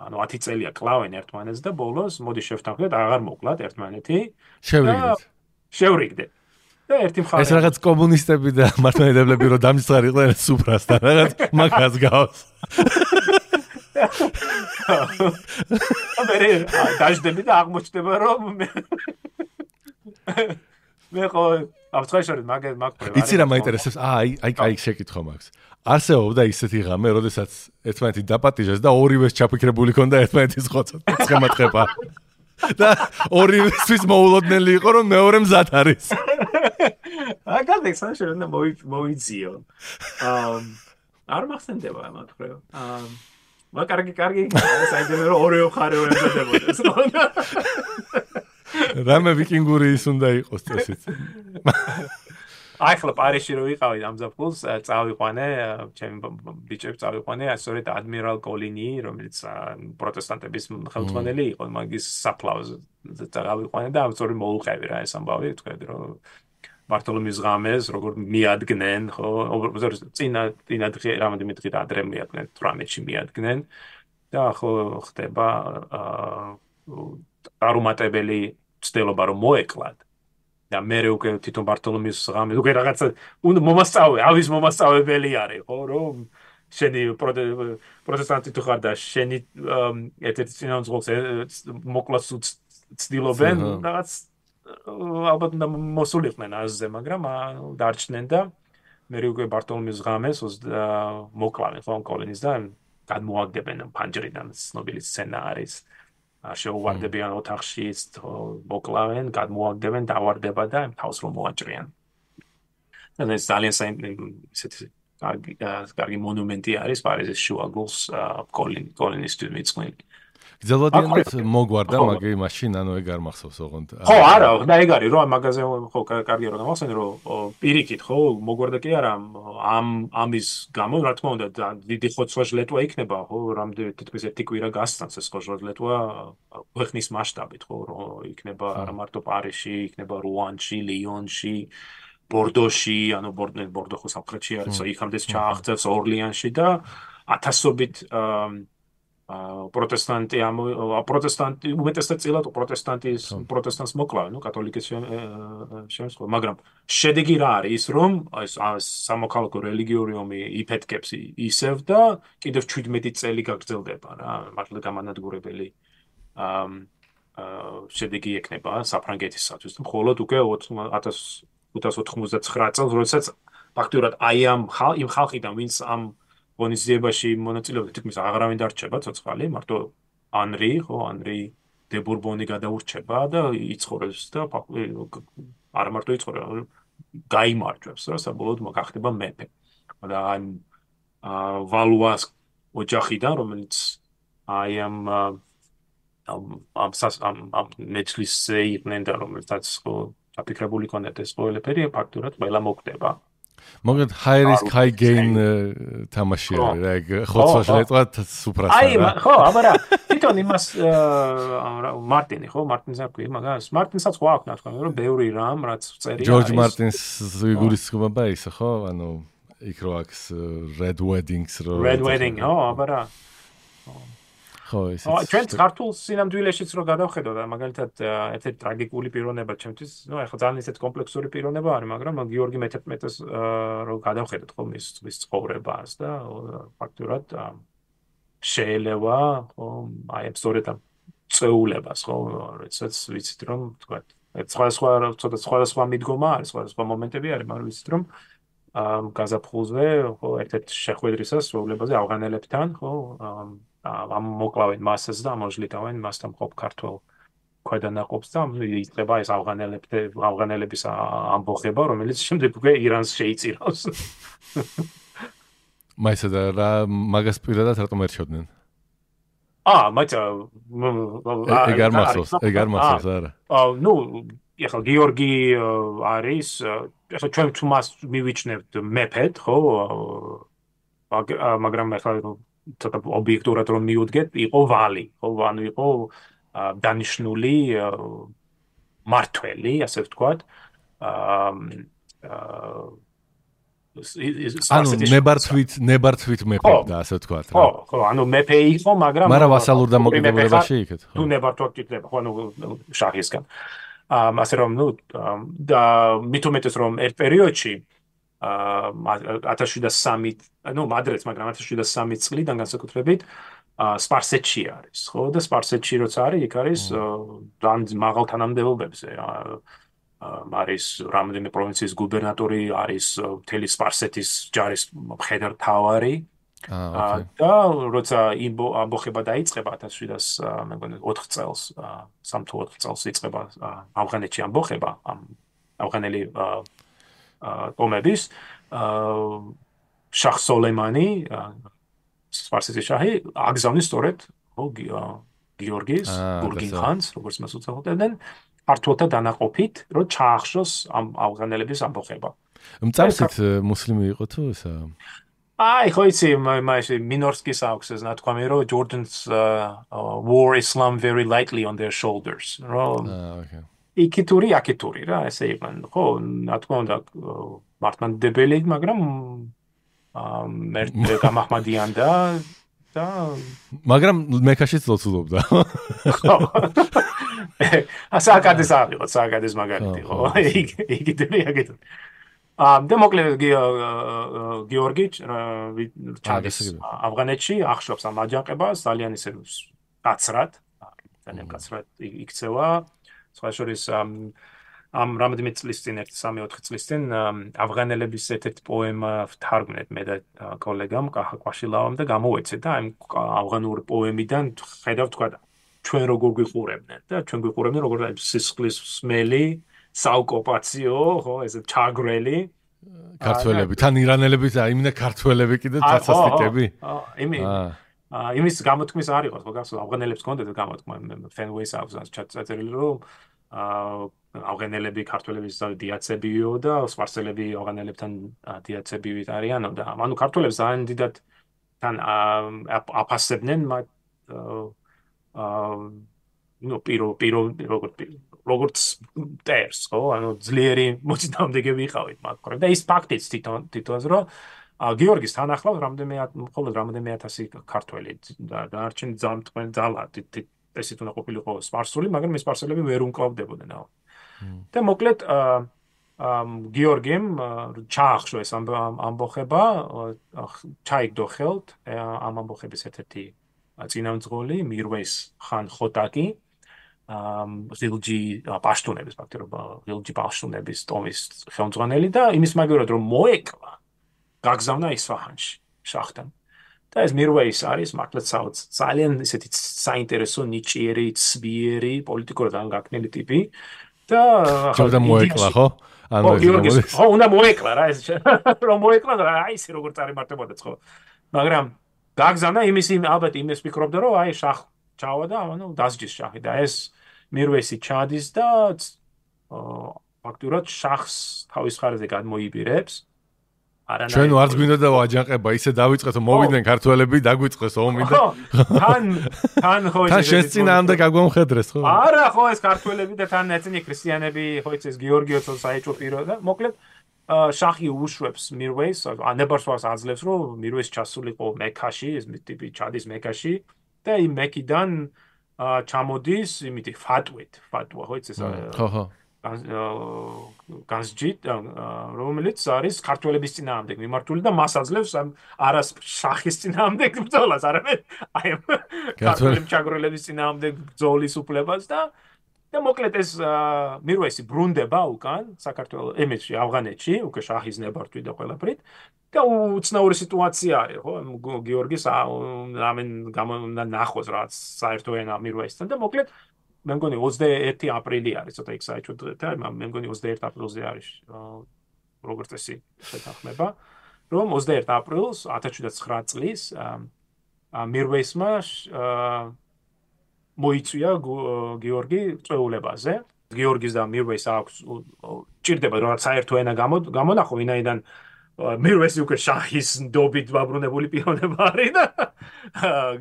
ანუ 10 წელია კლავენ ერთმანეთს და ბოლოს მოდი შევთანხმდეთ, აღარ მოკლათ ერთმანეთი. შევრიგდეთ. და ერთი მხარე ეს რაღაც კომუნისტები და მართლმადიდებლები რო დამისწრებდნენ სუფრასთან, რაღაც მაგას გავს. მე დაждები და აღმოჩნდება რომ მე ხო აბსტრაქტულად მაგ იცი რა მაინტერესებს? აი შეკითხვა მაქვს. არსებობდა ისეთი ღამე, როდესაც ერთმანეთი დაპატიჟეს და ორივეს ჩაფიქრებული ქონდა ერთმანეთის ხოცად. ცხემატყება. და ორივესთვის მოულოდნელი იყო რომ მეორე მზად არის. აგადექ საშენ და მოიძიო. არ მახსენდება მაგრამ. კარგი, საინტერესო რომ ორივე მხარე ემზადებოდეს. რამე ვიკინგური ის უნდა იყოს წესით. აი ხლა პარიზში რო ვიყავი ამ ზაფხულს წავიყვანე, ჩემი ბიჭები წავიყვანე, სწორედ ადმირალ კოლინი, რომელიც პროტესტანტების ხელმძღვანელი იყო, მაგის საფლავზე წავიყვანე და სწორედ მოუყევი რა ეს ამბავი, თქვენ რომ ბარტოლომის ღამეს როგორ მიადგნენ, ხო, წინა რამოდენიმე დღით ადრე მიადგნენ, 18-ში მიადგნენ და ხო ხდება არუმატებელი ცდილობა რომ მოეკლათ. და მე უკვე თვითონ ბარტოლომის ღამე უკვე რაღაცა ავის მომასწავებელი არის, ხო, რომ შენი პროტესტანტი თუ ხარ და შენი ერთ-ერთი წინამძღოლს მოკლას ცდილობენ, რაღაც ალბათ მოსულიყვნენ აზზე, მაგრამ დარჩნენ და მე უკვე ბარტოლომის ღამეს მოკლავენ ხო კოლინის და გადმოაგდებენ ფანჯრიდან ცნობილი სცენა არის. შეუვარდებიან ოთახში, მოკლავენ, გადმოაგდებენ, დავარდება და თავს რომ მოაჭრიან. და ეს ძალიან ისეთი კარგი მონუმენტი არის პარიზის შუაგულს კოლინის თვითმიწყვილი. გძელვადიანად მოგვარდა მაგი მაშინ ანუ ეგ არ მახსოვს ოღონდ. ხო, არა, და ეგ არის რომ მაგაზე ხო კარგია რომ გამახსენე რომ პირიქით ხო მოგვარდა კი არა ამის გამო რა თქმა უნდა დიდი ხოცვა-ჟლეტვა იქნება ხო რამდენი თითქმის ერთი კვირა გასცანს ეს ხოცვა-ჟლეტვა ქვეყნის მასშტაბით ხო რომ იქნება არა მარტო პარიზში, იქნება რუანში, ლიონში, ბორდოში, ანუ ბორდო ხო სამხრეთში არის, იქამდეც ჩააღწევს ორლიანში და ათასობით პროტესტანტი უმეტესად წილად პროტესტანტს მოკლავენ, კათოლიკეს შემოსხვა, მაგრამ შედეგი რა არის ის რომ ეს სამოქალაქო რელიგიური ომი იფეთქებს ისევ და კიდევ 17 წელი გაგრძელდება რა, მართლა გამანადგურებელი შედეგი ექნება საფრანგეთისათვის. მხოლოდ უკვე 1599 წელს, როდესაც ფაქტურად აი იმ ხალხიდან ვინც ამ ღონისძიებაში მონაწილეობდა, თითქმის აღარავინ დარჩება ცოცხალი, მარტო ანრი დე ბურბონი გადაურჩება და იცხოვრებს და არა მარტო იცხოვრება, გაიმარჯვებს რა, საბოლოოდ გახდება მეფე. და ამ ვალუას ოჯახიდან, რომელიც აი ამ მეჯლისზე იყვნენ და რომელსაც აფიქრებული ქონდათ ეს ყველაფერი, ფაქტურად ყველა მოკვდება. მოგეთ high risk high gain თამაში არის რა ეგ ხოცვა-ჟლეტვა სუფრასთან რა. ხო, აბარა თვითონ იმას მარტინი ხო მარტინს აკვი მაგას მარტინსაც ხო აქვს თქვა რომ ბევრი რამ რაც წერია ჯორჯ მარტინს იგულისხმება ისე ხო ანუ იქ რო აქვს red wedding ხო აბარა ხო, ისიც. ჩვენ ქართულ სინამდვილეშიც რო გადავხედოთ, მაგალითად ერთ-ერთი ტრაგიკული პიროვნება ჩემთვის, ეხლა ძალიან ისეთ კომპლექსური პიროვნება არის, მაგრამ გიორგი მე-11-ს რო გადავხედოთ ხო მის ცხოვრებას და ფაქტურად შეიძლება ხო აი სწორედ ამ წეულებას ხო როდესაც ვიცით რომ თქვა სხვადასხვა მიდგომა არის, სხვადასხვა მომენტები არის, მაგრამ ვიცით რომ გაზაფხულზე ხო ერთ-ერთ შეხვედრისას სრულებაზე ავღანელებთან ხო ამ მოკლავენ მასას და ამოჟლიტავენ მასთან მყოფ ქართველ ქვედანაყოფს და იწყება ეს ავღანელების ამბოხება, რომელიც შემდეგ უკვე ირანს შეიწირავს. მაისა და რა მაგას პირადად რატომ ერჩევდნენ? ეგ არ მახსოვს, არა. ნუ ეხლა გიორგი არის, ეხლა ჩვენ თუ მას მივიჩნევთ მეფედ, ხო? მაგრამ ეხლა ცოტა ობიექტურად რომ მივუდგეთ, იყო ვალი, ხო? ანუ იყო დანიშნული მართველი, ასე ვთქვათ. ანუ ნებართვით მეფობდა, ასე ვთქვათ რა. ხო, ანუ მეფე იყო, მაგრამ ვასალურ დამოკიდებულებაში იქეთ, ხო? თუ ნებართვა გჭირდება, ხო, ანუ შაჰისგან. ასე რომ, ნუ და მით უმეტეს რომ ერთ პერიოდში 1703, ნუ მადრეც, მაგრამ 1703 წლიდან განსაკუთრებით სპარსეთში არის, ხო? და სპარსეთში როცა არის, იქ არის ძალიან მაღალ თანამდებობებზე. არის რამდენიმე პროვინციის გუბერნატორი, არის მთელი სპარსეთის ჯარის მხედართმთავარი. და როცა ამბოხება დაიწყება 1704 წელს, 3 თუ 4 წელს იწყება ავღანეთში ამბოხება, ავღანელი ომების, შაჰ სოლეიმანი, სპარსეთის შაჰი, აგზავნის სწორედ გიორგის, გურგინ-ხანს, როგორც მას უწოდებდნენ, ქართველთა დანაყოფით, რომ ჩაახშოს ამ ავღანელების ამბოხება. მწარსით მუსლიმი იყო თუ ესა? ხო იცი, მასე მინორსკის აქვს ეს ნათქვამი, რომ Jordans wore Islam very lightly on their shoulders. Okay. იქითური, აქითური რა, ესე იყვნენ. ხო, რა თქმა უნდა, მართლმადიდებელი, მაგრამ ერთ გამაჰმადიან და მაგრამ მექაშიც ლოცულობდა. ხო. სააკადის ავიღოთ, სააკადის მაგალითი, ხო. იქითური, აქითური. და მოკლედ გიორგი ჩადის ავღანეთში, ახშობს ამ აჯანყებას, ძალიან ისე კაცრად, ძალიან კაცრად იქცევა. სხვა შორის ამ რამდენიმე წლის წინ, 1-3-4 წლის წინ ავღანელების ერთ-ერთი პოემა ვთარგმნეთ მე და კოლეგამ კაჰა კვაშილავამ და გამოუეცეთ და ამ ავღანური პოემიდან ხედავ თქვა ჩვენ როგორ გვიყურებდნენ და ჩვენ გვიყურებდნენ როგორ სისხლის სმელი საოკუპაციო, ხო, ეს ჩაგრელი ქართველები, თან ირანელები და იმინა ქართველები კიდე თასასტიკები. იმის გამოთქმის არ იყო, ხო, გასულ ავღანელებს ჰქონდათ გამოთქმა, Fenways აქვს ჩაწერილი, რომ ავღანელები ქართველების დიაცებიო და სპარსელები ავღანელებთან დიაცებივით არიანო და ანუ ქართველებს ძალიან დიდად თან აფასებდნენ მათ ნუ როგორც ტერს, ხო, ანუ ძლიერი მოწინააღმდეგე ვიყავით მათ ხომ და ის ფაქტიც თვითონაც რომ გიორგის თან ახლავს მხოლოდ რამდენიმე ათასი ქართველი და დანარჩენი ძალა ესეთ უნდა ყოფილიყო სპარსული, მაგრამ ეს სპარსელები ვერ უმკლავდებოდნენ. და მოკლედ გიორგიმ ჩაახშო ეს ამბოხება, ჩაიგდო ხელთ ამ ამბოხების ერთ-ერთი წინამძღოლი მირვეის ხან ხოტაკი, ღილჯი პაშტუნების ღილჯი პაშტუნების ტომის ხელმძღვანელი და იმის მაგერად რომ მოეკლა გაგზავნა ისფაჰანში შაჰთან. და ეს მირვეის არის მართლაც ძალიან ისეთი საინტერესო ნიჭიერი, ცბიერი, პოლიტიკურად ანგაკნილი ტიპი და ხოდა მოეკლა, ხო? ანუ ხო, უნდა მოეკლა რა ეს რომ მოეკლა და აი ეს როგორ წარიმართებოდა ხო. მაგრამ გაგზავნა ალბათ იმის ფიქრობდა რომ აი შაჰ ჩავა და ანუ დასჯის შაჰი და ეს მირვეისი ჩადის და ფაქტურად შაჰს თავის ხარზე გადმოიბირებს. ჩვენ ვარც გვინდოდა აჯანყება, ისე დავიწყეთ, მოვიდნენ ქართველები, დაგვიწყეს ომი და თან ხო თან შესწინააღმდეგ გაგვამხედრეს, ხო? არა, ხო ეს ქართველები და თან ეცინი ქრისტიანები, ხო ეს გიორგიოც საეჭვო პირო და მოკლედ შაჰი უშვებს მირვეის, ანებარსვას აძლევს, რომ მირვეის ჩასულიყო მექაში, ეს ტიპი ჩადის მექაში და იმ მეკიდან ჩამოდის იმითი ფატვა, ხო იცი ეს ხო განსჯით, რომელიც არის ქართველების წინააღმდეგ მიმართული და მას აძლევს არას შახის წინააღმდეგ ბრძოლას, არამედ აი ქართველი ჩაგროლების წინააღმდეგ ბრძოლის უფლებას და მოკლედ ეს მირვესი ბრუნდება უკან საქართველოს ემეთში ავღანეთში, უკვე შაჰის ნებართვი და ყველაფრით და უცნაური სიტუაცია არის, ხო? გიორგის ამენ გამონდა ნახოს რაც საერთო ენა მირვესთან და მოკლედ მე მგონი 21 აპრილი არის, ცოტა იქ საერთოდ და მე მგონი 21 აპრილზე არის როგორც წესი შეთანხმება, რომ 21 აპრილს 1709 წლის მირვესმა მოიწვია გიორგი წვეულებაზე. გიორგის და მირვეს აქვს ჭირდება რომ საერთო ენა გამონახო, ვინაიდან მირვესი უკვე შაჰის ნდობით დაბრუნებული პიროვნება არის და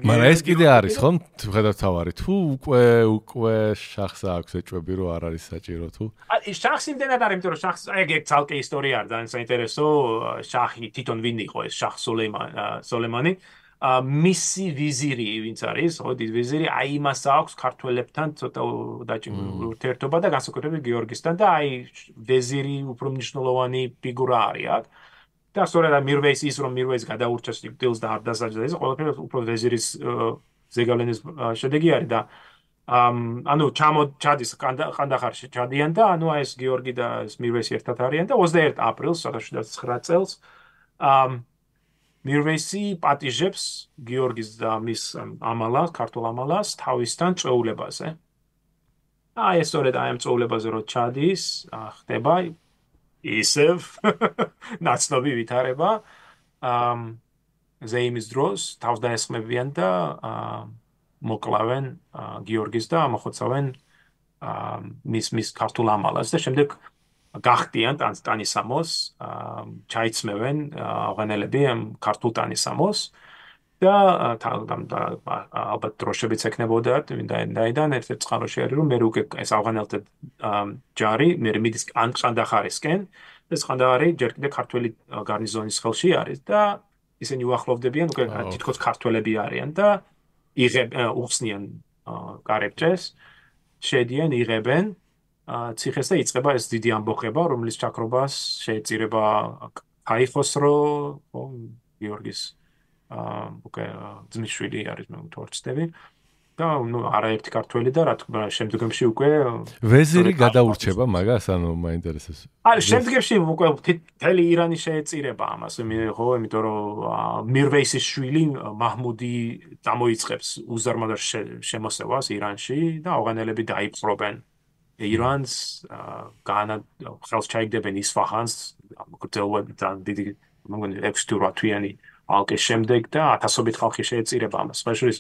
მაგრამ ეს კიდე არის ხომ ხედავთ თავარი თუ უკვე შაჰს აქვს ეჭვები რომ არ არის საჭირო თუ შაჰს იმდენად არის იმიტომ რომ შაჰს ეგ ცალკე ისტორია არის ძალიან საინტერესო შაჰი თვითონ ვინ იყო ეს შაჰ სოლეიმანი მისი ვიზირი ვინც არის ხო დიდი ვიზირი აი იმას აქვს ქართველებთან ცოტა დაჭიმული ურთიერთობა და განსაკუთრებით გიორგისთან და აი ვეზირი უფრო მნიშვნელოვანი ფიგურა არის აქ და სწორედ მირვეის ის რომ მირვეის გადაურჩეს დილს და არ დასაჯდა ეს ყველაფერი უფრო ვეზირის ზეგავლენის შედეგი არის და ანუ ჩადის ყანდახარში ჩადიან და ანუ ეს გიორგი და ეს მირვესი ერთად არიან და 21 აპრილს 1709 წელს მირვესი პატიჟებს გიორგის და მის ამალას, ქართულ ამალას თავისთან წვეულებაზე. აი ეს სწორედ აი ამ წვეულებაზე რო ჩადის, ხდება ისევ ნაცნობი ვითარება. ზეიმის დროს თავს დაესხმებიან და მოკლავენ გიორგის და მოხოცავენ მის ქართულ ამალას და შემდეგ გახტიან ტანისამოს, ჩაიცმევენ ავღანელები ქართულ ტანისამოს და ალბათ დროშებიც ექნებოდათ, ვინაიდან ერთ-ერთ წყაროში არის რომ მე უკვე ეს ავღანელთა ჯარი მე მიდის ყანდახარისკენ, ეს ყანდახარი ჯერ კიდევ ქართველი გარნიზონის ხელში არის და ისინი უახლოვდებიან უკვე თითქოს ქართველები არიან და უხსნიან კარებჭეს, შედიან, იღებენ ციხეს და იწყება ეს დიდი ამბოხება, რომლის ჩაქრობას შეეწირება ქაიხოსრო, გიორგის უკვე ძმისშვილი არის მე თორცდები და ნუ არაერთი ქართველი და რა თქმა უნდა შემდგომში უკვე ვეზირი გადაურჩება მაგას, ანუ მაინტერესებს. აი შემდგომში უკვე მთელი ირანი შეეწირება ამას, ხო, იმიტომ რომ მირვეისის შვილი მაჰმუდი წამოიწყებს უზარმაზარ შემოსევას ირანში და ავღანელები დაიპყრობენ ირანს ხელს ჩაიგდებენ ისფაჰანს გრძელვებთან დიდი მოგონი 6-8 თვიანი ალყის შემდეგ და ათასობით ხალხი შეეწირება ამას. სპეციალის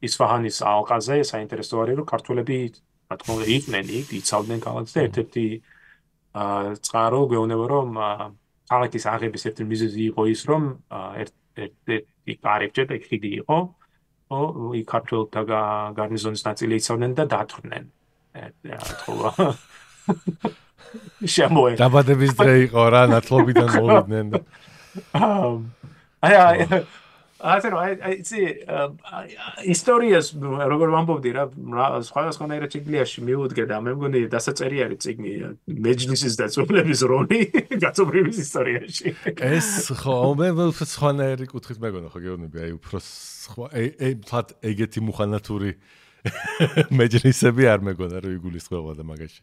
ისფაჰანის ალყაზე საინტერესო არის რომ ქართველები რა თქმა უნდა იყვნენ იქ, იცავდნენ ქალაქს და ერთ-ერთი წყარო გვეუბნება რომ ქალაქის აღების ერთი მიზეზი იყო ის რომ ერთ-ერთი კარებჭე და ხიდი იყო, იქ ქართველთა გარნიზონის ნაწილი იცავდნენ და დათვრნენ. შემოე დაბადების დღე იყო რა ნათლობიდან მოვიდნენ და აი ისტორიას როგორ ვამბობდი რა სხვადასხვანაირად ციგლიაში მიუდგე და მე მგონი დასაწერი არის ციგნი მეჯლისის დაწვრილების როლი გაწობრების ისტორიაში ეს ხო მე სხვანაირი კუთხით მეგონა ხო გეუბნები აი უფრო სხვა ფლად ეგეთი მუხანათური მეჯლისები არ მეგონა რომ იგულისხმება და მაგაში.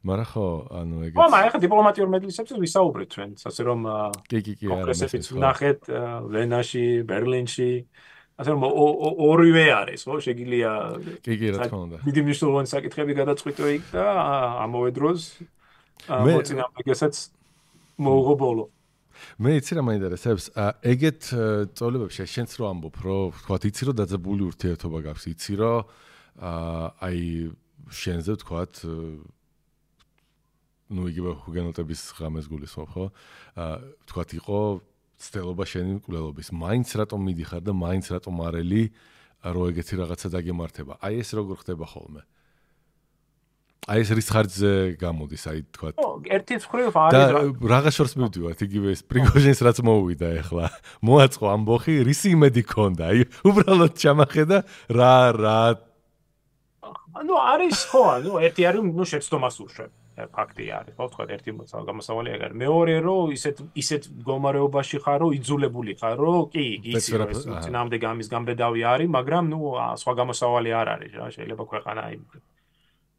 მაგრამ ხო, ანუ ეგეც. ხო, მაგრამ ახლა დიპლომატიურ მეჯლისებზე ვისაუბრეთ ჩვენ, ასე რომ კი, კონგრესებიც ვნახეთ ვენაში, ბერლინში. ასე რომ ორივე არის, ხო, შეგიძლია კი, რა თქმა უნდა. დიდი მნიშვნელოვანი საკითხები გადაწყვიტო იქ და ამავე დროს მოწინააღმდეგესაც მოუღო ბოლო. მე იცი რა მაინტერესებს, ეგეთ წოლებებში შენც რო ამბობ, რომ ვთქვათ, იცი რომ დაძაბული ურთიერთობა გაქვს, იცი რომ აი შენზე ვთქვათ ნუ იგივე ჰუგენოტების ღამეს გულისხმობ, ხო? ვთქვათ, იყო ცდელობა შენი მკვლელობის. მაინც რატომ მიდიხარ და მაინც რატომ არელი, რომ ეგეთი რაღაცა დაგემართება. აი ეს როგორ ხდება ხოლმე? აი ეს რის ხარჯზე გამოდის, აი თქვა. ერთი მხრივ და რაღა შორს მივდივართ, იგივე ეს პრიგოჟინს რაც მოუვიდა ახლა. მოაწყო ამბოხი, რისი იმედი ქონდა? აი უბრალოდ ჩამახედა რა ანუ არის ხო, ანუ ერთი არის ნუ შეცდომას ურჩევ. ფაქტი არის, ხო, თქვა ერთი გამოსავალი ეგ არის. მეორე რომ ისეთ მდგომარეობაში ხარ, რომ იძულებული ხარ, რომ კი, იცი რომ ეს წინამდე გამის გამბედავი არის, მაგრამ ნუ სხვა გამოსავალი არ არის რა, შეიძლება ქვეყანა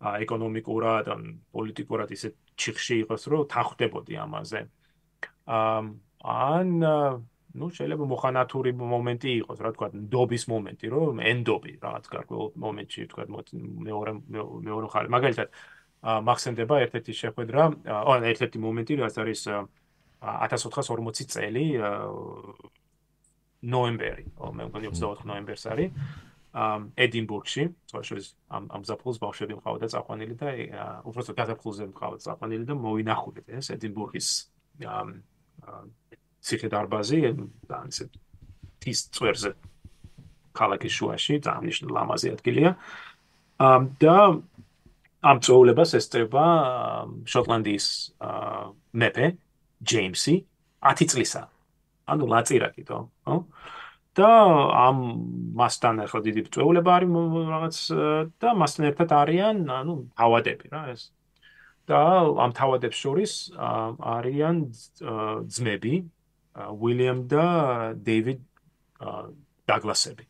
ეკონომიკურად, პოლიტიკურად ისეთ ჩიხში იყოს, რომ თანხდებოდი ამაზე. ან ნუ შეიძლება მოხანათური მომენტი იყოს, რა თქვა, ნდობის მომენტი, რომ ენდობი რაღაც გარკვეულ მომენტში, თქვა, მეორე ხარ. მაგალითად მახსენდება ერთ-ერთი შეხვედრა, ერთ-ერთი მომენტი, რაც არის 1440 წელი ნოემბერი, მე მგონი 24 ნოემბერს არის. ედინბურგში, თორშორის ამ ზაფხულს ბავშვები მყავდა წაყვანილი და უბრალოდ გაზაფხულზე მყავდა წაყვანილი და მოვინახულეთ ეს ედინბურგის ციხე-დარბაზი, ისე თის წვერზე ქალაქის შუაში, ძალიან ლამაზი ადგილია. და ამ წვეულებას ესწრება შოტლანდიის მეფე ჯეიმსი 10 წლისა. ანუ ლაწირაკითო, ხო? და ამ მასთან ახლა დიდი წვეულება არის რაღაც და მასთან ერთად არიან, ანუ თავადები რა ეს. და ამ თავადებს შორის არიან ძმები, უილიამ და დეივიდ დაგლასები.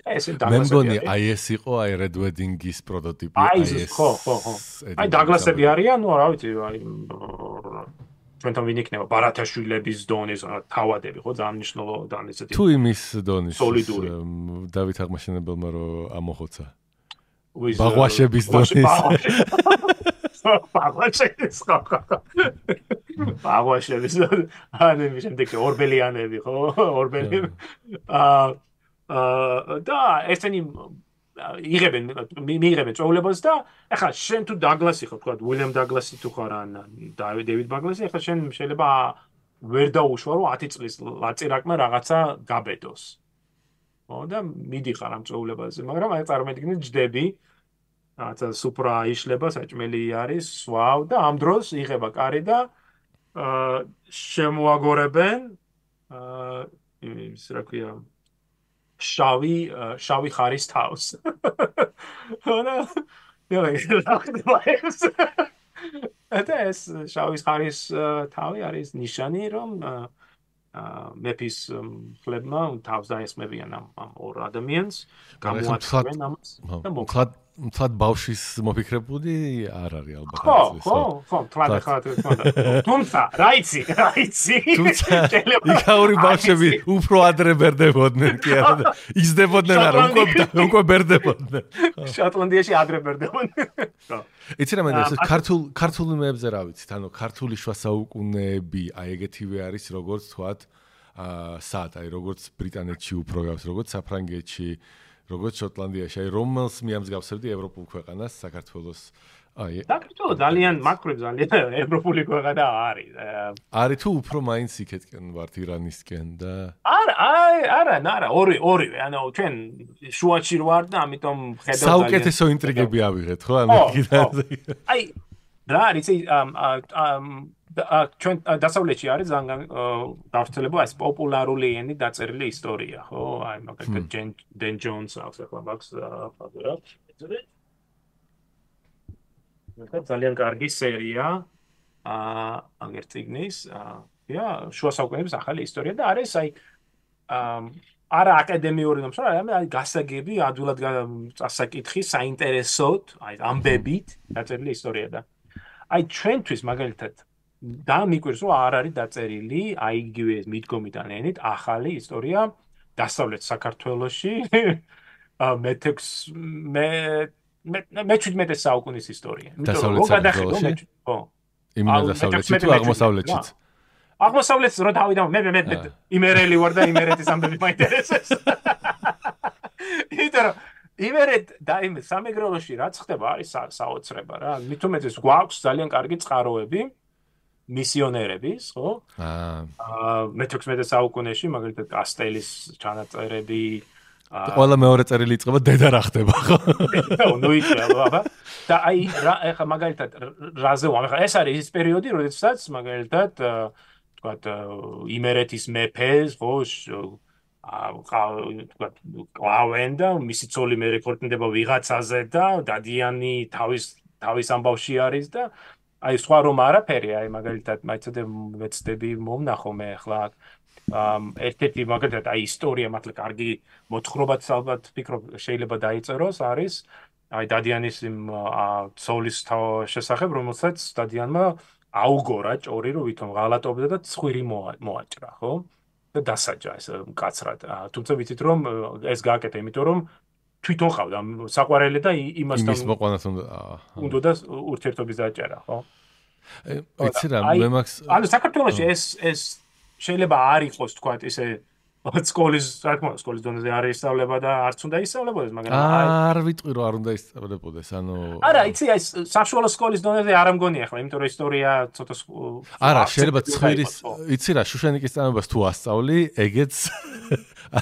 მე მგონი აი ეს იყო აი Red Wedding-ის პროტოტიპი, აი ეს ხო. აი დაგლასები არიან, ნუ რა ვიცი, აი ჩვენთან ვინ იქნება ბარათაშვილების დონის თავადები, ხო, ძალიან მნიშვნელოვანი ესეთი. თუ იმის დონის სოლიდური. დავით აღმაშენებელმა რომ ამოხოცა. ბაღვაშების დონის. ბაღვაშების. ანუ შემდეგ ორბელიანები, ხო? ორბელიანი. და ესენი მიიღებენ წვეულებას და ახლა შენ თუ დაგლასი ხო თქვა უილიამ დაგლასი თუ ხარ ან დეივიდ ბაგლასი ახლა შენ შეიძლება ვერ დაუშვა რომ 10 წლის ლაწირაკმა რაღაცა გაბედოს. ხო და მიდიხარ ამ წვეულებაზე, მაგრამ აი წარმოიდგინე ჯდები რაღაცა სუპრა იშლება, საჭმელი არის, სვავ და ამ დროს იღება კარი და შემოაგორებენ ის რა ქვია შავი ხარის თავს. და ეს შავი ხარის თავი არის ნიშანი, რომ მეფის ხლებმა თავს დაესმებიან ამ ორ ადამიანს, გამოაცხადენ ამას და მოკლედ ბავშვის მოფიქრებული არ არის ალბათ. ხო, თუმცა, რაიცი. იქაური ბავშვები უფრო ადრე ბერდებოდნენ კი არა, იზრდებოდნენ არა, უკვე ბერდებოდნენ. შოტლანდიაში ადრე ბერდებოდნენ. იცი რა მენდა, ეს ქართულ იმებზე რა ვიცით, ანუ ქართული შუა საუკუნეები, აი ეგეთივე არის, როგორც თქვათ, სად, აი როგორც ბრიტანეთში უფრო გავს, როგორც საფრანგეთში, როგორც შოტლანდიაში, აი რომელს მიამსგავსებდი ევროპულ ქვეყანას, საქართველოს. საქართველო ძალიან მაკრობ ძალიან ევროპული ქვეყანა არის. არის თუ უფრო მაინც იქეთკენ ვართ ირანისკენ და არა, ორივე, ანუ ჩვენ შუაში ვარ და ამიტომ ხედავ ძალიან საუკეთესო ინტრიგები ავიღეთ, ხო? ანუ აი რა არის ჩვენ დასავლეთში არის ძალიან გავრცელებული ეს პოპულარული ენით დაწერილი ისტორია, ხო? აი მაგალითად დენ ჯონს აქვს ახლა მაქვს ფაქტორა. ძალიან კარგი სერია აგერ წიგნის შუა საუკუნეების ახალი ისტორია და არის აი არა აკადემიური ნომს, აი გასაგები, ადვილად წასაკითხი, საინტერესოდ, აი ამბებით დაწერილი ისტორია და აი ჩვენთვის მაგალითად და მიკვირს რომ არ არის დაწერილი აი იგივე მიდგომიდან ენით ახალი ისტორია დასავლეთ საქართველოში მე-17 საუკუნის ისტორია. დასავლეთ საქართველოში? ხო. იმენა დასავლეთში თუ აღმოსავლეთშიც? აღმოსავლეთს რო დავიდამ მე იმერელი ვარ და იმერეთის ამბები მაინტერესებს. იტარო იმერეთ და იმ სამეგრელოში რაც ხდება არის საოცრება რა. მით უმეტეს გვაქვს ძალიან კარგი წყაროები მისიონერების, ხო? მე-16 საუკუნეში მაგალითად კასტელის ჩანაწერები ყველა მეორე წერილი იწყება დედა რა ხდება ხო? ნუ იცი და აი ეხა მაგალითად რაზე ვამეხა ეს არის ის პერიოდი როდესაც მაგალითად თქვათ იმერეთის მეფეს ხო თქვათ კლავენ და მისი ცოლი მე რეკორდდება ვიღაცაზე და დადიანი თავის ამბავში არის და აი სხვა რომ არაფერი აი მაგალითად მაიცოდე ვეცდები მომნახო მე ახლა ერთ-ერთი მაგალითად აი ისტორია მართლა კარგი მოთხრობაც ალბათ ფიქრობ შეიძლება დაიწეროს არის აი დადიანის იმ ცოლის შესახებ რომელსაც დადიანმა აუგორა ჭორი რომ ვითომ ღალატობდა და ცხვირი მოაჭრა ხო და დასაჯა ეს მკაცრად თუმცა ვიცით რომ ეს გააკეთა იმიტომ რომ თვითონ ყავდა საყვარელი და იმასთან იმის მოყვანას უნდა და ურთიერთობის დაჭერა ხო იცი რა მე მაგს ანუ საქართველოში ეს შეიძლება არ იყოს თქვათ ისე სკოლის სკოლის დონეზე არ ისწავლება და არც უნდა ისწავლებოდეს მაგრამ არ ვიტყვი რომ არ უნდა ისწავლებოდეს ანუ არა იცი ეს საშუალო სკოლის დონეზე არ ამგონია ახლა იმიტომ რომ ისტორია ცოტა არა შეიძლება ცხვირის იცი რა შუშანიკის წამებას თუ ასწავლი ეგეც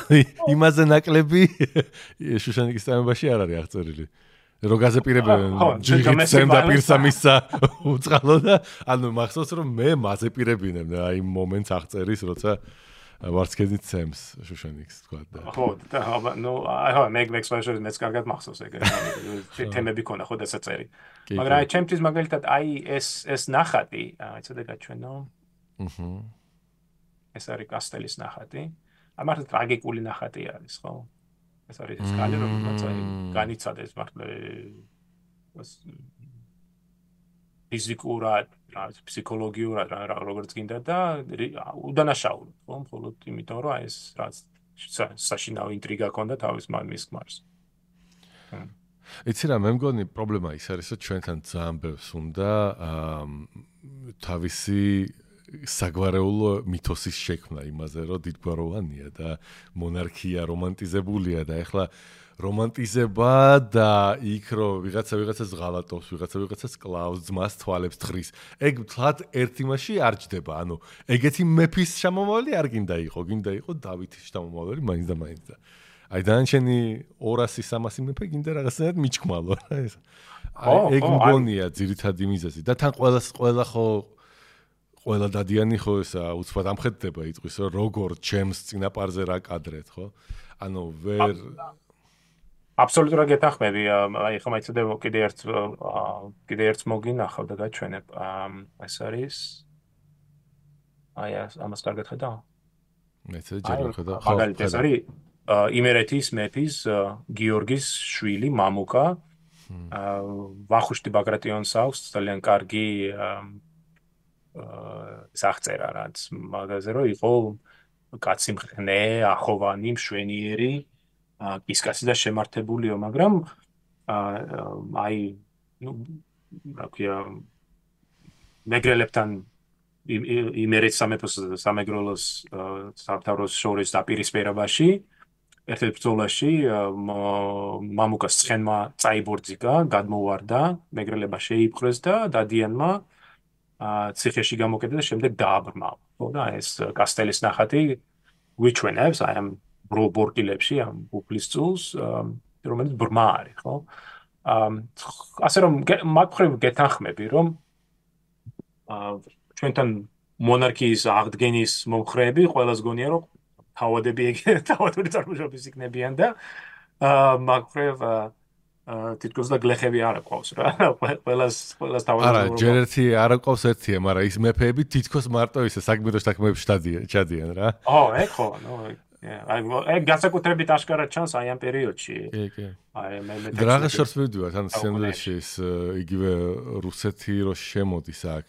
აი იმაზე ნაკლები შუშანიკის წამებაში არ არის აღწერილი რო გაზეპირებენ ჯიგიცემ და პირსა მისცა უწყალო და ანუ მახსოვს რომ მე მაზეპირებინებ და აი მომენტს აღწერის როცა ვარცხენით ცემს შუშანიკს თქვა და ხო და ნუ აი მექსვაშორი მეც კარგად მახსოვს ეგ თემები ქონა ხო დასაწერი მაგრამ აი ჩემთვის მაგალითად აი ეს ნახატი აიცოდე გაჩვენო ეს არის კასტელის ნახატი აი მართლა ტრაგიკული ნახატი არის ხო ეს არის ეს კალი რომელიც აი განიცადეს მართლა ფიზიკურად ფსიქოლოგიურად როგორც გინდა და უდანაშაულად ხო მხოლოდ იმიტომ რომ ეს რაც საშინაო ინტრიგა ქონდა თავის მამის ქმარს იცი რა მე მგონი პრობლემა ის არის რომ ჩვენთან ძალიან ბევრს უნდა თავისი საგვარეულო მითოსის შექმნა იმაზე რომ დიდგვაროვანია და მონარქია რომანტიზებულია და ეხლა რომანტიზება და იქ რომ ვიღაცას ღალატობს, ვიღაცას კლავს, ძმას თვალებს თხრის. ეგ თლად ერთ იმაში არ ჯდება. ანუ ეგეთი მეფის შამომავალი არ გინდა იყო დავითის შამომავალი მაინც და მაინც და აი დანარჩენი 200-300 მეფე გინდა რაღაცნაირად მიჩქმალო რა ეს. აი ეგ მგონია ძირითადი მიზეზი და თან ყველა დადიანი ხო ესა უცბად ამხედდება იტყვის რომ როგორ ჩემს წინაპარზე რა კადრეთ ხო? ანუ ვერ აბსოლუტურად გეთანხმები. აი ხომ აიცოდე კიდე ერთს მოგინახავ და გაჩვენებ. ეს არის აი ამას კარგად ხედავ? მეც ჯერ ხედავ. მაგალითად ეს არის იმერეთის მეფის გიორგის შვილი მამუკა. ვახუშტი ბაგრატიონს აქვს ძალიან კარგი სახწერა რაც მაგაზე რომ იყო კაცი მხნე, ახოვანი, მშვენიერი კისკაცი და შემართებულიო, მაგრამ აი ნუ რა ქვია მეგრელებთან იმერეთის სამეფოს სამეგრელოს სამთავროს შორის დაპირისპირებაში ერთ-ერთ ბრძოლაში მამუკას ცხენმა წაიბორძიგა, გადმოვარდა, მეგრელება შეიპყრეს და დადიანმა ციხეში გამოკეტა და შემდეგ დააბრმავა. ხო და ეს კასტელის ნახატი გვიჩვენებს აი ამ ბორტილებში ამ უფლის წულს რომელიც ბრმა არის ხო ასე რომ მაგ მხრივ გეთანხმები რომ ჩვენთან მონარქიის აღდგენის მომხრეები ყველას გონია რომ თავადები წარმოშობის იქნებიან და მაგ მხრივ თითქოს და გლეხები არ აყვავს რა ყველას თავადები არა ჯერ ერთი არ აყვავს ერთია მაგრამ ის მეფეები თითქოს მარტო ისე საგმირო შეთანხმებებში ჩადიან რა ეგ ხო ეგ განსაკუთრებით აშკარად ჩანს აი ამ პერიოდში. კი. აი მე რაღაც შორს ვიდივართ, ანუ სიანდვილეში ის იგივე რუსეთი რო შემოდის აქ.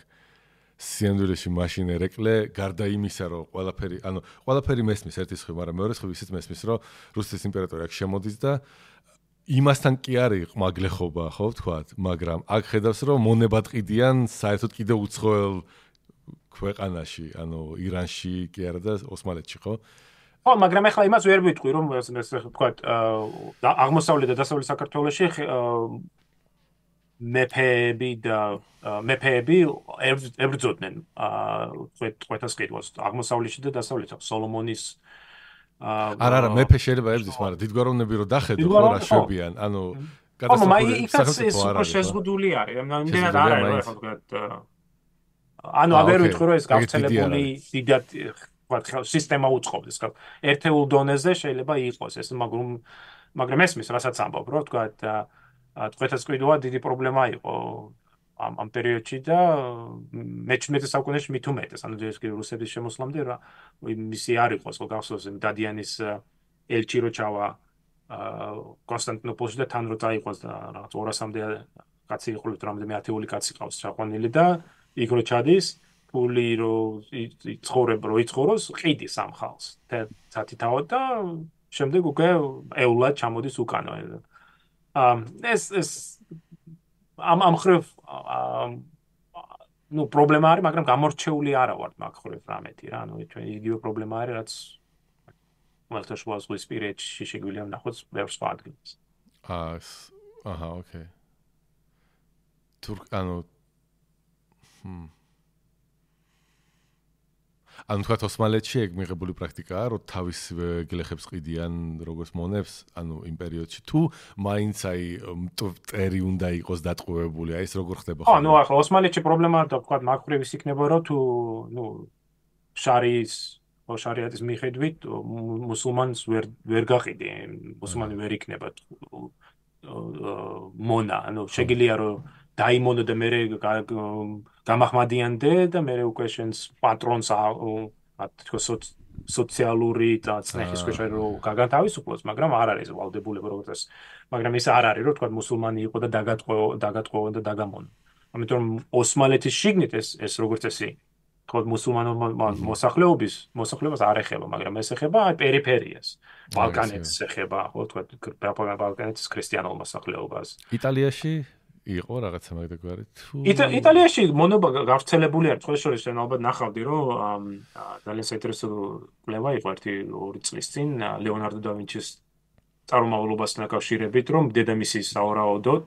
სიანდვილეში მაშინ ერეკლე გარდა იმისა, რომ ყველაფერი მესმის ერთის ხრი, მაგრამ მეორე ხრი ისიც მესმის, რომ რუსეთის იმპერატორი აქ შემოდის და იმასთან კი არის ყმაგლეხობა, ხო ვთქვათ, მაგრამ აქ ხედავს, რომ მონებად ყიდიან საერთოდ კიდე უცხოელ ქვეყანაში, ანუ ირანში კი არა და ოსმალეთში, ხო? ხო, მაგრამ ახლა იმას ვერ ვიტყვი, რომ ვთქვათ, აღმოსავლეთ და დასავლეთ საქართველოში მეფეები ებრძოდნენ წვეთას ყიდვას აღმოსავლეთში და დასავლეთში. სოლომონის არა, მეფე შეიძლება ებრძვის, მაგრამ დიდგვაროვნები რო დახედო, ხო რა შვებიან, ანუ კატასტროფული შეზღუდული არის, იმდენად არ არის, ხო თქვათ. ანუ აღარ ვიტყვი რომ ეს გავრცელებული დიდად ვთქვათ სისტემა უწყობს, ხო? ერთეულ დონეზე შეიძლება იყოს ეს, მაგრამ ესმის, რასაც ამბობ, რომ ვთქვათ, ტყვეთასკვიდოა დიდი პრობლემა იყო ამ პერიოდში და მე-19 საუკუნეში მით უმეტეს, ანუ ეს კი რუსების შემოსვლამდე რა მისი არ იყოს, ხო გახსოვს დადიანის ელჩი რო ჩავა კონსტანტინოპოლში და თან რო წაიყოს და რაღაც 200-მდე კაცი იყო, რამდენიმე ათეული კაცი ყავს ჩაყვანილი და იქ რო ჩადის, ფული რო იცხოვროს, ყიდის ამ ხალხს. თათითაოდ და შემდეგ უკვე ეულად ჩამოდის უკანო. ეს ამ ხრივ პრობლემა არის, მაგრამ გამორჩეული არა ვართ მაგ ხრივ რამეთი რა, ჩვენ იგივე პრობლემა არის, რაც ხმელთაშუა ზღვისპირეთში შეგვიძლია ვნახოთ ბევრ სხვა ადგილას. ოკეი. ანუ თქვათ ოსმალეთში ეგ მიღებული პრაქტიკაა, რომ თავის გლეხებს ყიდიან როგორც მონებს, ანუ იმ პერიოდში თუ მაინც აი მტერი უნდა იყოს დატყვევებული, აი ეს როგორ ხდება ხო? ანუ ახლა ოსმალეთში პრობლემა და თქვათ მაგ ხრივ ის იქნება, რომ თუ შარიატის მიხედვით მუსულმანს ვერ გაყიდი, მუსულმანი ვერ იქნება მონა, ანუ შეგიძლია რომ დაიმონო და მე გამახმადიანდე და მე უკვე შენს პატრონს თქო სოციალური და წნეხის ქვეშ რომ გაგანთავისუფლოს, მაგრამ არ არის ვალდებულება როგორც ეს. მაგრამ ის არ არის, რომ თქვა მუსულმანი იყო და დაგატყვევა და დაგამონო. ამიტომ ოსმალეთის შიგნით ეს როგორც წესი, თქვა მუსულმანო მოსახლეობას არ ეხება, მაგრამ ეს ეხება პერიფერიას. ბალკანეთს ეხება, ხო, თქვა ბალკანეთის ქრისტიანულ მოსახლეობას. იტალიაში იყო რაღაცა მაგდაგვარი თუ იტალიაში მონობა გავრცელებული არის, სხვა შორის შენ ალბათ ნახავდი, რომ ძალიან საინტერესო კვლევა იყო 1-2 წლის წინ ლეონარდო და ვინჩის წარმომავლობასთან დაკავშირებით, რომ დედამისი სავარაუდოდ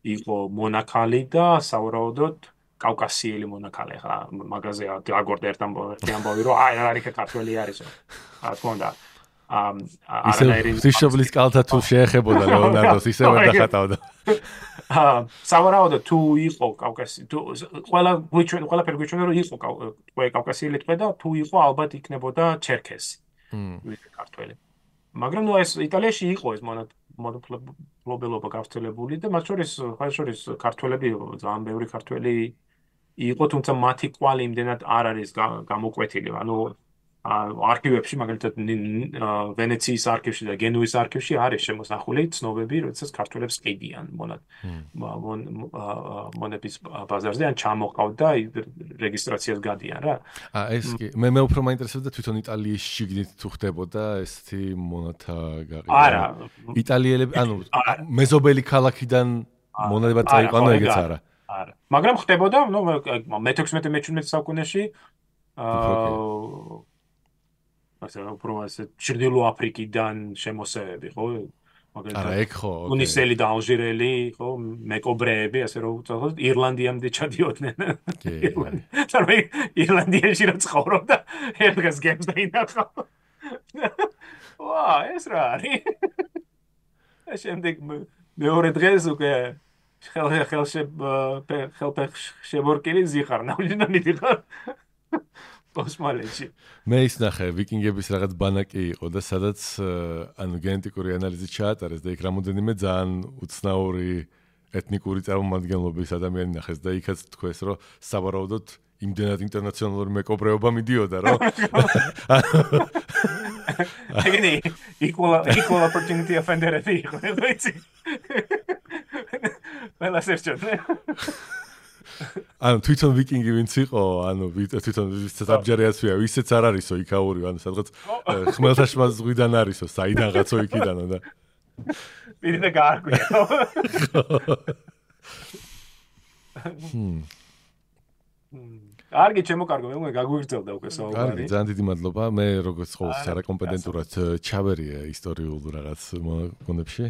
იყო მონაქალი და სავარაუდოდ კავკასიელი მონაქალი. ხა მაგაზე დაგორდა ერთ ამბავი, რომ არ არის ქართველი არისო. რა თქმა უნდა. ისე კალთა თუ შეეხებოდა ლეონარდოს, ისე ვერ დახატავდა. სავარაუდოდ თუ იყო კავკასი, თუ ყველაფერი გვიჩვენა, რომ იყო კავკასიელი ტყვე და თუ იყო ალბათ იქნებოდა ჩერქესი. ქართველი. მაგრამ ეს იტალიაში იყო ეს მონოფლობელობა გავრცელებული და მათ შორის ქართველები ძალიან ბევრი ქართველი იყო, თუმცა მათი კვალი იმდენად არ არის გამოკვეთილი, ანუ არქივებში, მაგალითად ვენეციის არქივში და გენუის არქივში არის შემოსახული ცნობები, როდესაც ქართველებს ყიდიან მონების ბაზარზე ან ჩამოყავდა რეგისტრაციას გადიან რა. ეს კი მე უფრო მაინტერესებდა თვითონ იტალიის შიგნით თუ ხდებოდა ესეთი მონათა გაყიდვა. არა. იტალიელები, ანუ მეზობელი ქალაქიდან მონადება წაიყვანო ეგეც არა. არა. მაგრამ ხდებოდა, მე-16-მე-17 საუკუნეში ასე ჩრდილო აფრიკიდან შემოსევები, ხო? არა, ეგ ხო. ტუნისელი და ალჟირელი, ხო, მეკობრეები, ასე რომ უწოდოთ, ირლანდიამდე ჩადიოდნენ. თორე ირლანდიაში რა ცხოვრობდა, ერთ დღეს გემს დაინახა. ვა, ეს რა არის? შემდეგ მეორე დღეს უკვე ხელშემორკილი ზიხარ, ნავჟიდან მიდიხარ. ოსმალეთში. მე ის ნახე, ვიკინგების რაღაც ბანაკი იყო და სადაც ანუ გენეტიკური ანალიზი ჩაატარეს და იქ რამოდენიმე ძალიან უცნაური ეთნიკური წარმომადგენლობის ადამიანი ნახეს და იქაც თქვეს, რომ სავარაუდოდ იმდენად ინტერნაციონალური მეკობრეობა მიდიოდა, რომ ეგენი equal opportunity offender-ები იყო, ვიცი. ყველა სერჩოთნე. ანუ თვითონ ვიკინგი ვინც იყო, ანუ თვითონ ვისაც აბჯარიაცია, ვისაც არ არისო იქაური, ანუ სადღაც ხმელთაშუა ზღვიდან არისო, საიდანღაცო იქიდანო და პირი და გაარკვია. კარგი, ჩემო კარგო, მე გაგვიგრძელდა უკვე საუბარი. კარგი, ძალიან დიდი მადლობა. მე როგორც ყოველთვის არაკომპეტენტურად ჩავერია ისტორიულ რაღაც მონებში.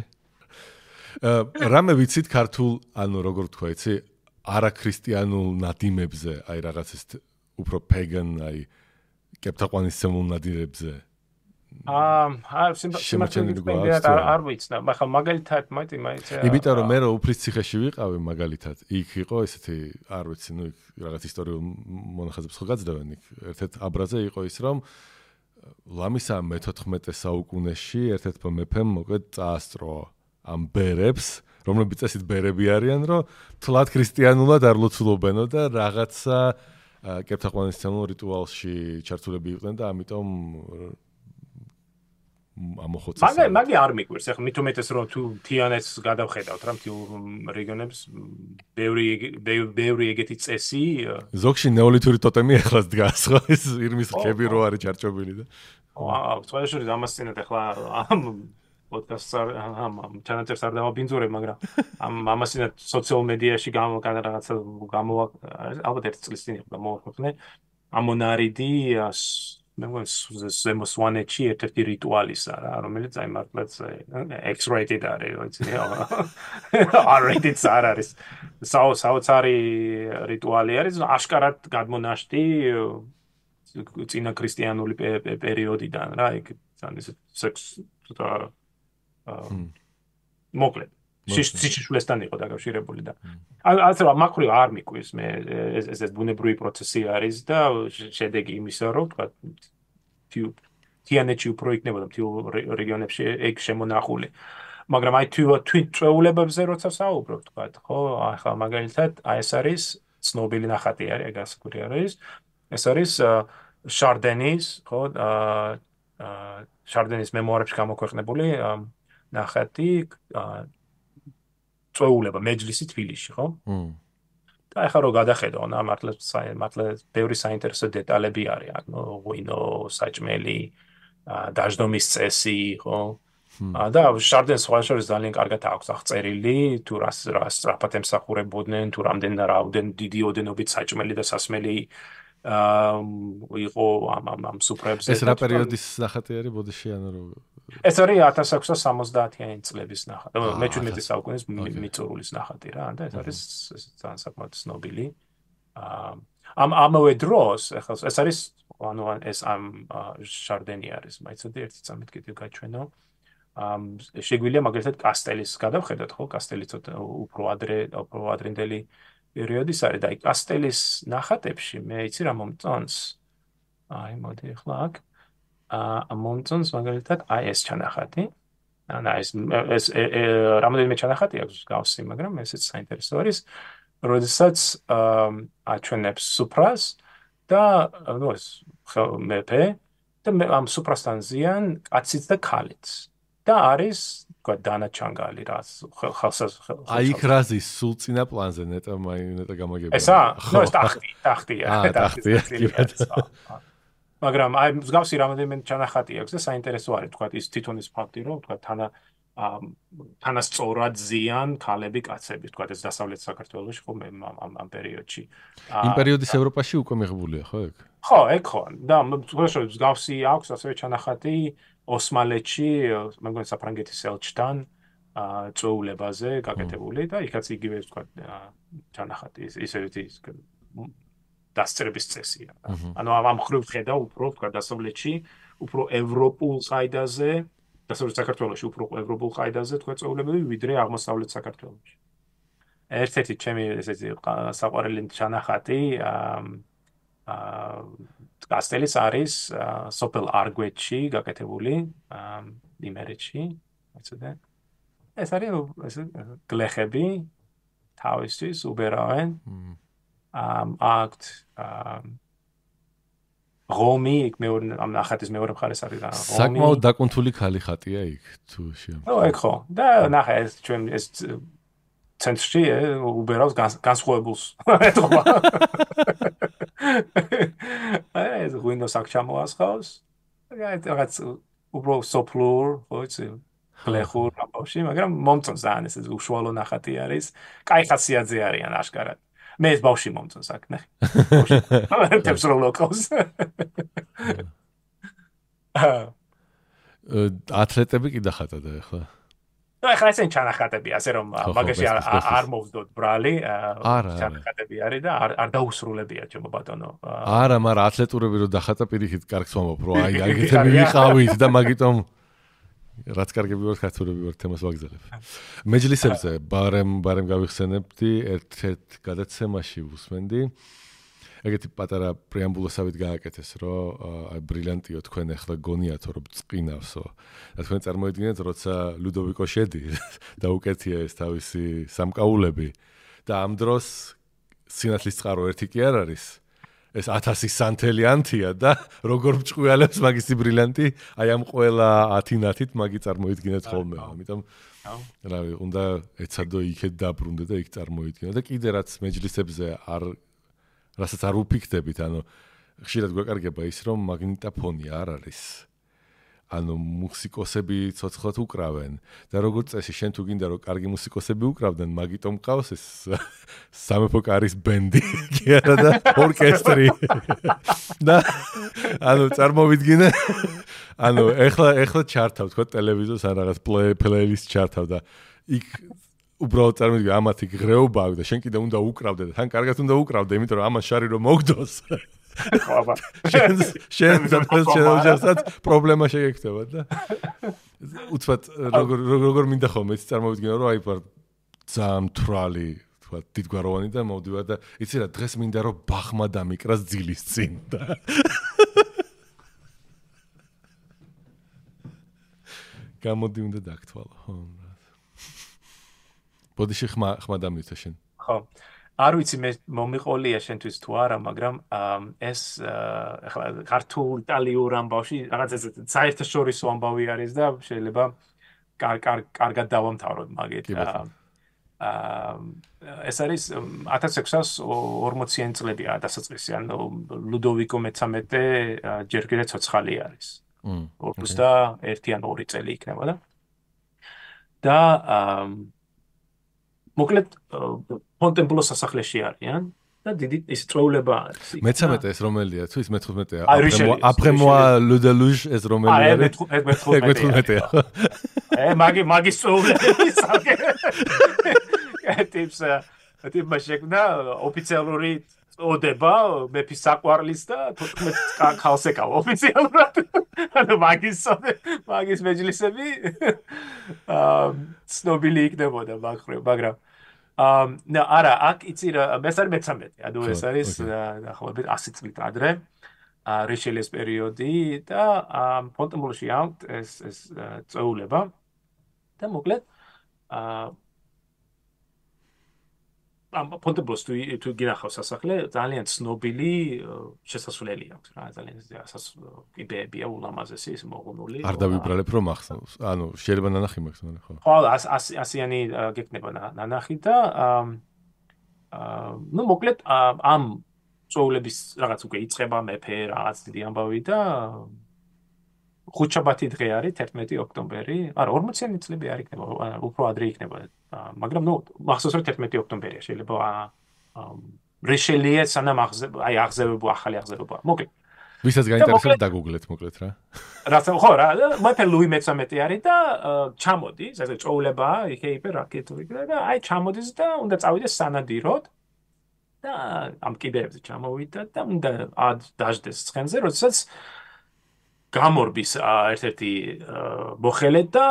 რამე ვიცით ქართულ, ანუ როგორ თქვა, იცი, არაქრისტიანულ ნადიმებზე, აი რაღაც ეს უფრო pagan, აი კეპთაყვანისმცემულ ნადირებზე არ ვიცნა, მაგრამ მაგალითად მაინც იმიტომ რომ მე უფლის ციხეში ვიყავი მაგალითად, იქ იყო ესეთი, არ ვიცი, იქ რაღაც ისტორიულ მონახაზებს ხო გაძდევენ იქ. ერთ-ერთ აბრაზე იყო ის, რომ ლამისა მე-14 საუკუნეში ერთ-ერთმა მეფემ მოკლედ წაასწრო ამ ბერებს, რომლებიც ესეთ ბერები არიან, რომ თლად ქრისტიანულად არ ლოცულობენო და რაღაცა კეპთაყვანისმცემლო რიტუალში ჩართულები იყვნენ და ამიტომ ამოხოცეს. მაგი არ მიგვირს, ახლა მით უმეტეს რომ თუ თიანეთს გადავხედავთ რა მთელ რეგიონებს ბევრი ეგეთი წესი ზოგში ნეოლითური ტოტემი ახლაც დგას ხო ეს ირმის ხები რო არის ჩარჩობილი და სხვა შორის ამას წინათ ახლა ამ პოდკასტს ამ ჩანაწერს არ დავაბინძურებ, მაგრამ ამას წინათ სოციალ მედიაში რაღაცა ალბათ ერთ წლის წინ იყო მოვახვეყნე ამონარიდი მე მგონი ზემო სვანეთში ერთ-ერთი რიტუალისა რა, რომელიც აი მართლაც X-rated არის, ვიცი, R-rated არ არის. საოცარი რიტუალი არის, აშკარად გადმონაშთი წინა ქრისტიანული პერიოდიდან რა, იქ ისე სექს მოკლედ სიცოცხლესთან იყო დაკავშირებული და ასე რომ მაგხრივ არ მიკვირს მე ეს ბუნებრივი პროცესი არის და შედეგი იმისა რომ თქვა თიანეთში უფრო იქნებოდა მთელ რეგიონებში ეგ შემონახული მაგრამ აი თვით წვეულებებზე როცა საუბრობ თქვა ხო ახლა მაგალითად აი ეს არის ცნობილი ნახატი არის ეგ ასკური არის ეს არის შარდენის ხო შარდენის მემუარებში გამოქვეყნებული ნახატი წვეულება მეჯლისი თბილისში, ხო? და ახლა რო გადახედო, მართლა ბევრი საინტერესო დეტალები არის, ანუ ღვინო, საჭმელი, დაждომის წესი, ხო? და შარდენს სხვა შორის ძალიან კარგად აქვს აღწერილი, თუ რას სწრაფად ემსახურებოდნენ, თუ რამდენ დიდი ოდენობით საჭმელი და სასმელი იყო ამ სუფრებზე. ეს რა პერიოდის ნახატი არის ბოდიში, ანუ რო ეს არის 1670-იანი წლების ნახატი. მე-17 საუკუნის მიწურულის ნახატი რა, და ეს არის ძალიან საკმაოდ ცნობილი. ამავე დროს, ეს არის ანუ ეს ამ შარდენი არის, მაიცოდი ერთი წამით კიდევ გაჩვენო. შეგვიძლია მაგალითად კასტელის გადავხედოთ, ხო? კასტელი ცოტა უფრო ადრინდელი პერიოდის არის და აი კასტელის ნახატებში მე იცი რა მომწონს. აი მოდი ახლა აქ მომწონს მაგალითად აი ეს ჩანახატი. ანუ ეს რამოდენიმე ჩანახატი აქვს გავსი, მაგრამ ესეც საინტერესო არის, როდესაც აჩვენებს სუფრას და ნუ ეს მეფე და ამ სუფრასთან ზიან კაციც და ქალიც. და არის თქვა დანა ჩანგალი რა ხალხს აი იქ რაზის სულ წინა პლანზე ნეტა გამაგებია ესა ნუ ეს ტახტია მაგრამ აი მსგავსი რამოდენიმე ჩანახატი აქვს და საინტერესო არის თქვა ის თვითონის ფაქტი რომ თქვა თანასწორად ზიან ქალები კაცები თქვა ეს დასავლეთ საქართველოში ხო ამ პერიოდში იმ პერიოდის ევროპაში უკვე მიღებულია ხო ეგ ხო ეგ ხო და მსგავსი აქვს ასევე ჩანახატი ოსმალეთში, მე მგონი საფრანგეთის ელჩთან წვეულებაზე გაკეთებული და იქაც იგივე თქვა ჩანახატი ისევ ის დასწრების წესია. ანუ ამ ხრივ ხედა უფრო თქვა დასავლეთში, უფრო ევროპულ ყაიდაზე, დასავლეთ საქართველოში უფრო ევროპულ ყაიდაზე თქვა წვეულებები, ვიდრე აღმოსავლეთ საქართველოში. ერთ-ერთი ჩემი ესეთი საყვარელი ჩანახატი კასტელის არის სოფელ არგვეთში გაკეთებული იმერეთში ეცოდე ეს არის გლეხები თავისთვის უბერავენ აქტ რომი იქ მეორე ამ ნახატის მეორე მხარეს არის რა რომი საკმაოდ დაკუნთული ქალი ხატია იქ თუ ნუ ეგ ხო და ნახე ეს ჩვენ ეს ცენტრში უბერავს განსხვავებულს ეთქვა ეს ღვინოს აქ ჩამოასხავს რაღაც უბრალოდ სოფლურ ხო იცი გლეხურ ამბავში მაგრამ მომწონს ძალიან ეს უშუალო ნახატი არის კაი ხასიათზე არიან აშკარად მე ეს ბავში მომწონს აქ ნახე თებს რო ლოკავს ათლეტები კი დახატა და ახლა ნუ ეხლა ესენ ჩანახატები, ასე რომ მაგაში არ მოვდოთ ბრალი, ჩანახატები არის და არ დაუსრულებია ჩემო ბატონო. არა, მაგრამ ათლეტურები რო დახატა პირიქით კარგს ვამბობ, რომ აი აგეთები ვიყავით და მაგიტომ რაც კარგები ვარ, ხათურები ვარ, თემას ვაგზავნებ. მეჯლისებზე ბარემ გავიხსენებდი, ერთ გადაცემაში ვუსმენდი. ეგეთი პატარა პრეამბულოსავით გააკეთეს, რომ აი ბრილიანტიო თქვენ ახლა გონიათო რომ წყინავსო. და თქვენ წარმოიდგინეთ, როცა ლუდოვიკო შედი და უკეთია ეს თავისი სამკაულები და ამ დროს სინათლის წყარო ერთი კი არ არის. ეს 1000 სანთელი ანთია და როგორ მჭყვიალებს მაგისი ბრილიანტი, აი ამ ყველა 10 ნათით მაგი წარმოიდგინეთ ხოლმე. ამიტომ რავი, უნდა ეცადო იქეთ დაბრუნდე და იქ წარმოიდგინე და კიდე რაც მეჯლისებზე რასაც არ უფიქდებით, ანუ ხშირად გვეკარგება ის, რომ მაგნიტოფონი არ არის. ანუ მუსიკოსები ცოცხლად უკრავენ და როგორც წესი, შენ თუ გინდა რომ კარგი მუსიკოსები უკრავდნენ, მაგიტომ ყავს ეს სამეფო კარის ბენდი, კი არა და ორკესტრი. და ანუ წარმოვიდგინე, ანუ ეხლა ჩართავ თქო ტელევიზორს ან რაღაც პლეილისტ ჩართავ და იქ უბრალოდ წარმოვიდგინე, ამათ იქ ღრეობა აქვს და შენ კიდე უნდა უკრავდე და თან კარგად უნდა უკრავდე, იმიტომ რომ ამას შარი რომ მოგდოს. შენ ოჯახსაც პრობლემა შეგექნება და უცბად როგორ მინდა ხოლმე წარმოვიდგინე რომ აი ვარ ძალიან მთვრალი თქვა დიდგვაროვანი და მოვდივარ და იცი რა დღეს მინდა რომ ბახმა დამიკრას ძილის წინ და გამოდი უნდა დაგთვალო ხო ბოდიში ხმა დამითა შენ ხო არ ვიცი მე მომიყოლია შენთვის თუ არა, მაგრამ ეს ახლა ქართულ იტალიურ ამბავში რაღაც ეს საერთაშორისო ამბავი არის და შეიძლება კარგად დავამთავროთ მაგით. ეს არის 1640-იან წლებია დასაწყისი, ანუ ლუდოვიკო მე-13 ჯერ კიდე ცოცხალი არის. 21 ან 2 წელი იქნება და მოკლედ ფონტენბლოს სასახლეში არიან და დიდი ის წვეულება არის. მე-13 ეს რომელია? თუ ის მე-15-ია. აპრემოა ლუდელუჟ ეს რომელი არის? მე-15-ია. მაგის წვეულები საკე. ტიპმა შექმნა ოფიციალური წოდება მეფის საყვარლის და 14 ქალს ეკავა ოფიციალურად. ანუ მაგის მეჯლისები ცნობილი იქნებოდა მაგრამ არა, აქ იცი რა, ეს არის მე-13, ანუ ეს არის დაახლოებით 100 წლით ადრე, რიშელიეს პერიოდი და ფონტენბლოში აქვთ ეს წვეულება და მოკლედ ფონტენბლოს თუ გინახავს სასახლე, ძალიან ცნობილი შესასვლელი აქვს რა, ძალიან კიბეებია ულამაზესი ის მოღუნული. არ დავიბრალებ რომ ახსნავს. ანუ შეიძლება ნანახი მაქვს, მაგრამ ხო. ხო, 100-იანი გეკნება ნანახი და ნუ მოკლედ ამ წვეულების რაღაც უკვე იწყება მეფე რაღაც დიდი ამბავი და ხუთშაბათი დღე არის 11 ოქტომბერი. არა, 40-იანი წლები არ იქნება, უფრო ადრე იქნება. მაგრამ ნუ მახსოვს რომ 11 ოქტომბერია შეიძლება რიშელიე სანამ აღზევება ახალი აღზევება. მოკლედ ვისაც გაინტერესებს დაგუგლეთ მოკლედ რა. რაცა ხო რა, მეფე ლუი მე-13 არის და ჩამოდის, ესე წვეულება იქეიფე რაკეტური და აი ჩამოდის და უნდა წავიდეს სანადიროდ და ამ კიდეებზე ჩამოვიდა და უნდა დაждდეს ცხენზე, როდესაც გამორბის ერთ-ერთი მოხელე და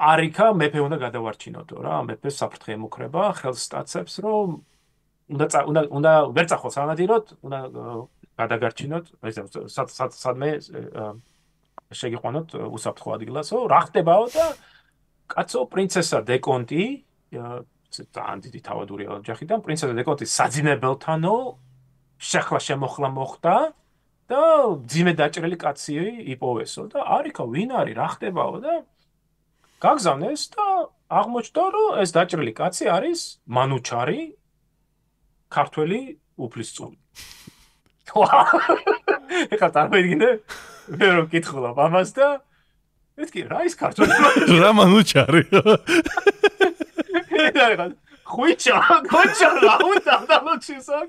არიქა მეფე უნდა გადავარჩინოდო რა, მეფეს საფრთხე ემუქრება, ხელს სტაცებს რომ უნდა ვერ წახოს სანადიროდ, უნდა გადაგარჩინოთ, სადმე შეგიყვანოთ უსაფრთხო ადგილასო, რა ხდებაო და კაცო პრინცესა დეკონტი, ძალიან დიდი თავადური ოჯახიდან, პრინცესა დეკონტი საძინებელთანო შეხლა შემოხლა მოხდა და ძიმე დაჭრილი კაცი იპოვესო და არიქა ვინ არის, რა ხდებაო და გაგზავნეს და აღმოჩნდა რომ ეს დაჭრილი კაცი არის მანუჩარი ქართველი უფლისწული. ეხლა წარმოიდგინე მე რომ კითხულობ ამას და მეთქი რა ის ქართველი რა მანუჩარი ხუჩა რა უნდა დამოჩისაკ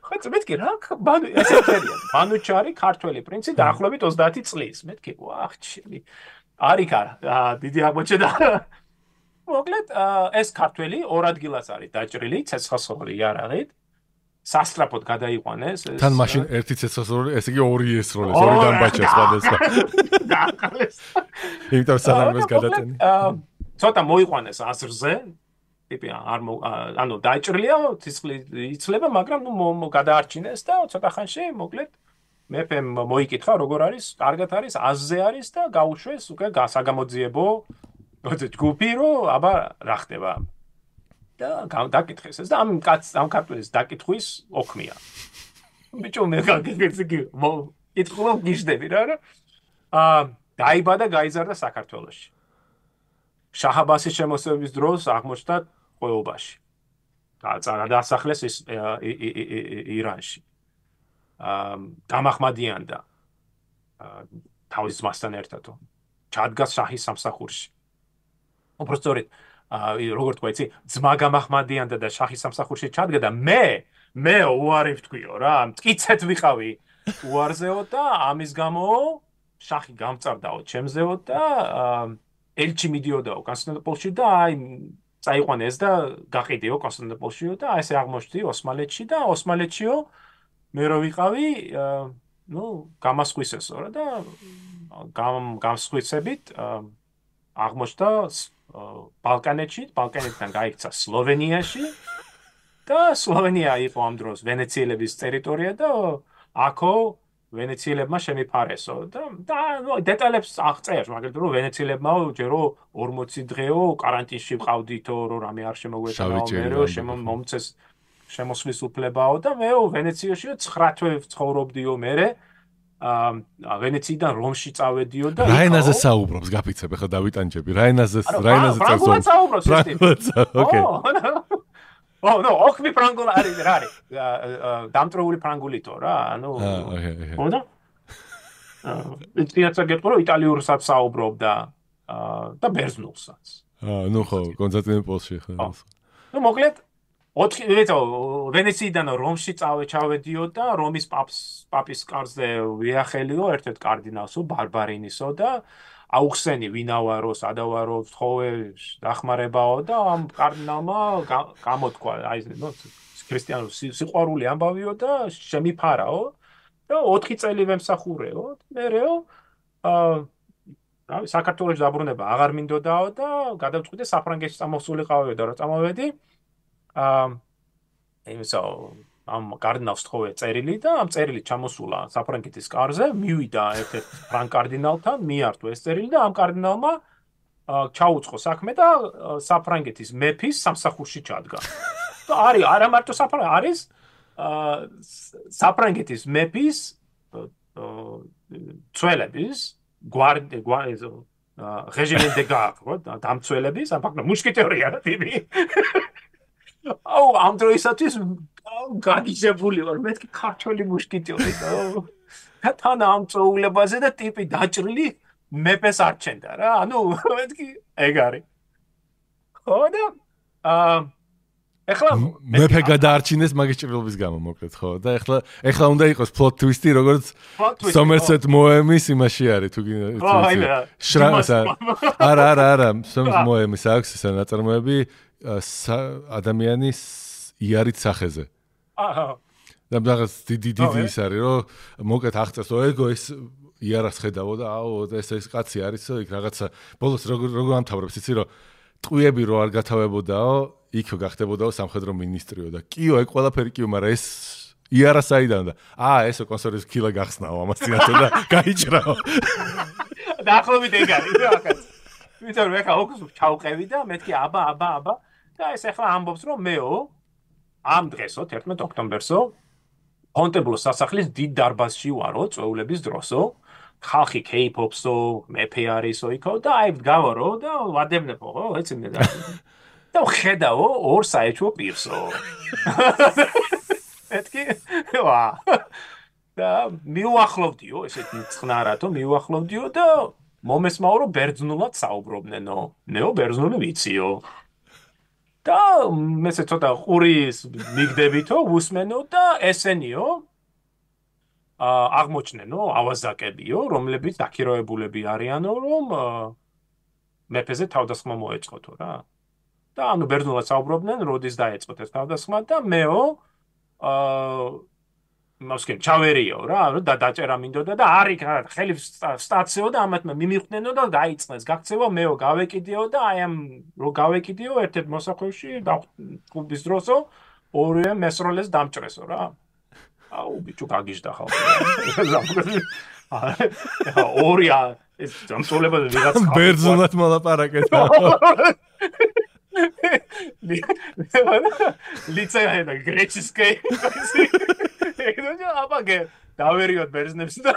ხოც მეთქი რა მანუჩარი ქართველი პრინცი დაახლოებით 30 წლის მეთქი ვახ ჩემი არიქა დიდი აღმოჩნდა მოკლედ ეს ქართველი ორ ადგილას არის დაჭრილი ცეცხლსროლი იარაღით. სასტრაფოდ გადაიყვანეს ეს. თან მაშინ ერთი ცეცხლსროლი, ესე იგი ორი ესროლეს, ორი დამბაჭა სხვადასხვა. დააყალეს. იმიტომ სანამ ეს გადაწენი. ცოტა მოიყვანეს აზრზე. ტიპი ანუ დაჭრილია, ცეცხლი იცლება, მაგრამ ნუ გადაარჩინეს და ცოტა ხანში მოკლედ მეფემ მოიკითხა როგორ არის, კარგად არის, აზზე არის და გაუშვეს უკვე საგამოძიებო ჯგუფი რომ აბა რა ხდება. და დაკითხეს ეს და ამ ქართველის დაკითხვის ოქმია. ბიჭო მე კითხულობ გიждები რა. დაიბადა გაიზარდა საქართველოში. შაჰ-აბასის შემოსევების დროს აღმოჩნდა ყოეობაში. დაასახლეს ირანში. დამახმადიანდა თავის ძმასთან ერთად. ჩადგა შაჰის სამსახურში. უბრალოდ როგორ თქვა იცი, ძმა გამახმადიანდა და შაჰის სამსახურში ჩადგა და მე უარი ვთქვიო რა, მტკიცეთ ვიყავი უარზეო და ამის გამო შაჰი გამწარდაო ჩემზეო და ელჩი მიდიოდაო კონსტანტინოპოლში და აი წაიყვანეს და გაყიდიო კონსტანტინოპოლშიო და აი ესე აღმოჩნდი ოსმალეთში და ოსმალეთშიო მე რო ვიყავი ნუ გამასხვისესო რა და გამსხვისებით აღმოჩნდა ბალკანეთიდან გაიქცა სლოვენიაში და სლოვენია იყო ამ დროს ვენეციელების ტერიტორია და აქო ვენეციელებმა შემიფარესო და დეტალებს აღწერს მაგალითად რომ ვენეციელებმა ჯერო 40 დღეო კარანტინში ვყავდითო რომ რამე არ შემოგვეწაო მე მომწეს შემოსვლის უფლებაო და მე ვენეციაში 9 თვე ცხოვრობდიო მე ვენეციიდან რომში წავედიო და რა ენაზე საუბრობს გაფიცებ ახლა დავიტანჯები რა ენაზე საუბრობს ოკეი no ოქმი ფრანგული არის რა არის დამტრეული ფრანგულითო რა ანუ ხოდა ისწრაფად გეტყვი რომ იტალიურსაც საუბრობდა და ბერძნულსაც ნუ ხო კონსტანტინოპოლში ხო ნუ მოკლედ 4 ვენეციიდან რომში ჩავედიო და რომის პაპის კარზე ვიახელიო ერთ-ერთ კარდინალსო ბარბარინისო და აუხსენი ვინავარო სადავარო თხოვე დახმარებაო და ამ კარდინალმა გამოთქვა აი ნუ ქრისტიანულ სიყვარული ამბავიო და შემიფარაო და 4 წელი ვემსახურეო მერეო რავი საქართველოს დაბრუნება აღარ მინდოდაო და გადავწყვიტე საფრანგეთში წამოსულიყავიო და რა წამოვედი იმისო ამ კარდინალს თხოვე წერილი და ამ წერილი ჩამოსულა საფრანგეთის კარზე მივიდა ერთ-ერთ ფრანგ კარდინალთან მიართო ეს წერილი და ამ კარდინალმა ჩაუწყო საქმე და საფრანგეთის მეფის სამსახურში ჩადგა და არის არა მარტო არის საფრანგეთის მეფის ცველების რეგიმენტ დე გარდ დამცველების აფაქტო მუშკეტერია რა ტიპი ამ დროისათვის გაგიჟებული ვარ მეთქი ქართველი მუშკეტერი და თან ამ წოულებაზე და ტიპი დაჭრილი მეფეს არჩენდა რა ანუ მეთქი ეგ არის ხო და ეხლა მეფე გადაარჩინეს მაგის ჭრილობის გამო მოკლედ ხო და ეხლა უნდა იყოს plot twist-ი როგორც Somerset Maugham-ის იმაში არის თუ არა Somerset Maugham-ის აქვს ეს ნაწარმოები ადამიანის იარით სახეზე. აჰა. და რაღაც დიდი ის არის რომ მოკლედ აღწერს ეგო ეს იარას ხედავო და აუ ეს კაცი არისო იქ რაღაცა ბოლოს როგორ ამთავრებს იცი რომ ტყვიები რო არ გათავებოდაო იქ გახდებოდაო სამხედრო მინისტრიო და კიო ეგ ყველაფერი კიო მაგრამ ეს იარა საიდან და ესო კონსერვის ქილა გახსნაო ამას წინათო და გაიჭრაო. დაახლოებით ეგ არის რა კაც. ვიტყვი მე ხა ოქს ჩავყევი და მეთქი აბა და ეს ახლა ამბობს რომ მეო ამ დღესო 11 ოქტომბერსო ფონტებლოს სასახლის დიდ დარბაზში ვარო წვეულების დროსო ხალხი კეიპოპსო მეფე არისო იქო და აი გავარო და ვადევნებო ხო ეცინე და ხედავო ორ საეჭვო პირსო ეთქი ვა და მიუახლოვდიო ესეთი წყნარათო მიუახლოვდიო და მომესმაო რომ ბერძნულად საუბრობნენო ნეო ბერძნული ვიციო და მეცე ცოტა ყურის მიგდებითო უსმენო და ესენიო აღმოჩნენო ავაზაკებიო რომლებიც დაქირავებულები არიანო რომ მეფეზე თავდასხმა მოეწყოთო რა და ანუ ბერძნულად საუბრობდნენ, როდის დაეწყოთ ეს თავდასხმა და მეო მოსკენ ჩავერიო რა, და დაჭერა მინდოდა და არის ხელი სტაციო და ამათ მიმიხვდნენო და დაიწყეს გაქცევა, მეო გავეკიდიო და აი ამ რო გავეკიდიო ერთ-ერთ მოსახვევში და კლუბის დროსო ორივე მესროლეს დამჭრესო რა. აუ ბიჭო გაგიჟდა ხალხი. ორი ეს დამწოლება ვიღაც ბერძნულად მოლაპარაკეთ. ლიცეა და გრეჩისკე. აბაგე დავერიოთ ბერძნებს და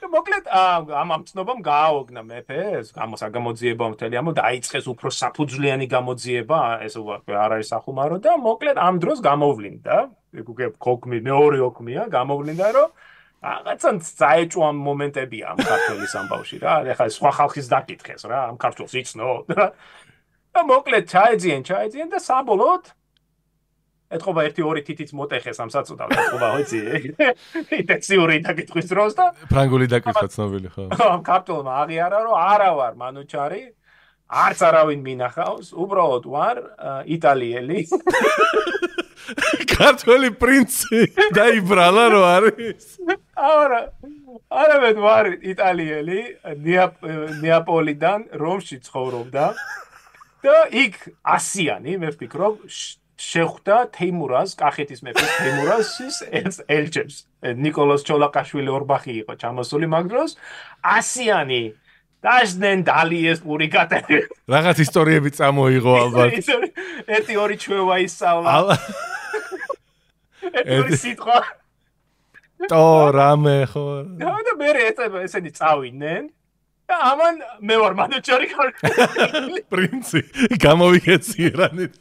მოკლედ ამ ცნობამ გააოგნა მეფეს, გამოძიება მთელი ამო დაიწყეს უფრო საფუძვლიანი გამოძიება, ეს არ არის სახუმარო და მოკლედ ამ დროს გამოვლინდა, ქოქმი მეორე ოქმია, გამოვლინდა რომ რაღაცა წაეჭვა მომენტებია ამ ქართლის ამბავში რა, ეხლა სხვა ხალხის დაკითხეს რა, ამ ქართულს იცნო და მოკლედ ჩაეძიენ და საბოლოოდ ეთყობა 1-2 თითიც მოტეხეს ამ საწოდავს, ეთყობა ვიცი, ინტენსიური დაკითხვის დროს და ფრანგული დაკითხვა ცნობილი ხო? ამ ქართულმა აღიარა რომ არა ვარ მანუჩარი, არც არავინ მინახავს, უბრალოდ ვარ იტალიელი. ქართველი პრინცი დაიბრალა რო არის. არა ვარ იტალიელი, ნეაპოლიდან რომში ცხოვრობდა და იქ ასიანი მე ვფიქრობ შეხვდა თეიმურაზ, კახეთის მეფის თეიმურაზის ელჩებს. ნიკოლოზ ჩოლაკაშვილი ორბახი იყო ჩამოსული მაგ დროს. ასიანი დაჟდნენ დალიეს პურიკატები. რაღაც ისტორიები წამოიღო ალბათ. 1-2 ჩვევა ისწავლა. ერთი სიტყვა. ტო რამე ხო. და მე ესენი წავიდნენ. და ამან მე ვარ მანუჩარი პრინცი გამოვიქეციერანით.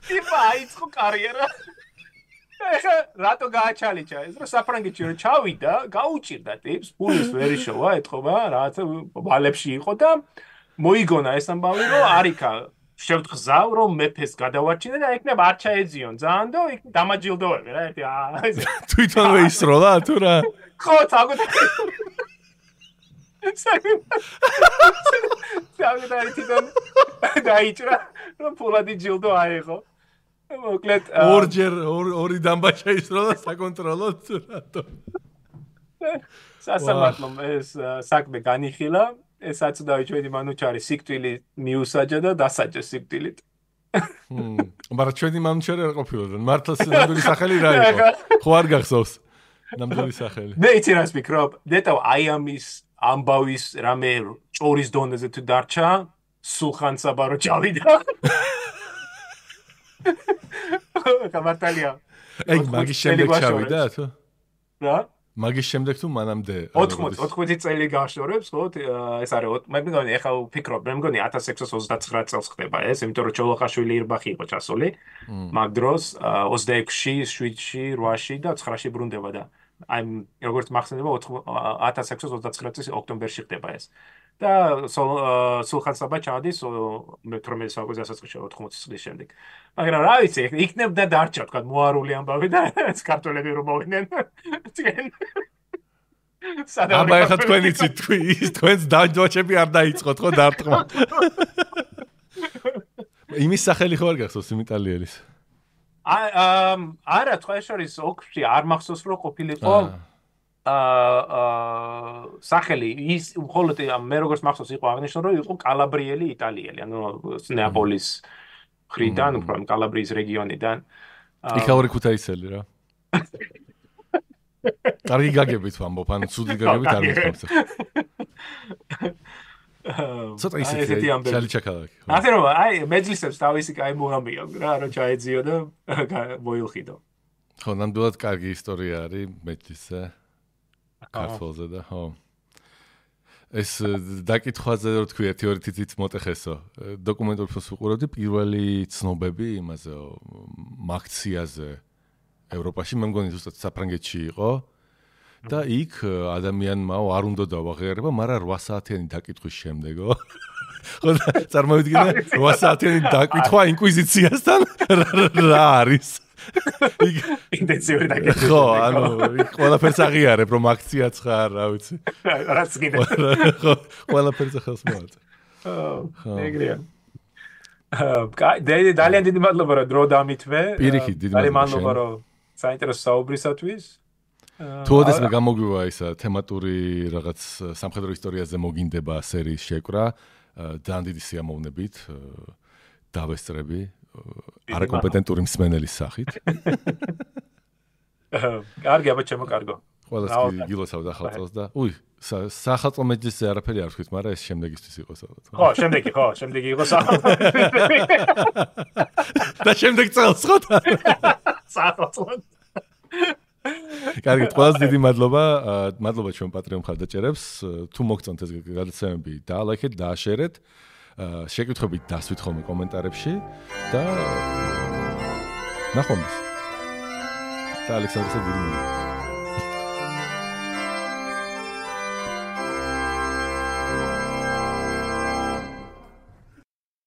ტიპა აიწყო კარიერა. ეხა რატო გააჩალიჩა ეს რომ საფრანგეთში რომ ჩავიდა, გაუჭირდა ტიპს, ფულის ვერი შოვა, ეთყობა, რაღაცა ვალებში იყო და მოიგონა ეს ამბავი რომ არიქა შევთხზავ რომ მეფეს გადავარჩინე და ეკნებ არ ჩაეძიონ ძალიან და იქ დამაჯილდოები რა ერთი თვითონვე ისროლა თუ რა. ხო თაგოთ საგდარი თვითონ დაიჭრა რომ ფულადი ჯილდო აიღო. მოკლედ ორი დამბაჩა ისროლა საკონტროლოდ რატო. სასამართლომ ეს საქმე განიხილა. ეს აცდავი ჩვენი მანუჩარი სიკვდილი მიუსაჯა და დასაჯა სიკვდილით. მაგრამ ჩვენი მანუჩარი არ ყოფილა. მართლაც ნამდვილი სახელი რა იყო? ხო არ გახსოვს ნამდვილი სახელი. მე იცი რას ვფიქრობ? ნეტავ აი ამის ამბავის რამე ჭორის დონეზე თუ დარჩა, სულხან-საბა რო ჩავიდა. გამართალია. ეგ მაგის შემდეგ ჩავიდა თუ? რა? მაგის შემდეგ თუ მანამდე 80 წელი გაშორებს, ხო? ეს არის მე მგონი ეხლა ვფიქრობ, მე მგონი 1629 წელს ხდება ეს, იმიტომ რომ ჩოლოხაშვილი ირბახი იყო ჩასული. მაგ დროს 26-ში, 7-ში, 8-ში და 9-ში ბრუნდება და აი როგორც მახსენდება 1629 წლის ოქტომბერში ხდება ეს. და სულხან-საბა ჩადის 18 საუკუნის დასაწყისში 80 წლის შემდეგ. მაგრამ რა ვიცი, იქნებდა დარჩა თქვა მოარული ამბავი და ქართველები რომ მოვიდნენ. აბა ეხლა თქვენ იცით თქვენს დაჯოჩები არ დაიწყოთ ხო დარტყმა. იმის სახელი ხო არ გახსოვს იმ იტალიელის? არა, თქვა ეს არის ოქში არ მახსოვს რომ ყოფილიყო სახელი ის მხოლოდ მე როგორც მახსოვს იყო აღნიშნული რომ იყო კალაბრიელი იტალიელი, ანუ ნეაპოლის ხრიდან, უფრო კალაბრიის რეგიონიდან. იქაური ქუთაისელი რა. კარგი გაგებით ვამბობ, ანუ ცუდი გაგებით არ მიხსოვს. ცოტა ისეთი ჩალიჩაკალაკი. ასე რომ აი მეძლისებს თავისი კაი მოამბია რა, რომ ჩაეძიო და მოილხიდო. ხო, ნამდვილად კარგი ისტორია არის მეძლისზე. ქართულზე და ხო. ეს დაკითხვაზე რო თქვი 1-2 თითიც მოტეხესო. დოკუმენტურ ფილმს ვუყურებდი პირველი ცნობები იმაზე მაქციაზე ევროპაში, მე მგონი ზუსტად საფრანგეთში იყო. და იქ ადამიანმა არ უნდა დავაღიარება, მაგრამ 8 საათიანი დაკითხვის შემდეგო. ხო, წარმოვიდგინე 8 საათიანი დაკითხვა ინკვიზიციასთან რა არის? ინტენსიური დაკითხვა. ხო, ანუ იქ ყველაფერს აღიარებ, რომ აქციაც ხარ, რა ვიცი. რაც კიდე. ხო, ყველაფერს ახალს მოაწ. ხო, ეგრეა. ძალიან დიდი მადლობა რომ დრო დამითმე. პირიქით დიდი ძალიან მადლობა მადლობა რომ საინტერესო საუბრისათვის. თუ ოდესმე გამოგვივა ისა თემატური რაღაც სამხედრო ისტორიაზე მოგინდება სერიის შეკრა, ძალიან დიდი სიამოვნებით დავესწრები არაკომპეტენტური მსმენელის სახით. კარგი, აბა ჩემო კარგო. ყველას გილოცავ ახალწელს და სახალხო მეჯლისზე არაფერი არ ვთქვით, მაგრამ ეს შემდეგისთვის იყოს ალბათ. შემდეგი იყო სახალხო. და შემდეგ წელს ხო? სახალხო. კარგი, ყველას დიდი მადლობა. მადლობა ჩვენ პატრიონ მხარდაჭერებს. თუ მოგწონთ ეს გადაცემები, დაალაიქეთ, დააშერეთ. შეკითხვებით დასვით ხოლმე კომენტარებში და ნახვამდის. და ალექსანდრესა დიდი მადლობა.